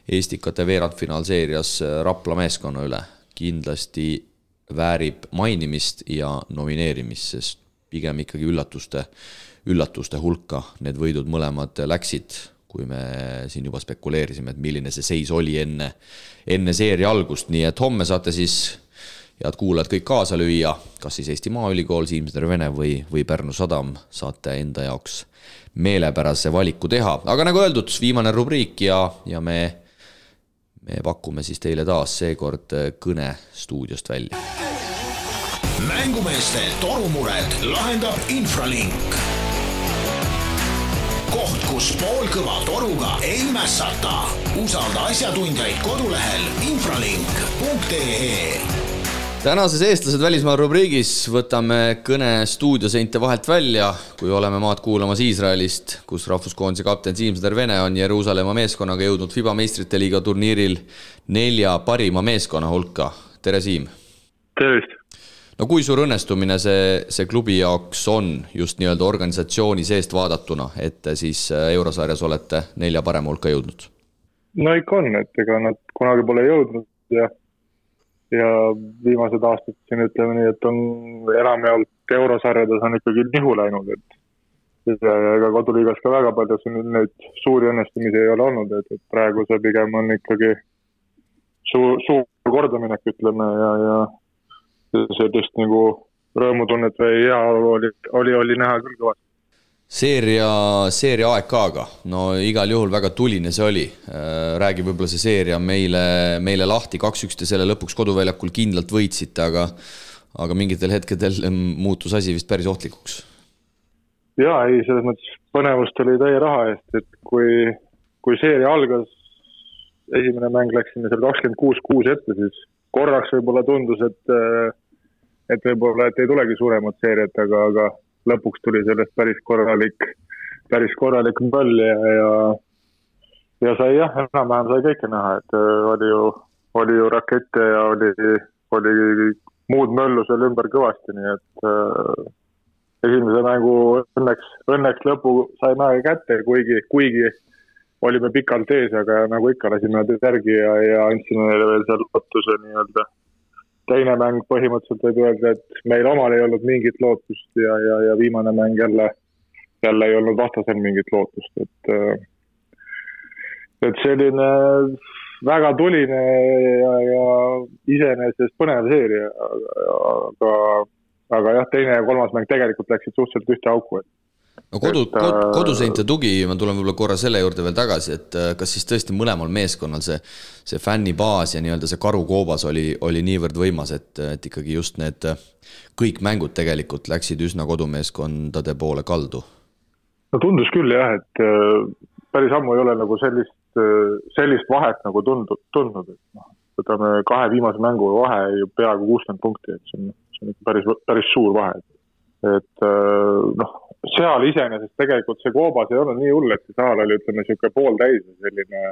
Estikate veerandfinaalseerias Rapla meeskonna üle. Kindlasti väärib mainimist ja nomineerimist, sest pigem ikkagi üllatuste hulka need võidud mõlemad läksid, kui me siin juba spekuleerisime, et milline see seis oli enne seeria algust, nii et homme saate siis head kuulajad kõik kaasa lüüa, kas siis Eesti Maaülikool, Siim-Sander Vene või Pärnu Sadam, saate enda jaoks meelepärase valiku teha. Aga nagu öeldud, viimane rubriik ja me pakume siis teile taas seekord kõne stuudiost välja. Mängumeeste torumured lahendab Infralink. Koht, kus poolkõva toruga ei mässata. Usalda asjatundjaid kodulehel infralink.ee. Tänases eestlased välismaa rubriigis võtame kõne stuudioseinte vahelt välja, kui oleme maad kuulamas Iisraelist, kus rahvuskoondise kapten Siim Vene on Jeruusalemma meeskonnaga jõudnud FIBA meistrite liiga turniiril 4 parima meeskonna hulka. Tere Siim! Tervist! No kui suur õnnestumine see klubi jaoks on just nii-öelda organisatsiooni seest vaadatuna, et siis eurosarjas olete 4 parema hulka jõudnud? No ikka on, et ega nad kunagi pole jõudnud ja viimased aastad siin ütleme nii, et on enamjaolt eurosarjades on ikkagi nihu läinud, et ega koduliigas ka väga palju neid suuri õnnestumisi ei ole olnud, et praegu see pigem on ikkagi suur kordaminek, ütleme, ja sellist nagu rõõmutunnet või hea oli näha küll kõvasti. Seeria AEK-ga, no igal juhul väga tuline see oli. Räägi võib-olla see seeria meile lahti 2-1 ja selle lõpuks koduväljakul kindlalt võitsite, aga mingitel hetkedel muutus asi vist päris ohtlikuks. Jaa, ei, selles mõttes põnevust oli täie raha eest, et kui seeria algas, esimene mäng läksime seal 26-6 ette, siis korraks võib-olla tundus, et võib-olla et ei tulegi suuremat seeriat, aga lõpuks tuli sellest päris korralik möll ja sai enam-vähem sai kõike näha, et oli ju rakette ja oli muud möllu seal ümber kõvasti, nii et esimese mängu õnneks lõpu saime kätte, kuigi olime pikalt ees, aga nagu ikka lasime järgi ja andsime neile veel seal lootuse nii-öelda. Teine mäng põhimõtteliselt võib öelda, et meil omal ei olnud mingit lootust ja viimane mäng jälle ei olnud vastasel mingit lootust. Et selline väga tuline ja iseenesest põnev seeria, aga jah, teine ja kolmas mäng tegelikult läksid suhteliselt ühte auku. No koduseinte tugi, ma tulen võib-olla korra selle juurde veel tagasi, et kas siis tõesti mõlemal meeskonnal see fännibaas ja nii-öelda see karukoobas oli niivõrd võimas, et ikkagi just need kõik mängud tegelikult läksid üsna kodumeeskondade poole kaldu? No tundus küll jah, et päris ammu ei ole nagu sellist vahet nagu tundnud, et võtame 2 viimase mängu vahe ju peaaegu 60 punkti, et see on päris suur vahe. Et seal iseenesest tegelikult see koobas ei olnud nii hull, et see saal oli, ütleme, siuke pooltäis ja selline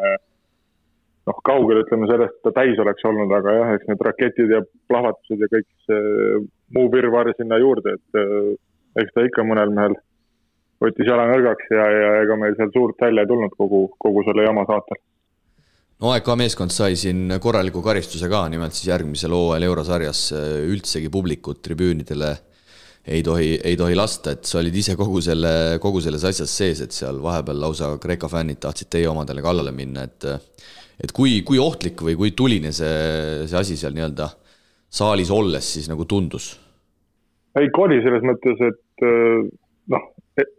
kaugel, ütleme, sellest ta täis oleks olnud, aga jah, eks need raketid ja plahvatused ja kõik see muu virvar sinna juurde, et eks ta ikka mõnel mehel võttis jala nõrgaks ja ega meil seal suurt välja ei tulnud kogu selle jama saatel. No AEK meeskond sai siin korraliku karistuse ka, nimelt siis järgmisel hooajal eurosarjas üldsegi publikut tribüünidele ei tohi lasta, et sa olid ise kogu selles asjas sees, et seal vahepeal lausa Kreeka fännid tahtsid teie omadele kallale minna, et kui ohtlik või kui tuline see asi seal nii-öelda saalis olles siis nagu tundus? Ei, oli selles mõttes, et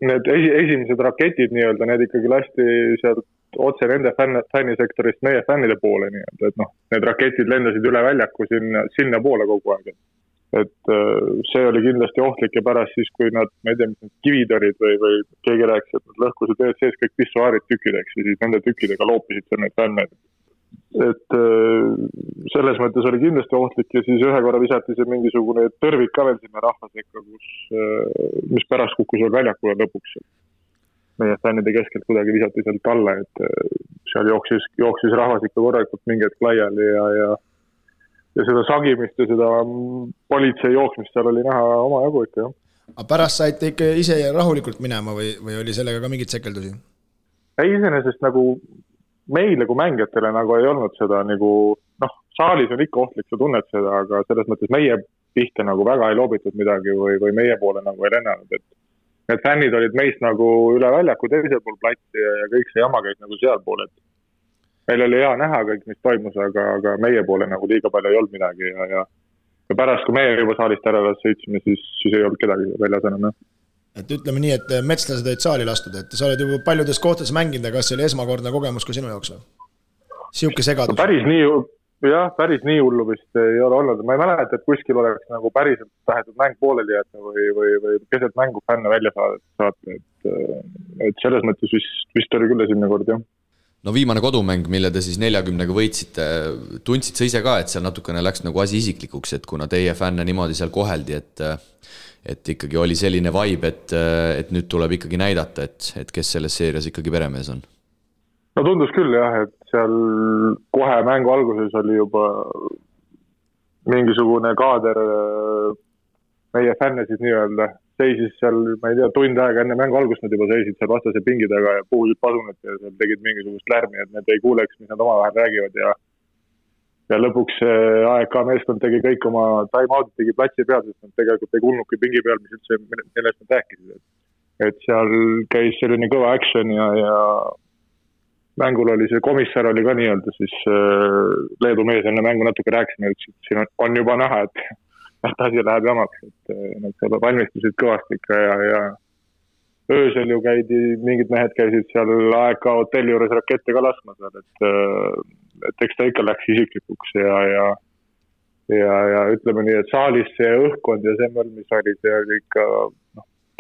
need esimesed raketid nii-öelda, need ikkagi lasti sealt otse nende fännisektorist meie fännide poole nii-öelda, et need raketid lendasid üle väljaku sinna poole kogu aeg. Et see oli kindlasti ohtlik ja pärast siis, kui nad, ma ei tea, mis need kivid olid või keegi rääkis, et nad lõhkusid ees sees kõik pissuaarid tükkideks ja siis nende tükkidega loopisid seal neid fänne. Et selles mõttes oli kindlasti ohtlik ja siis ühe korra visati see mingisugune tõrvik ka veel sinna rahvasekka, mis pärast kukkus veel väljakule lõpuks. Meie fännide keskelt kuidagi visati sealt alla, et seal jooksis rahvas ikka korralikult mingi hetk laiali ja seda sagimist ja seda politsei jooksmist seal oli näha oma jagu ikka, jah. Aga pärast saite ikka ise rahulikult minema või oli sellega ka mingit sekeldusi? Ei, iseenesest nagu meile kui mängijatele nagu ei olnud seda nagu, saalis on ikka ohtlik, sa tunned seda, aga selles mõttes meie pihta nagu väga ei loobitud midagi või meie poole nagu ei lennanud, et need fännid olid meist nagu üle väljaku teisel pool platsi ja kõik see jama käis nagu seal pool, et meil oli hea näha kõik, mis toimus, aga meie poole nagu liiga palju ei olnud midagi ja pärast, kui meie juba saalist ära sõitsime, siis ei olnud kedagi väljas enam. Et ütleme nii, et metslased olid saali lastud, et sa oled juba paljudes kohtades mänginud, aga kas see oli esmakordne kogemus ka sinu jaoks? Siuke segadus? Päris nii hullu vist ei ole olnud. Ma ei mäleta, et kuskil oleks nagu päriselt tahetud mäng pooleli jätta või keset mängu fänne välja saata. Et selles mõttes vist oli küll esimene kord, jah. No viimane kodumäng, mille te siis 40-ga võitsite, tundsid sa ise ka, et seal natukene läks nagu asi isiklikuks, et kuna teie fänne niimoodi seal koheldi, et ikkagi oli selline vibe, et nüüd tuleb ikkagi näidata, et kes selles seerias ikkagi peremees on? No tundus küll jah, et seal kohe mängu alguses oli juba mingisugune kaader meie fänne siis nii-öelda seisis seal, ma ei tea, tund aega enne mängu algust nad juba seisid seal vastase pingi taga ja puhusid pasunat ja seal tegid mingisugust lärmi, et need ei kuuleks, mis nad omavahel räägivad ja lõpuks AEK meeskond tegi kõik oma time-out, tegi platsi peal, sest nad tegelikult ei kuulnudki pingi peal, mis üldse millest nad rääkisid. Et seal käis selline kõva action ja mängul oli see komissar oli ka nii-öelda siis Leedu mees enne mängu natuke rääkisime, et siin on juba näha, et asi läheb jamaks, et nad seal valmistusid kõvasti ikka ja öösel ju mingid mehed käisid seal AEK hotelli juures rakette ka laskma seal, et eks ta ikka läks isiklikuks ja ütleme nii, et saalis see õhkkond ja see mõll, mis oli, see oli ikka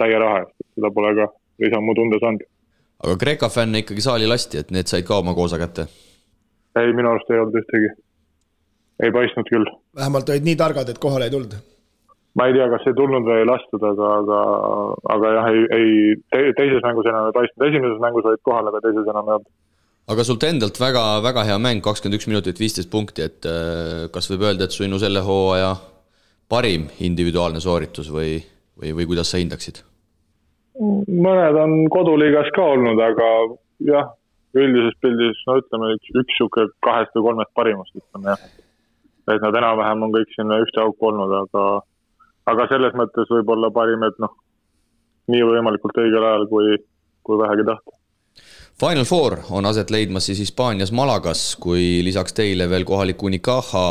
täie raha, et seda pole ka lisamu tunda saanud. Aga Kreeka fänne ikkagi saali lasti, et need said ka oma koosa kätte? Ei, minu arust ei olnud ühtegi. Ei paistnud küll. Vähemalt olid nii targad, et kohale ei tulnud. Ma ei tea, kas ei tulnud või ei lastud, aga jah, teises mängus enam ei paistnud. Esimeses mängus olid kohal, aga teises enam ei olnud. Aga sult endalt väga, väga hea mäng, 21 minutit, 15 punkti, et kas võib öelda, et sinu selle hooaja parim individuaalne sooritus või kuidas sa hindaksid? Mõned on koduliigas ka olnud, aga jah, üldises pildis, no ütleme, üks suke 2 või 3 parimast, ütleme jah. Et nad enam-vähem on kõik sinna ühte auku olnud, aga selles mõttes võib-olla parim, et nii võimalikult õigel ajal, kui vähegi tahta. Final Four on aset leidmas siis Hispaanias Malagas, kui lisaks teile veel kohalik Unicaja,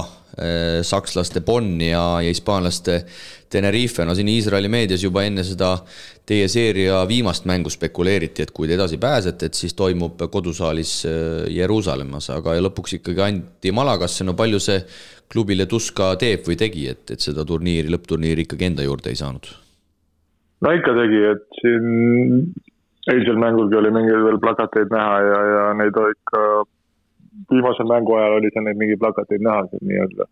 sakslaste Bonn ja hispaanlaste Tenerife. No siin Iisraeli meedias juba enne seda teie seeria viimast mängu spekuleeriti, et kui te edasi pääsete, et siis toimub kodusaalis Jeruusalemmas, aga lõpuks ikkagi anti Malagasse. No palju see klubile tuska teeb või tegi, et seda lõppturniiri ikkagi enda juurde ei saanud? No ikka tegi, et siin eilsel mängulgi oli mingi veel plakateid näha ja neid ikka viimasel mängu ajal oli seal neid mingi plakateid näha, nii-öelda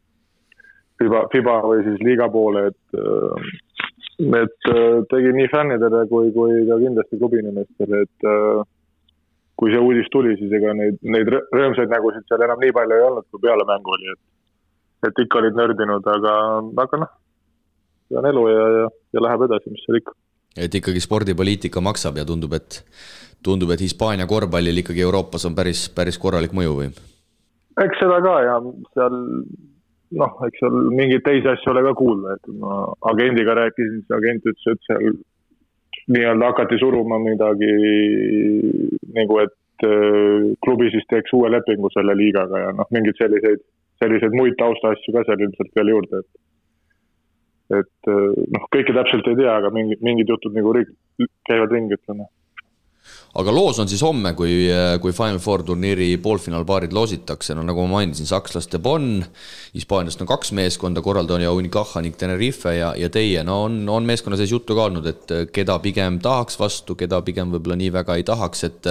FIBA või siis liiga poole, et tegi nii fännidele kui ka kindlasti klubinimestele, et kui see uudis tuli, siis ega neid rõõmsaid nägusid seal enam nii palju ei olnud, kui peale mängu oli, et ikka olid nördinud, aga see on elu ja läheb edasi, mis seal ikka. Et ikkagi spordipoliitika maksab ja tundub, et Hispaania korvpallil ikkagi Euroopas on päris korralik mõju või? Eks seda ka ja seal, eks seal mingeid teisi asju ole ka kuulda, et ma agendiga rääkisin, siis agent ütles, et seal nii-öelda hakati suruma midagi, nagu et klubi siis teeks uue lepingu selle liigaga ja mingid selliseid muid tausta asju ka seal ilmselt veel juurde, et kõike täpselt ei tea, aga mingid jutud nagu käivad ringi, ütleme. Aga loos on siis homme, kui Final Four turniiri poolfinaalpaarid loositakse, nagu ma mainisin, sakslaste Bonn, Hispaaniast on 2 meeskonda, korraldaja Unicaja ning Tenerife ja teie. No on meeskonna sees juttu ka olnud, et keda pigem tahaks vastu, keda pigem võib-olla nii väga ei tahaks, et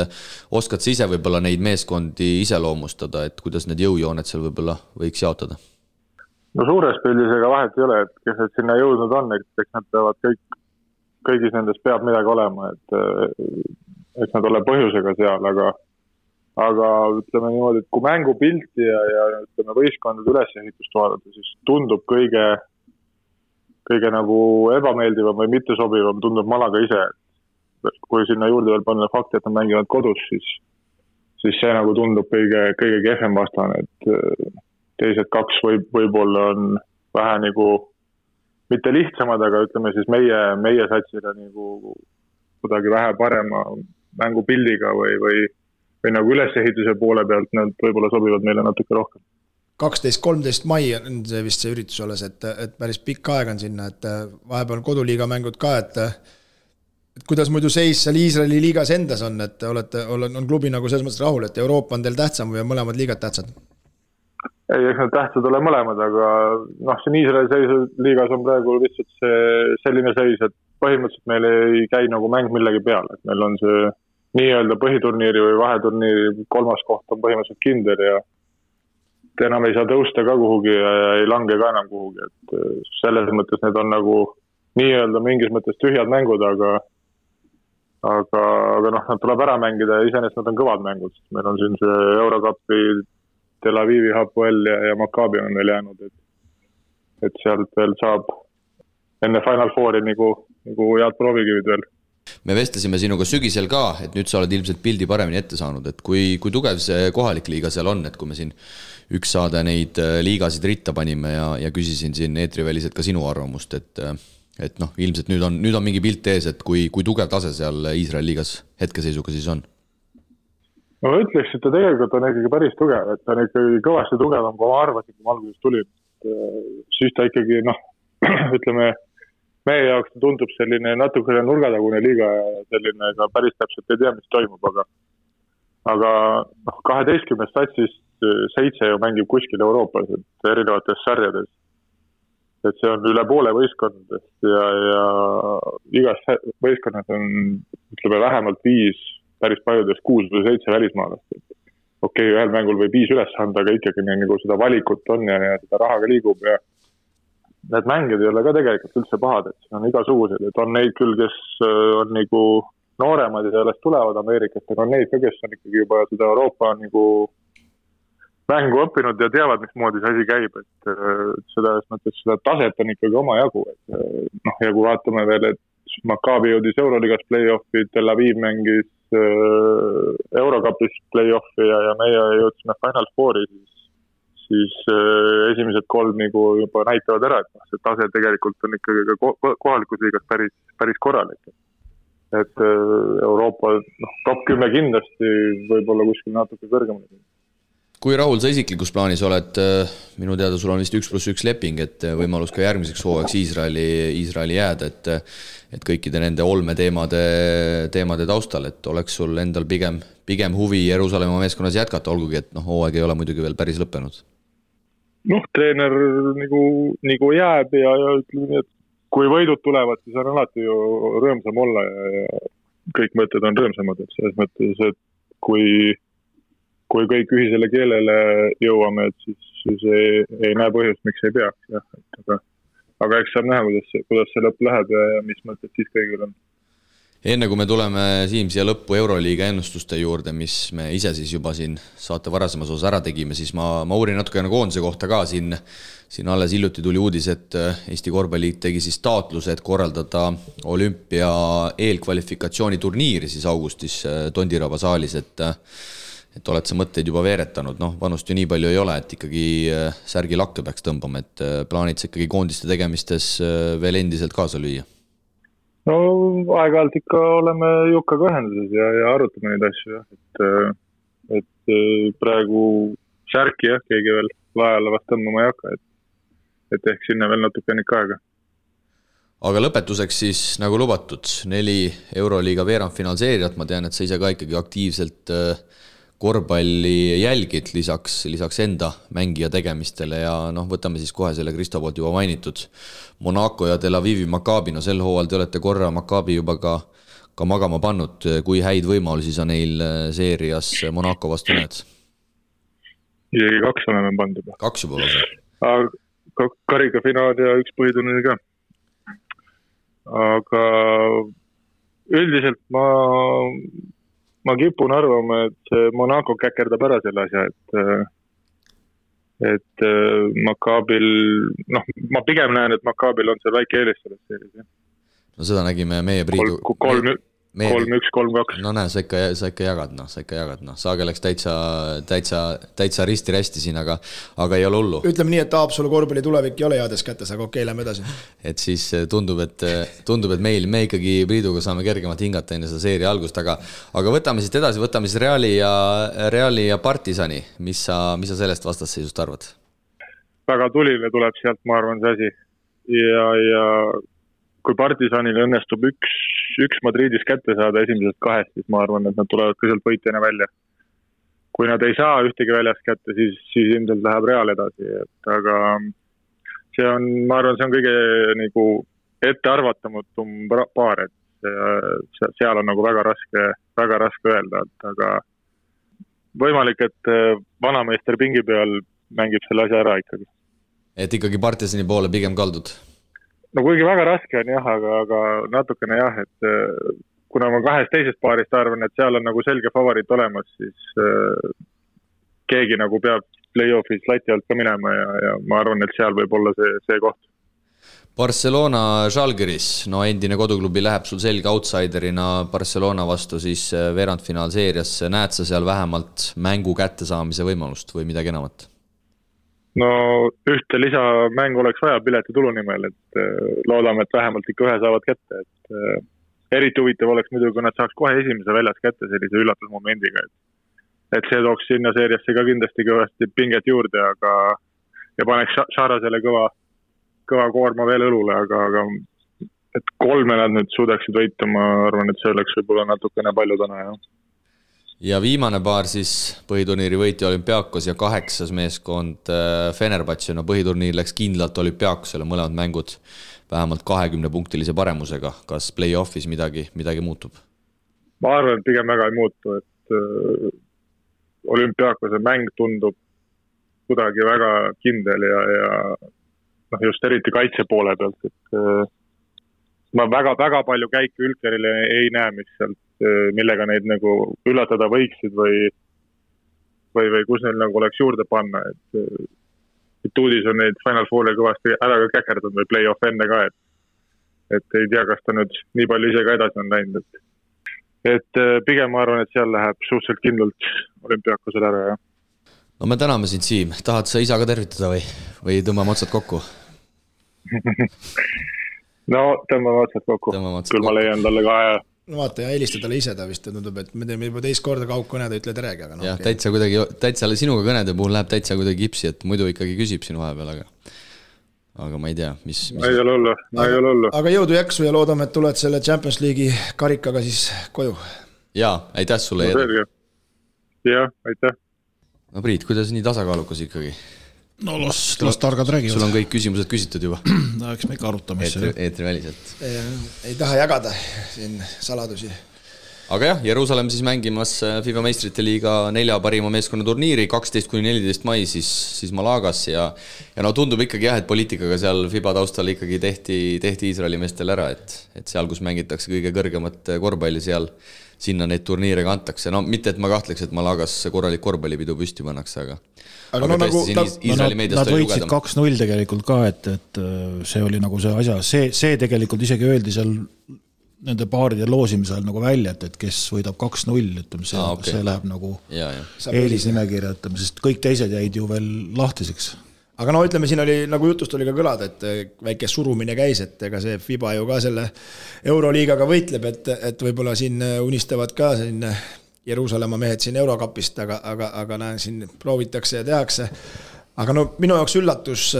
oskad sa ise võib-olla neid meeskondi iseloomustada, et kuidas need jõujooned seal võib-olla võiks jaotada? No suures pildis ega vahet ei ole, et kes need sinna jõudnud on, eks nad peavad kõigis nendes peab midagi olema, et nad ole põhjusega seal, aga ütleme niimoodi, et kui mängupilti ja ütleme võistkondade ülesehitust vaadata, siis tundub kõige nagu ebameeldivam või mittesobivam tundub Malaga ise. Kui sinna juurde veel panna fakti, et nad mängivad kodus, siis see nagu tundub kõige kehvem vastane, et teised 2 võib-olla on vähe nagu mitte lihtsamad, aga ütleme siis meie satsile nagu kuidagi vähe parema mängupildiga või nagu ülesehituse poole pealt nad võib-olla sobivad meile natuke rohkem. 12-13 mai on see vist see üritus olles, et päris pikk aeg on sinna, et vahepeal koduliiga mängud ka, et kuidas muidu seis seal Iisraeli liigas endas on, et on klubi nagu selles mõttes rahul, et Euroopa on teil tähtsam või mõlemad liigad tähtsad? Ei, eks need tähtsad ole mõlemad, aga siin Iisraeli liigas on praegu lihtsalt selline seis, et põhimõtteliselt meil ei käi nagu mäng millegi peale, et meil on see nii-öelda põhiturniiri või vaheturniiri 3. koht on põhimõtteliselt kindel ja enam ei saa tõusta ka kuhugi ja ei lange ka enam kuhugi, et selles mõttes need on nagu nii-öelda mingis mõttes tühjad mängud, aga noh, nad tuleb ära mängida ja iseenesest nad on kõvad mängud, sest meil on siin see Eurocupi, Tel Avivi, Hapoel ja Maccabi on veel jäänud, et sealt veel saab enne Final Fouri nagu head proovikivid veel. Me vestlesime sinuga sügisel ka, et nüüd sa oled ilmselt pildi paremini ette saanud, et kui tugev see kohalik liiga seal on, et kui me siin üks saade neid liigasid ritta panime ja küsisin siin eetriväliselt ka sinu arvamust, et noh, ilmselt nüüd on mingi pilt ees, et kui tugev tase seal Iisraeli liigas hetkeseisuga siis on? No ma ütleks, et ta tegelikult on ikkagi päris tugev, et ta on ikkagi kõvasti tugevam, kui ma arvasin, kui ma alguses tulin. Siis ta ikkagi, ütleme, meie jaoks tundub selline natukene nurgatagune liiga ja selline ka päris täpselt ei tea, mis toimub, aga 12 statsist 7 ju mängib kuskil Euroopas, et erinevates sarjades. Et see on üle poole võistkondadest ja igas võistkonnas on, ütleme, vähemalt 5, päris paljudes 6 või 7 välismaalast. Okei, ühel mängul või 5 üles anda, aga ikkagi nagu seda valikut on ja seda rahaga liigub ja need mängid ei ole ka tegelikult üldse pahad, et see on igasugused, et on neid küll, kes on nagu nooremad ja sellest tulevad Ameerikast, aga on neid ka, kes on ikkagi juba seda Euroopa nagu mängu õppinud ja teavad, mismoodi see asi käib, et seda taset on ikkagi oma jagu, et ja kui vaatame veel, et Maccabi jõudis Euroliigas play-offi, Tel Aviv mängis Eurocupis play-offi ja meie jõudsime Final Fouri, siis esimesed 3 nagu juba näitavad ära, et see tase tegelikult on ikkagi ka kohalikus liigas päris korralik. Et Euroopa top 10 kindlasti võib-olla kuskil natuke kõrgemale. Kui rahul sa isiklikus plaanis oled, minu teada sul on vist 1+1 leping, et võimalus ka järgmiseks hooajaks Iisraeli jääda, et kõikide nende olmeteemade taustal, et oleks sul endal pigem huvi Jeruusalemma meeskonnas jätkata, olgugi, et hooaeg ei ole muidugi veel päris lõppenud. Treener nagu jääb ja ütleme nii, et kui võidud tulevad, siis on alati ju rõõmsam olla ja kõik mõtted on rõõmsamad, et selles mõttes, et kui kõik ühisele keelele jõuame, et siis ei näe põhjust, miks ei peaks. Jah. Aga eks saab näha, kuidas see lõpp läheb ja mis mõtted siis kõigil on. Enne kui me tuleme Siim siia lõppu Euroliiga ennustuste juurde, mis me ise siis juba siin saate varasemas osas ära tegime, siis ma uurin natukene koondise kohta ka. Siin alles hiljuti tuli uudis, et Eesti Korvpalliliit tegi siis taotluse, et korraldada olümpia eelkvalifikatsiooni turniiri siis augustis Tondiraba saalis, et oled sa mõtteid juba veeretanud, vanust ju nii palju ei ole, et ikkagi särgi lakke peaks tõmbama, et plaanid sa ikkagi koondiste tegemistes veel endiselt kaasa lüüa? No aeg-ajalt ikka oleme Jukkaga ühenduses ja arutame neid asju, et praegu särki keegi veel laajale vast tõmbama ei hakka, et ehk sinna veel natuke ennekka aega. Aga lõpetuseks siis nagu lubatud 4 Euroliiga veerandfinaalseeriat, ma tean, et sa ise ka ikkagi aktiivselt korvpalli jälgid lisaks enda mängija tegemistele ja võtame siis kohe selle Kristo poolt juba mainitud Monaco ja Tel Avivi Maccabi, sel hooajal te olete korra Maccabi juba ka magama pannud, kui häid võimalusi sa neil seerias Monaco vastu näed? Isegi 2 oleme pannud juba. 2 juba lase? Karikafinaal ja 1 põhiturniir ka. Aga üldiselt ma kipun arvama, et Monaco käkerdab ära selle asja, et Maccabil, ma pigem näen, et Maccabil on seal väike eelis selles seeris. No seda nägime meie Priidu... 3-1, 3-2. No näe, sa ikka jagad. Saage läks täitsa risti-rästi siin, aga ei ole hullu. Ütleme nii, et Haapsalu korvpalli tulevik ei ole heades kätes, aga okei, lähme edasi. Et siis tundub, et me ikkagi Priiduga saame kergemalt hingata enne seda seeria algust, aga võtame siit edasi, võtame siis Reali ja Partisani. Mis sa sellest vastasseisust arvad? Väga tuline tuleb sealt, ma arvan, see asi. Ja kui Partisanil õnnestub üks Madridis kätte saada esimesest 2, siis ma arvan, et nad tulevad ka sealt võitjana välja. Kui nad ei saa ühtegi väljast kätte, siis ilmselt läheb Real edasi. Aga ma arvan, see on kõige nagu ettearvatamatum paar, et seal on nagu väga raske väga raske öelda, aga võimalik, et vanameister pingi peal mängib selle asja ära ikkagi. Et ikkagi Partisani poole pigem kaldud? No kuigi väga raske on jah, aga natukene jah, et kuna ma 2 teisest paarist arvan, et seal on nagu selge favoriit olemas, siis keegi nagu peab play-offis lati alt ka minema ja ma arvan, et seal võib olla see koht. Barcelona Žalgiris, no endine koduklubi läheb sul selge outsiderina Barcelona vastu siis veerandfinaalseeriasse. Näed sa seal vähemalt mängu kättesaamise võimalust või midagi enamat? No ühte lisamängu oleks vaja piletitulu nimel, et loodame, et vähemalt ikka ühe saavad kätte. Et eriti huvitav oleks muidugi, kui nad saaks kohe esimese väljas kätte sellise üllatusmomendiga. Et see tooks sinna seeriasse ka kindlasti kõvasti pinget juurde, ja paneks Šarasele kõva koorma veel õlule, aga et 3 nad nüüd suudaksid võita, ma arvan, et see oleks võib-olla natukene palju täna, jah. Ja viimane paar siis põhiturniiri võitja Olümpiakos ja 8. meeskond Fenerbahce. No põhiturniir läks kindlalt Olümpiakosele, mõlemad mängud vähemalt 20-punktilise paremusega. Kas play-offis midagi muutub? Ma arvan, et pigem väga ei muutu, et Olümpiakose mäng tundub kuidagi väga kindel ja just eriti kaitse poole pealt, et ma väga palju käike Ülkerile ei näe, millega neid nagu üllatada võiksid või kus neil nagu oleks juurde panna, et Tuudis on neid Final Fouri kõvasti ära ka käkerdanud või play-off enne ka, et ei tea, kas ta nüüd nii palju ise ka edasi on läinud, et pigem ma arvan, et seal läheb suhteliselt kindlalt Olümpiakosele ära, jah. No me täname sind, Siim. Tahad sa isa ka tervitada või tõmbame otsad kokku? No tõmbame otsad kokku. Küll ma leian talle ka aja. No vaata, ja helista talle ise, ta vist tundub, et me teeme juba teist korda kaugkõned ja ütle teregi, aga no, jah, okay. Täitsa sinuga kõnede puhul läheb täitsa kuidagi kipsi, et muidu ikkagi küsib sinu vahepeal, aga ma ei tea, mis... Ei ole hullu. Aga jõudu jaksu ja loodame, et tuled selle Champions League'i karikaga siis koju. Jaa, aitäh sulle. No, jah, aitäh. No Priit, kuidas nii tasakaalukas ikkagi? No las targad räägivad. Sul on kõik küsimused küsitud juba. No eks me ikka arutame. Eetri väliselt. Ei taha jagada siin saladusi. Aga jah, Jeruusalemm siis mängimas FIBA meistrite liiga 4 parima meeskonna turniiri 12-14 mai siis Malagas ja no tundub ikkagi jah, et poliitikaga seal FIBA taustal ikkagi tehti Iisraeli meestel ära, et seal, kus mängitakse kõige kõrgemat korvpalli sinna neid turniire kantakse. No mitte, et ma kahtleks, et Malagas korralik korvpallipidu püsti pannakse, aga no, nagu, nad võitsid 2-0 tegelikult ka, et see oli nagu see asja, see tegelikult isegi öeldi seal nende paaride loosimisel nagu välja, et kes võidab 2-0, see läheb nagu eelisnimekirja, sest kõik teised jäid ju veel lahtiseks. Aga no ütleme, siin oli, nagu jutust oli ka kõlada, et väike surumine käis, et ega see FIBA ju ka selle Euroliigaga võitleb, et võib-olla siin unistavad ka siin Jeruusalemma mehed siin Eurokapist, aga näen, siin proovitakse ja tehakse. Aga no minu jaoks üllatus,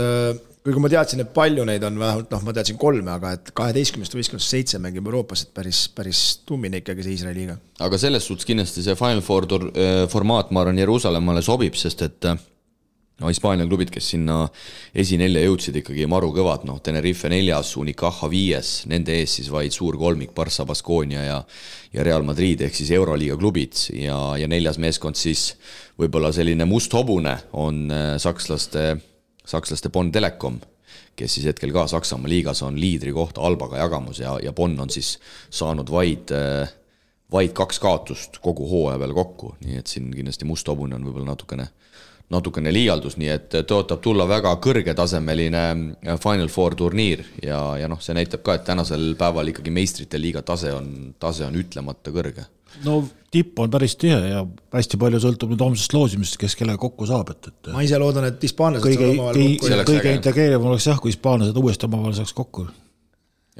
kui ma teadsin, et palju neid on vähemalt, ma teadsin 3, aga et 12 või 7 mängib Euroopas, et päris tummine ikkagi see Iisraeli liiga. Aga selles suhtes kindlasti see Final Four formaat, ma arvan, Jeruusalemmale sobib, sest et Hispaania klubid, kes sinna esinelja jõudsid ikkagi maru kõvad, Tenerife 4, Unicaja 5, nende ees siis vaid suur kolmik, Barça, Baskonia ja Real Madrid ehk siis Euroliiga klubid ja 4. meeskond siis võib-olla selline must hobune on sakslaste Bonn Telekom, kes siis hetkel ka Saksamaa liigas on liidri kohta Albaga jagamus ja Bonn on siis saanud vaid 2 kaotust kogu hooaja peale kokku, nii et siin kindlasti must hobune on võib-olla natukene liialdus, nii et tõotab tulla väga kõrgetasemeline Final Four turniir ja see näitab ka, et tänasel päeval ikkagi meistrite liiga tase on ütlemata kõrge. No tipp on päris tihe ja hästi palju sõltub nüüd homsest loosimist, kes kellega kokku saab. Ma ise loodan, et hispaanlased saavad omavahel kokku. Kõige integreerivam oleks jah, kui hispaanlased uuesti omavahel saaks kokku.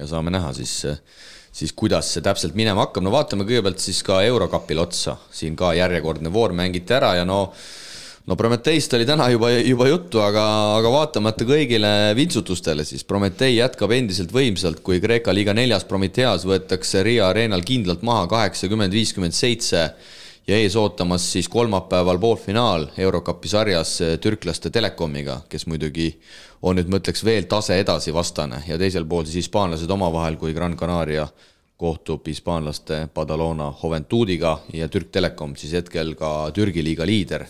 Ja saame näha siis kuidas see täpselt minema hakkab. No vaatame kõigepealt siis ka Eurokapil otsa. Siin ka järjekordne voor mängiti ära ja no Prometeist oli täna juba juttu, aga vaatamata kõigile vintsutustele, siis Prometei jätkab endiselt võimsalt, kui Kreeka liiga 4. Prometeas võetakse Riia areenal kindlalt maha 80-57 ja ees ootamas siis kolmapäeval poolfinaal Eurokapi sarjas türklaste Telekomiga, kes muidugi on nüüd mõtleks veel tase edasi vastane ja teisel pool siis hispaanlased omavahel, kui Gran Canaria kohtub hispaanlaste Badalona Joventudiga ja Türk Telekom siis hetkel ka Türgi liiga liider.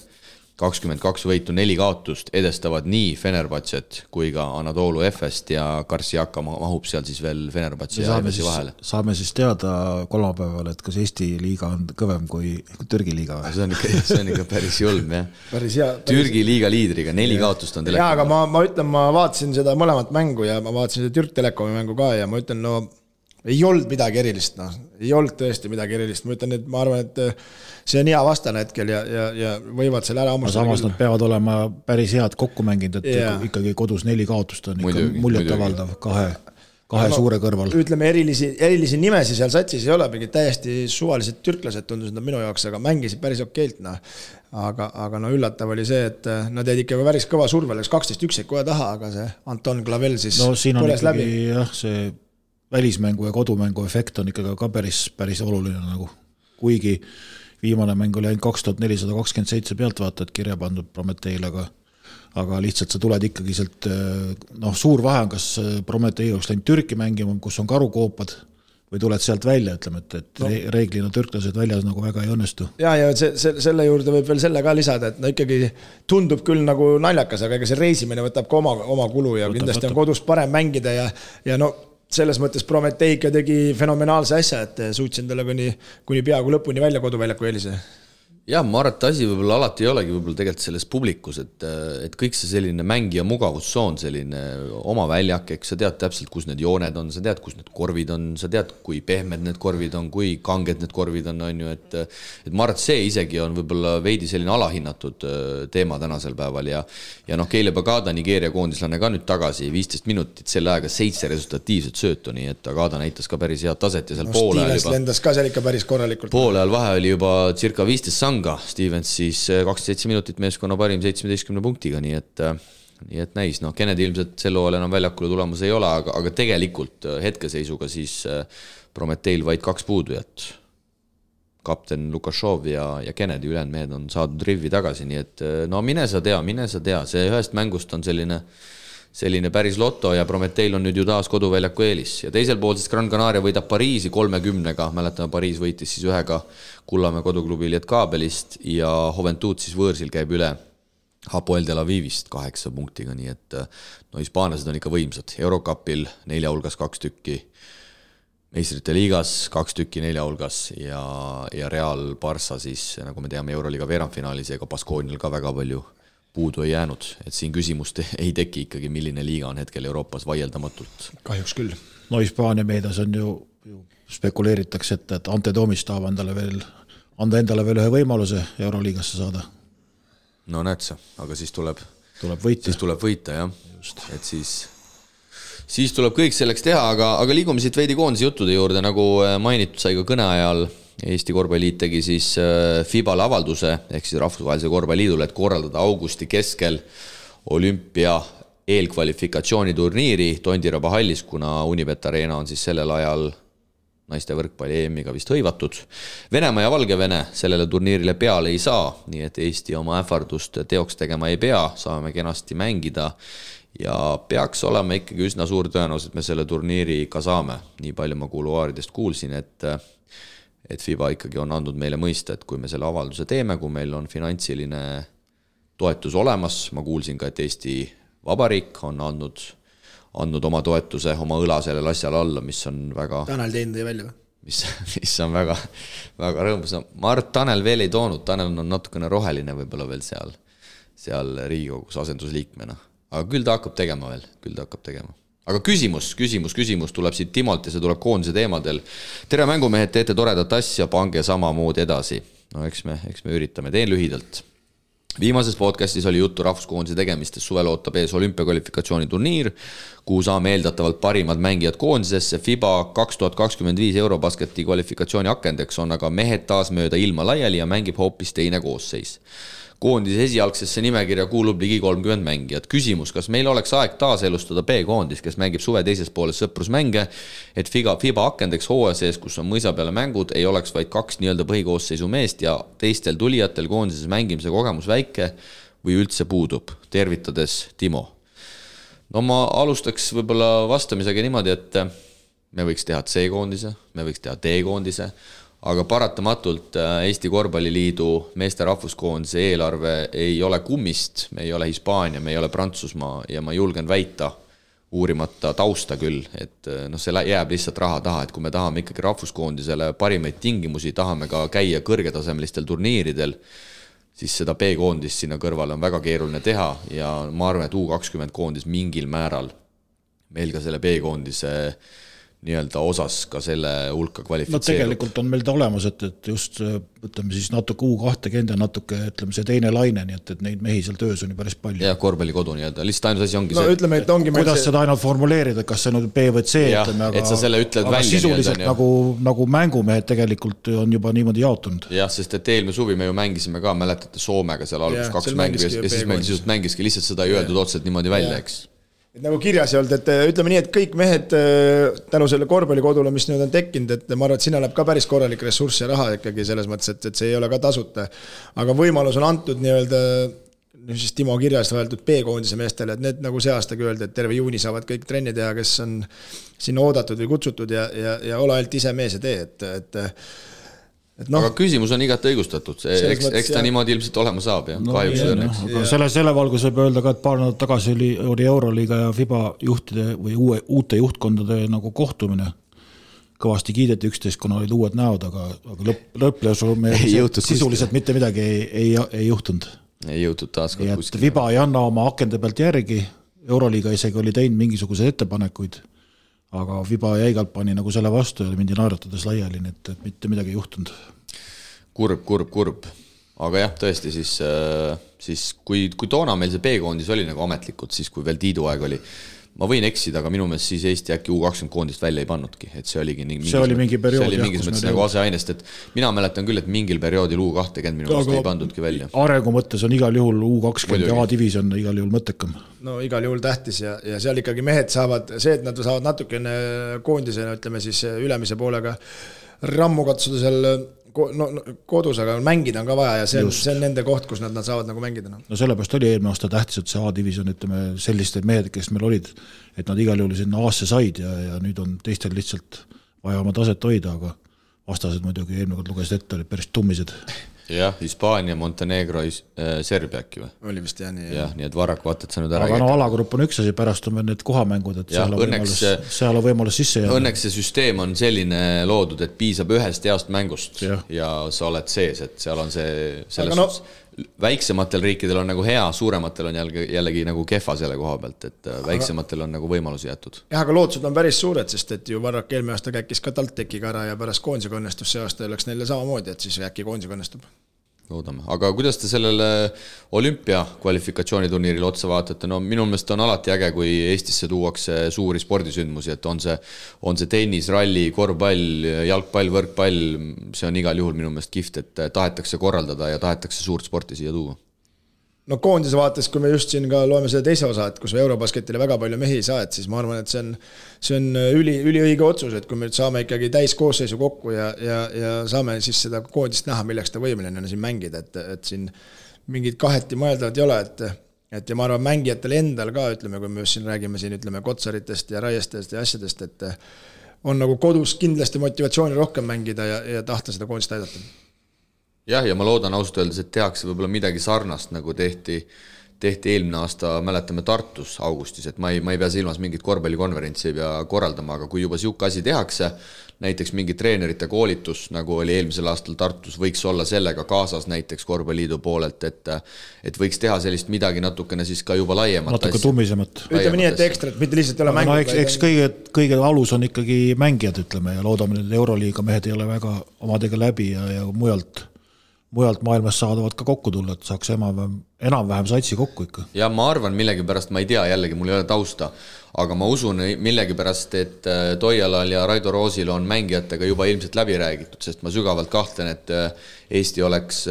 22 võitu, 4 kaotust edestavad nii Fenerbahcet kui ka Anadolu Efest ja Karsiaka mahub seal siis veel Fenerbahce ja Efesi vahele. Saame siis teada kolmapäeval, et kas Eesti liiga on kõvem kui Türgi liiga või? See on ikka päris julm, jah. Päris hea. Türgi liiga liidriga, 4 kaotust on Telekom. Jaa, aga ma ütlen, ma vaatasin seda mõlemat mängu ja ma vaatasin seda Türk Telekomi mängu ka ja ma ütlen, ei olnud midagi erilist, ei olnud tõesti midagi erilist, ma ütlen, et ma arvan, et see on hea vastane hetkel ja võivad selle ära ammustada. Samas nad peavad olema päris head kokku mänginud, et ikkagi kodus 4 kaotust on ikka muljetavaldav kahe suure kõrval. Ütleme, erilisi nimesi seal satsis ei ole, mingid täiesti suvalised türklased tundusid nad minu jaoks, aga mängisid päris okeilt. Aga üllatav oli see, et nad jäid ikka päris kõva survel, 12-1 kohe taha, aga see Anton Clavel siis põles läbi. Jah, see välismängu ja kodumängu efekt on ikkagi ka päris oluline nagu. Kuigi viimane mäng oli ainult 2427 pealtvaatajat kirja pandud Prometeil, aga lihtsalt sa tuled ikkagi sealt, suur vahe on, kas Prometei oleks läinud Türki mängima, kus on karukoopad, või tuled sealt välja, ütleme, et reeglina türklased väljas nagu väga ei õnnestu. Ja selle juurde võib veel selle ka lisada, et ikkagi tundub küll nagu naljakas, aga ega see reisimine võtab ka oma kulu ja kindlasti on kodus parem mängida ja selles mõttes Prometeika tegi fenomenaalse asja, et suutsin talle kuni peaaegu lõpuni välja koduväljaku eelise. Jah, ma arvan, et asi võib-olla alati ei olegi võib-olla tegelikult selles publikus, et kõik see selline mängija mugavussoon, selline oma väljak, eks sa tead täpselt, kus need jooned on, sa tead, kus need korvid on, sa tead, kui pehmed need korvid on, kui kanged need korvid on ju, et ma arvan, et see isegi on võib-olla veidi selline alahinnatud teema tänasel päeval ja Keile Bagada, Nigeeria koondislane ka nüüd tagasi, 15 minutit, selle aega 7 resultatiivset söötu, nii et Bagada näitas ka päris head taset ja seal poole ajal juba. Lendas ka seal ikka päris korralikult. Poole ajal vahe oli juba circa 15 Stevens siis 27 minutit meeskonna parim 17 punktiga, nii et näis, Kennedy ilmselt selle hooajal enam väljakule tulemas ei ole, aga tegelikult hetkeseisuga siis Prometeil vaid 2 puudujat. Kapten Lukashov ja Kennedy ülejäänud mehed on saadud rivvi tagasi, nii et mine sa tea, see ühest mängust on selline päris loto ja Prometeil on nüüd ju taas koduväljaku eelis. Ja teisel pool siis Gran Canaria võidab Pariisi 30-ga, mäletame Pariis võitis siis 1 Kullamäe koduklubi Lietkabelist ja Juventud siis võõrsil käib üle Hapoel Tel Avivist 8 punktiga, nii et hispaanlased on ikka võimsad. Eurocupil 4 hulgas 2 tükki, meistrite liigas 2 tükki 4 hulgas ja Real Barça siis, nagu me teame, Euroliiga veerandfinaalis ega Baskoonial ka väga palju puudu ei jäänud, et siin küsimust ei teki ikkagi, milline liiga on hetkel Euroopas vaieldamatult. Kahjuks küll. Hispaania meedias on ju spekuleeritakse, et Ante Toomist tahab anda endale veel ühe võimaluse Euroliigasse saada. Näed sa, aga siis tuleb võita, jah. Just. Et siis tuleb kõik selleks teha, aga liigume siit veidi koondise juttude juurde, nagu mainitud sai ka kõne ajal. Eesti korvpalliliit tegi siis FIBA-le avalduse, ehk siis Rahvusvahelise korvpalliliidule, et korraldada augusti keskel olümpia eelkvalifikatsiooniturniiri Tondiraba hallis, kuna Unibet Arena on siis sellel ajal naiste võrkpalli EM-iga vist hõivatud. Venemaa ja Valgevene sellele turniirile peale ei saa, nii et Eesti oma ähvardust teoks tegema ei pea, saame kenasti mängida ja peaks olema ikkagi üsna suur tõenäosus, et me selle turniiri ka saame. Nii palju ma kuluaaridest kuulsin, et FIBA ikkagi on andnud meile mõista, et kui me selle avalduse teeme, kui meil on finantsiline toetus olemas, ma kuulsin ka, et Eesti Vabariik on andnud oma toetuse, oma õla sellele asjale alla, mis on väga... Tanel teinud ei välja või? Mis on väga, väga rõõmus. Ma arvan, et Tanel veel ei toonud, Tanel on natukene roheline võib-olla veel seal Riigikogus asendusliikmena. Aga küll ta hakkab tegema veel, Aga küsimus tuleb siit Timolt ja see tuleb koondise teemadel. Tere mängumehed, teete toredat asja, pange samamoodi edasi. Eks me üritame, teen lühidalt. Viimases podcastis oli juttu rahvuskoondise tegemistest, suvel ootab ees olümpiakvalifikatsiooni turniir, kuhu saame eeldatavalt parimad mängijad koondisesse. FIBA 2025 Eurobasketi kvalifikatsiooni akendeks on aga mehed taas mööda ilma laiali ja mängib hoopis teine koosseis. Koondise esialgsesse nimekirja kuulub ligi 30 mängijat. Küsimus, kas meil oleks aeg taas elustada B-koondis, kes mängib suve teises pooles sõprusmänge, et FIBA akendeks hooaja sees, kus on mõisa peale mängud, ei oleks vaid 2 nii-öelda põhikoosseisu meest ja teistel tulijatel koondises mängimise kogemus väike või üldse puudub. Tervitades Timo. Ma alustaks võib-olla vastamisega niimoodi, et me võiks teha C-koondise, me võiks teha D-koondise, aga paratamatult Eesti Korvpalliliidu meeste rahvuskoondise eelarve ei ole kummist, me ei ole Hispaania, me ei ole Prantsusmaa ja ma julgen väita, uurimata tausta küll, et see jääb lihtsalt raha taha, et kui me tahame ikkagi rahvuskoondisele parimaid tingimusi, tahame ka käia kõrgetasemelistel turniiridel, siis seda B-koondist sinna kõrvale on väga keeruline teha ja ma arvan, et U20 koondis mingil määral meil ka selle B-koondise nii-öelda osas ka selle hulka kvalifitseerub. No tegelikult on meil ta olemas, et just ütleme siis natuke U20 ja natuke ütleme see teine laine, nii et neid mehi seal töös on ju päris palju. Ja korvpallikodu nii-öelda, lihtsalt ainus asi ongi see. No ütleme, et ongi kuidas seda ainult formuleerida, kas see on B või C, ütleme, et sa selle ütled aga välja. Sisuliselt nagu mängumehed tegelikult on juba niimoodi jaotunud. Jah, sest et eelmine suvi me ju mängisime ka, mäletate Soomega seal algus 2 mängu ja siis meil sisult mängiski lihtsalt seda ei öeldud otseselt niimoodi välja, eks. Et nagu kirjas ei olnud, et ütleme nii, et kõik mehed tänu selle korvpallikodule, mis nüüd on tekkinud, et ma arvan, et sinna läheb ka päris korralik ressurss ja raha ikkagi selles mõttes, et see ei ole ka tasuta. Aga võimalus on antud nii-öelda, siis Timo kirjas öeldud B-koondise meestele, et need nagu see aastagi öeldi, et terve juuni saavad kõik trenni teha, kes on sinna oodatud või kutsutud ja ole ainult ise mees ja tee, aga küsimus on igati õigustatud, eks ta niimoodi ilmselt olema saab ja kahjuks õnneks. Aga selle valgus võib öelda ka, et paar nädalat tagasi oli Euroliiga ja FIBA juhtide või uute juhtkondade nagu kohtumine. Kõvasti kiideti üksteist, kuna olid uued näod, aga lõpplöösu sisuliselt mitte midagi ei juhtunud. Ei jõutud taaskord kuskil. FIBA ei anna oma akende pealt järgi, Euroliiga isegi oli teinud mingisuguseid ettepanekuid, aga FIBA jäigalt pani nagu selle vastu ja mindi naeratades laiali, et mitte midagi ei juhtunud. Kurb. Aga jah, tõesti siis kui toona meil see B-koondis oli nagu ametlikult, siis kui veel Tiidu aeg oli, ma võin eksida, aga minu meelest siis Eesti äkki U20 koondist välja ei pannudki, et see oligi mingi periood. See oli mingis mõttes nagu aseainest, et mina mäletan küll, et mingil perioodil U20 minu meelest ei pandudki välja. Arengu mõttes on igal juhul U20 ja A-division igal juhul mõttekam. No igal juhul tähtis ja seal ikkagi mehed saavad, see, et nad saavad natukene koondisena, ütleme siis ülemise poolega rammu katsuda seal kodus, aga mängida on ka vaja ja see on nende koht, kus nad saavad nagu mängida. No sellepärast oli eelmine aasta tähtis, et see A-division, ütleme, selliste mehed, kes meil olid, et nad igal juhul sinna A-sse said ja nüüd on teistel lihtsalt vaja oma taset hoida, aga vastased muidugi eelmine kord lugesid ette, olid päris tummised. Jah, Hispaania, Montenegro, Serbia äkki või? Oli vist jah nii. Jah, nii et Varrak vaata, et sa nüüd ära aga alagrupp on üks asi, pärast on need kohamängud, et seal on võimalus sisse jääda. Õnneks see süsteem on selline loodud, et piisab ühest heast mängust ja sa oled sees, et seal on see selles väiksematel riikidel on nagu hea, suurematel on jällegi nagu kehva selle koha pealt, et väiksematel on nagu võimalusi jätud. Jah, aga lootused on päris suured, sest et ju Varrak eelmine aasta käikis ka TalTechiga ära ja pärast koondisega õnnestus see aasta oleks neile samamoodi, et siis äkki koondisega õnnestub. Loodame. Aga kuidas te sellele olümpia kvalifikatsiooniturniiril otsa vaatate? No minu meelest on alati äge, kui Eestisse tuuakse suuri spordisündmusi, et on see tennis, ralli, korvpall, jalgpall, võrkpall, see on igal juhul minu meelest kihvt, et tahetakse korraldada ja tahetakse suurt sporti siia tuua. No koondise vaates, kui me just siin ka loeme selle teise osa, et kus Eurobasketile väga palju mehi ei saa, et siis ma arvan, et see on üliõige otsus, et kui me saame ikkagi täis koosseisu kokku ja saame siis seda koondist näha, milleks ta võimeline on siin mängida, et siin mingid kaheti mõeldavat ei ole, et ja ma arvan mängijatele endal ka, ütleme, kui me just siin räägime siin, ütleme, Kotsaritest ja Raiestest ja asjadest, et on nagu kodus kindlasti motivatsiooni rohkem mängida ja tahta seda koondist aidata. Jah, ja ma loodan ausalt öeldes, et tehakse võib-olla midagi sarnast, nagu tehti eelmine aasta, mäletame Tartus augustis, et ma ei pea silmas mingit korvpallikonverentsi ei pea korraldama, aga kui juba siuke asi tehakse, näiteks mingi treenerite koolitus, nagu oli eelmisel aastal Tartus, võiks olla sellega kaasas näiteks korvpalliliidu poolelt, et võiks teha sellist midagi natukene siis ka juba laiemat. Natuke tummisemat. Ütleme nii, et ekstrat, mitte lihtsalt ei ole mängud. No, eks kõige alus on ikkagi mängijad, ütleme, ja loodame, et Euroliiga mehed ei ole väga omadega läbi ja mujalt maailmas saadavad ka kokku tulla, et saaks enam-vähem satsi kokku ikka. Ja ma arvan millegipärast, ma ei tea, jällegi mul ei ole tausta, aga ma usun millegipärast, et Toialal ja Raido Roosil on mängijatega juba ilmselt läbi räägitud, sest ma sügavalt kahtlen, et Eesti oleks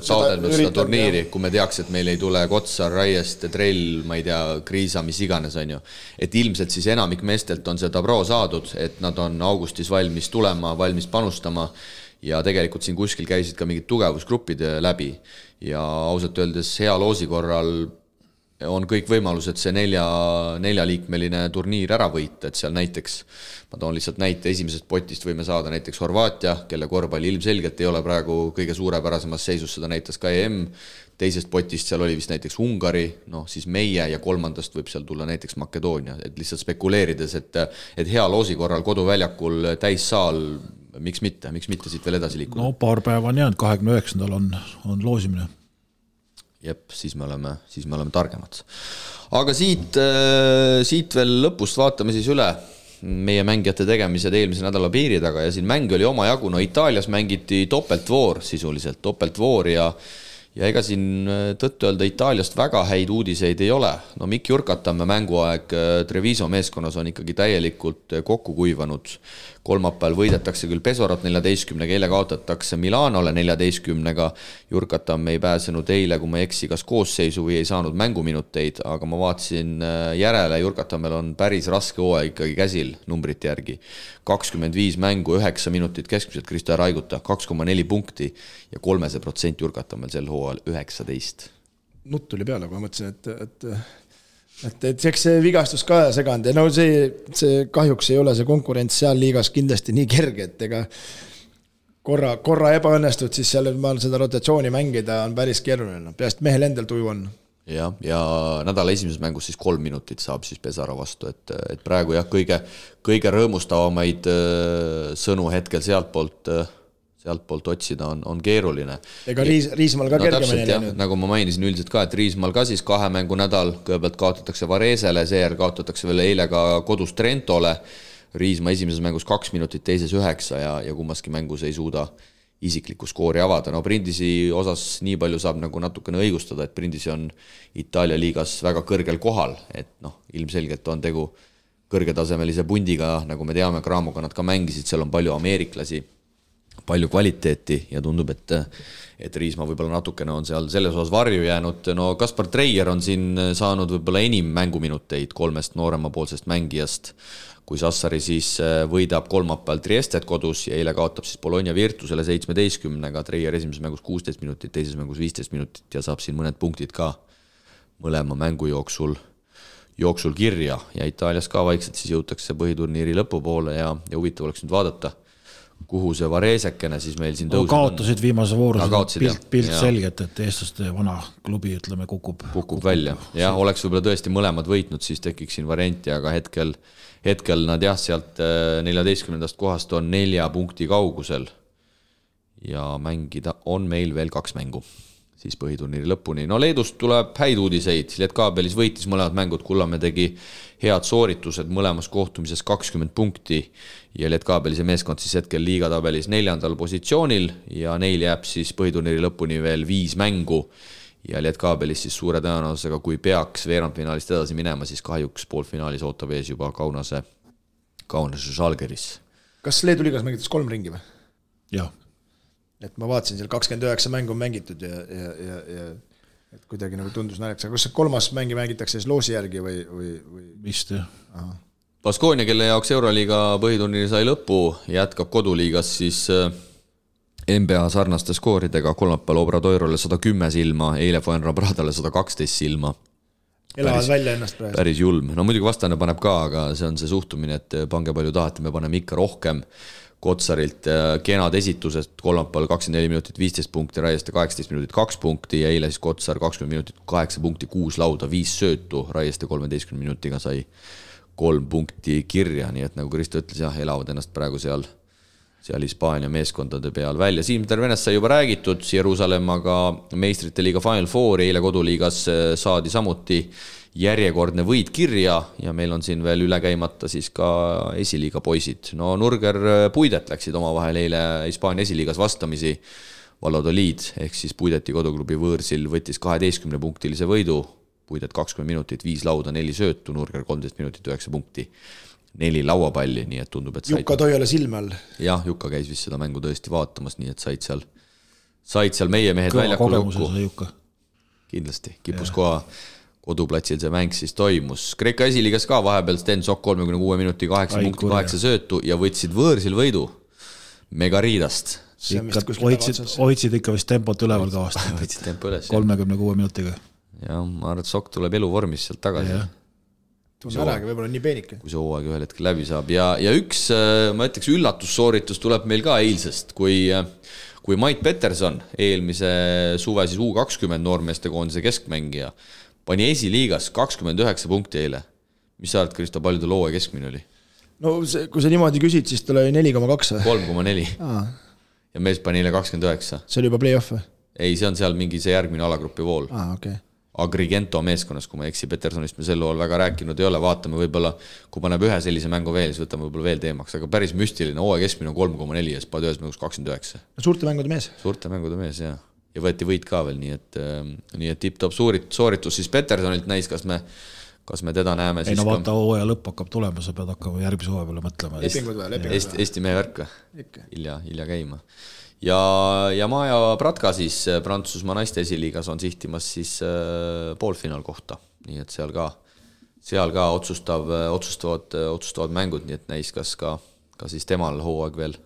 taodelnud seda turniiri, kui me teaks, et meil ei tule Kotsar, Raiest, Trell, ma ei tea, Kriisa, mis iganes on ju. Et ilmselt siis enamik meestelt on seda pro saadud, et nad on augustis valmis tulema, valmis panustama ja tegelikult siin kuskil käisid ka mingid tugevusgruppid läbi ja ausalt öeldes hea loosi korral on kõik võimalused see neljaliikmeline turniir ära võita, et seal näiteks, ma toon lihtsalt näite, esimesest potist võime saada näiteks Horvaatia, kelle korvpalli ilmselgelt ei ole praegu kõige suurepärasemas seisus, seda näitas ka EM, teisest potist seal oli vist näiteks Ungari, siis meie ja kolmandast võib seal tulla näiteks Makedoonia, et lihtsalt spekuleerides, et hea loosi korral koduväljakul täissaal, miks mitte siit veel edasi liikuda? No paar päeva on jäänud, 29. on loosimine. Jep, siis me oleme targemad. Aga siit veel lõpust vaatame siis üle meie mängijate tegemised eelmise nädala piiri taga ja siin mäng oli oma jagu, Itaalias mängiti topeltvoor sisuliselt, topeltvoor ja ega siin tõttu öelda Itaaliast väga häid uudiseid ei ole. Mikk Jurkatamme mänguaeg Treviso meeskonnas on ikkagi täielikult kokku kuivanud. Kolmapäeval võidetakse küll Pesorot 14-ga, eile kaotatakse Milanole 14-ga. Jurkatamme ei pääsenud eile, kui ma eksi, kas koosseisu või ei saanud mänguminuteid, aga ma vaatasin järele, Jurkatammel on päris raske hooaeg ikkagi käsil numbrite järgi. 25 mängu, 9 minutit keskmiselt Kristo Raiguta, 2,4 punkti ja 3% Jurkatammel sel hooajal 19. Nutt tuli peale, kui ma mõtlesin, et eks see vigastus ka seganud ja see kahjuks ei ole see konkurents seal liigas kindlasti nii kerge, et ega korra ebaõnnestud, siis seal seda rotatsiooni mängida on päris keeruline, peast mehel endal tuju on. Ja nädala esimeses mängus siis 3 minutit saab siis Pesara vastu, et praegu jah, kõige rõõmustavamaid sõnu hetkel sealtpoolt otsida on keeruline. Ega Riismaal ka kergemini läinud. Nagu ma mainisin üldiselt ka, et Riismaal ka siis 2 mängu nädal, kõigepealt kaotatakse Varesele, seejärel kaotatakse veel eile ka kodus Trentole, Riisma esimeses mängus 2 minutit, teises 9 ja kummaski mängus ei suuda isiklikku skoori avada. Prindisi osas nii palju saab nagu natukene õigustada, et Prindisi on Itaalia liigas väga kõrgel kohal, et ilmselgelt on tegu kõrgetasemelise pundiga, nagu me teame, Craamoga nad ka mängisid, seal on palju ameeriklasi, palju kvaliteeti ja tundub, et Riisma võib-olla natukene on seal selles osas varju jäänud. Kaspar Treier on siin saanud võib-olla enim mänguminuteid 3 nooremapoolsest mängijast, kui Sassari siis võidab kolmapäeval Triestet kodus ja eile kaotab siis Bologna Virtusele 17-ga, Treier esimeses mängus 16 minutit, teises mängus 15 minutit ja saab siin mõned punktid ka mõlema mängu jooksul kirja ja Itaalias ka vaikselt siis jõutakse põhiturniiri lõpupoole ja huvitav oleks nüüd vaadata, kuhu see Varesekene siis meil siin tõuseb. Kaotasid viimase voorus, pilt selgelt, et eestlaste vana klubi, ütleme, kukub välja. Jah, oleks võib-olla tõesti mõlemad võitnud, siis tekiks siin varianti, aga hetkel nad jah, sealt 14. kohast on 4 punkti kaugusel ja mängida on meil veel 2 mängu siis põhiturniiri lõpuni. Leedust tuleb häid uudiseid, Lietkaabelis võitis mõlemad mängud, Kullamäe tegi head sooritused mõlemas kohtumises 20 punkti ja Lietkaabelise meeskond siis hetkel liigatabelis 4. positsioonil ja neil jääb siis põhiturniiri lõpuni veel 5 mängu ja Lietkaabelis siis suure tõenäosusega, kui peaks veerandfinaalist edasi minema, siis kahjuks poolfinaalis ootab ees juba Kaunase Žalgiris. Kas Leedu liigas mängitas 3 ringi või? Jah. Et ma vaatasin, seal 29 mängu on mängitud ja et kuidagi nagu tundus naljakas, aga kas see 3. mängi mängitakse siis loosi järgi või? Vist jah. Baskonia, kelle jaoks Euroliiga põhiturniiri sai lõppu, jätkab koduliigas siis NBA sarnaste skooridega, kolmapäeval Obradoirole 110 silma, eile Fuenlabradale 112 silma. Elavad välja ennast praegu. Päris julm. Muidugi vastane paneb ka, aga see on see suhtumine, et pange palju tahate, me paneme ikka rohkem. Kotsarilt kenad esitusest, kolmapäeval 24 minutit 15 punkti, Raieste 18 minutit 2 punkti ja eile siis Kotsar 20 minutit 8 punkti, 6 lauda, 5 söötu, Raieste 13 minutiga sai 3 punkti kirja, nii et nagu Kristo ütles, jah, elavad ennast praegu seal Hispaania meeskondade peal välja. Siim Tervenest sai juba räägitud, Jeruusalemmaga meistrite liiga Final Four, eile koduliigas saadi samuti järjekordne võit kirja ja meil on siin veel üle käimata siis ka esiliiga poisid. Nurger Puidet läksid omavahel eile Hispaania esiliigas vastamisi Valladolid, ehk siis Puideti koduklubi võõrsil võttis 12-punktilise võidu, Puidet 20 minutit, 5 lauda, 4 söötu, Nurger 13 minutit, 9 punkti, 4 lauapalli, nii et tundub, et Jukka Toiale silme all. Jah, Jukka käis vist seda mängu tõesti vaatamas, nii et said seal meie mehed väljakul lukku. Kindlasti, kipus koha koduplatsil see mäng siis toimus. Kreeka esiliigas ka vahepeal Sten Sok 36 minuti 8 punkti 8 söötu ja võtsid võõrsil võidu Megariidast. Hoidsid ikka vist tempot üleval ka vast. 36 minutiga. jah, ma arvan, et Sokk tuleb eluvormis sealt tagasi. Tunne äragi, võib-olla nii peenike. Kui see hooaeg ühel hetkel läbi saab. Ja üks, ma ütleks, üllatussooritus tuleb meil ka eilsest, kui Mait Peterson, eelmise suve siis U20 noormeeste koondise keskmängija, pani esiliigas 29 punkti eile. Mis sa arvad, Kristo, palju ta looja keskmine oli? No kui sa niimoodi küsid, siis tal oli 4,2. 3,4. Ja mees pani eile 29. See oli juba play-off või? Ei, see on seal mingi see järgmine alagrupi vool. Okay. Agrigento meeskonnas, kui ma eksi, Petersonist me sel lool väga rääkinud ei ole, vaatame võib-olla, kui paneb ühe sellise mängu veel, siis võtame võib-olla veel teemaks, aga päris müstiline, hooaja keskmine on 3,4 ja spad ühes mängus 29. Suurte mängude mees. Suurte mängude mees, jah. Ja võeti võit ka veel, nii et tipp-top sooritus siis Petersonilt näis, kas me teda näeme. Ei no vaata, hooaja lõpp hakkab tulema, sa pead hakkama järgmise hooaja peale mõtlema. Lepingud või? Eesti mehe värk hilja käima. Ja Maja Pratka siis Prantsusmaa naiste esiliigas on sihtimas siis poolfinaal kohta, nii et seal ka otsustavad mängud, nii et näis, kas ka siis temal hooaeg veel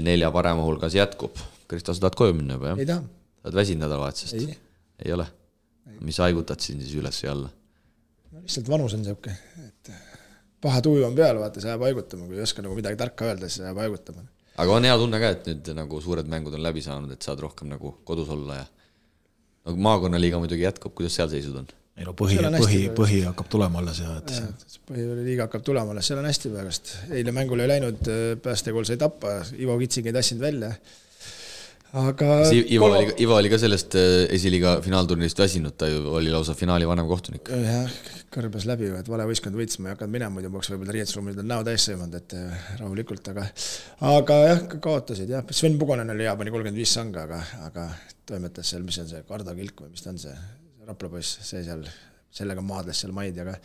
4 parema hulgas jätkub. Kristo, sa tahad koju minna juba, jah? Ei taha. Tahad väsinud nädalavahetusest? Ei ole? Mis haigutad siin siis üles ja alla? No, lihtsalt vanus on siuke, et paha tuju on peal, vaata, sa jääb haigutama, kui ei oska nagu midagi tarka öelda, siis jääb haigutama. Aga on hea tunne ka, et nüüd nagu suured mängud on läbi saanud, et saad rohkem nagu kodus olla ja nagu maakonnaliiga muidugi jätkub, kuidas seal seisud on? Ei no põhi hakkab tulema alles ja põhiliiga hakkab tulema alles, seal on hästi pärast. Eile mängul ei läinud, päästekool sai tappa, Ivo Kitsing ei tassinud välja. Aga Ivo oli ka sellest esiliiga finaalturnist väsinud, ta ju oli lausa finaali vanem kohtunik. Jah, kõrbes läbi, et vale võistkond võits, ma ei hakanud minema, muidu peaks võib-olla riietusruumid on näo täis sõimanud, et rahulikult, aga jah, kaotasid, jah. Sven Pugonen oli hea, pani 35 sanga, aga toimetas seal, mis on see Kardakilk või mis ta on see Raplapoiss, see seal, sellega maadles seal maid, aga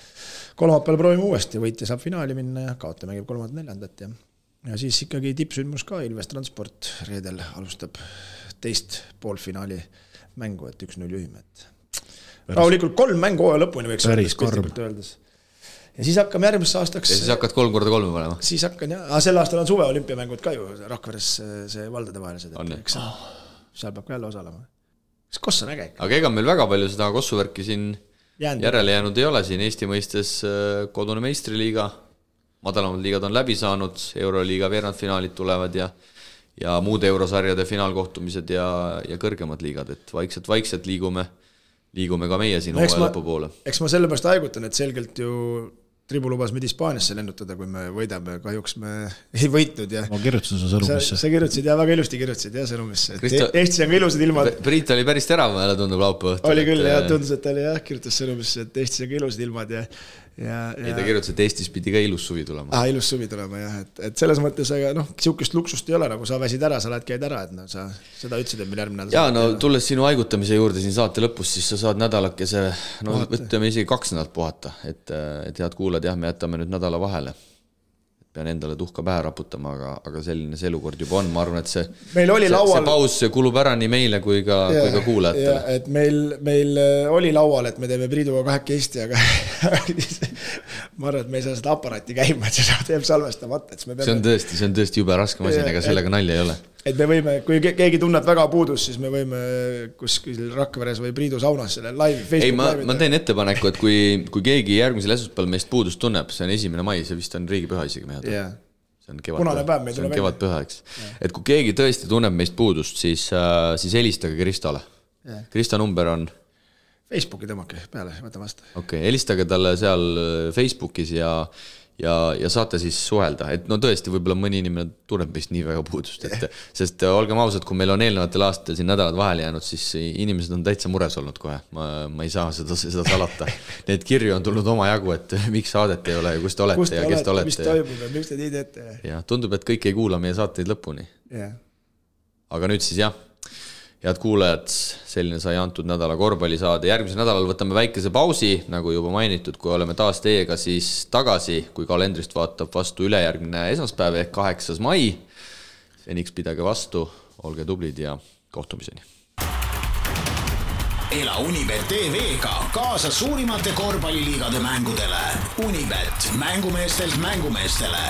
kolmapäeval proovime uuesti, võitja saab finaali minna ja kaota mängib 3.4. Ja siis ikkagi tippsündmus ka, Ilves Transport reedel alustab teist poolfinaali mängu, et 1-0 juhime. Rahulikult 3 mängu hooaja lõpuni võiks öeldes. Ja siis hakkame järgmisse aastaks... Ja siis hakkad 3x3 panema? Siis hakkan, jah. Sel aastal on suve olümpiamängud ka ju, Rakveres see valdade vahelised. Seal peab ka jälle osalema. Koss on äge. Aga ega meil väga palju seda kossuvärki siin järele jäänud ei ole. Siin Eesti mõistes kodune meistriliiga, madalamad liigad on läbi saanud, Euroliiga veerandfinaalid tulevad ja muud eurosarjade finaalkohtumised ja kõrgemad liigad, et vaikselt liigume ka meie siin hooaja lõpu poole. Eks ma sellepärast haigutan, et selgelt ju Tribu lubas meid Hispaaniasse lennutada, kui me võidame, kahjuks me ei võitnud. Ma kirjutasin su sõnumisse. Sa kirjutasid ja väga ilusti kirjutasid sõnumisse. Eestis on ka ilusad ilmad. Priit oli päris terav, jälle tundub laupäeva õhtul. Oli küll, tundus, et ta oli kirjutas sõnumisse, et Eestis on ka ilusad ilmad Ei, ta kirjutas, et Eestis pidi ka ilus suvi tulema. Ilus suvi tulema, jah. Et selles mõttes, aga siukest luksust ei ole, nagu sa väsid ära, sa lähed käid ära, et sa seda ütlesid, et meil järgmine nädal. Jaa, no tulles sinu haigutamise juurde siin saate lõpus, siis sa saad nädalakese, võtame isegi 2 nädalat puhata, et head kuulad, jah, me jätame nüüd nädala vahele. Pean endale tuhka pähe raputama, aga selline see elukord juba on. Ma arvan, et see paus kulub ära nii meile kui ka kuulajatele. Et meil oli laual, et me teeme Priiduga 2 Eesti, aga ma arvan, et me ei saa seda aparaati käima, et seda teeb salvestamata. See on tõesti jube raske masin, ega sellega nalja ei ole. Et me võime, kui keegi tunneb väga puudus, siis me võime kuskil Rakveres või Priidu saunas selle live, Facebook live. Ma teen ettepaneku, et kui keegi järgmisel esmaspäeval meist puudust tunneb, see on 1. mai, see vist on riigipüha isegi mehed. See on kevadpüha, eks. Et kui keegi tõesti tunneb meist puudust, siis helistage Kristole. Krista number on... Facebooki tõmmake peale, võta vastu. Okei, helistage talle seal Facebookis ja saate siis suhelda, et no tõesti võib-olla mõni inimene tunneb meist nii väga puudust, sest olgem ausad, kui meil on eelnevatel aastatel siin nädalad vahele jäänud, siis inimesed on täitsa mures olnud kohe, ma ei saa seda salata. Need kirju on tulnud oma jagu, et miks saadet ei ole ja kus te olete ja kes te olete. Mis toimub ja miks te nii teete. Ja tundub, et kõik ei kuula meie saateid lõpuni. Aga nüüd siis jah. Head kuulajad, selline sai antud nädala korvpallisaade. Järgmisel nädalal võtame väikese pausi, nagu juba mainitud, kui oleme taas teiega siis tagasi, kui kalendrist vaatab vastu ülejärgmine esmaspäev ehk 8. mai. Seniks pidage vastu, olge tublid ja kohtumiseni. Ela Unibet TV-ga kaasa suurimate korvpalliliigade mängudele. Unibet, mängumeestelt mängumeestele.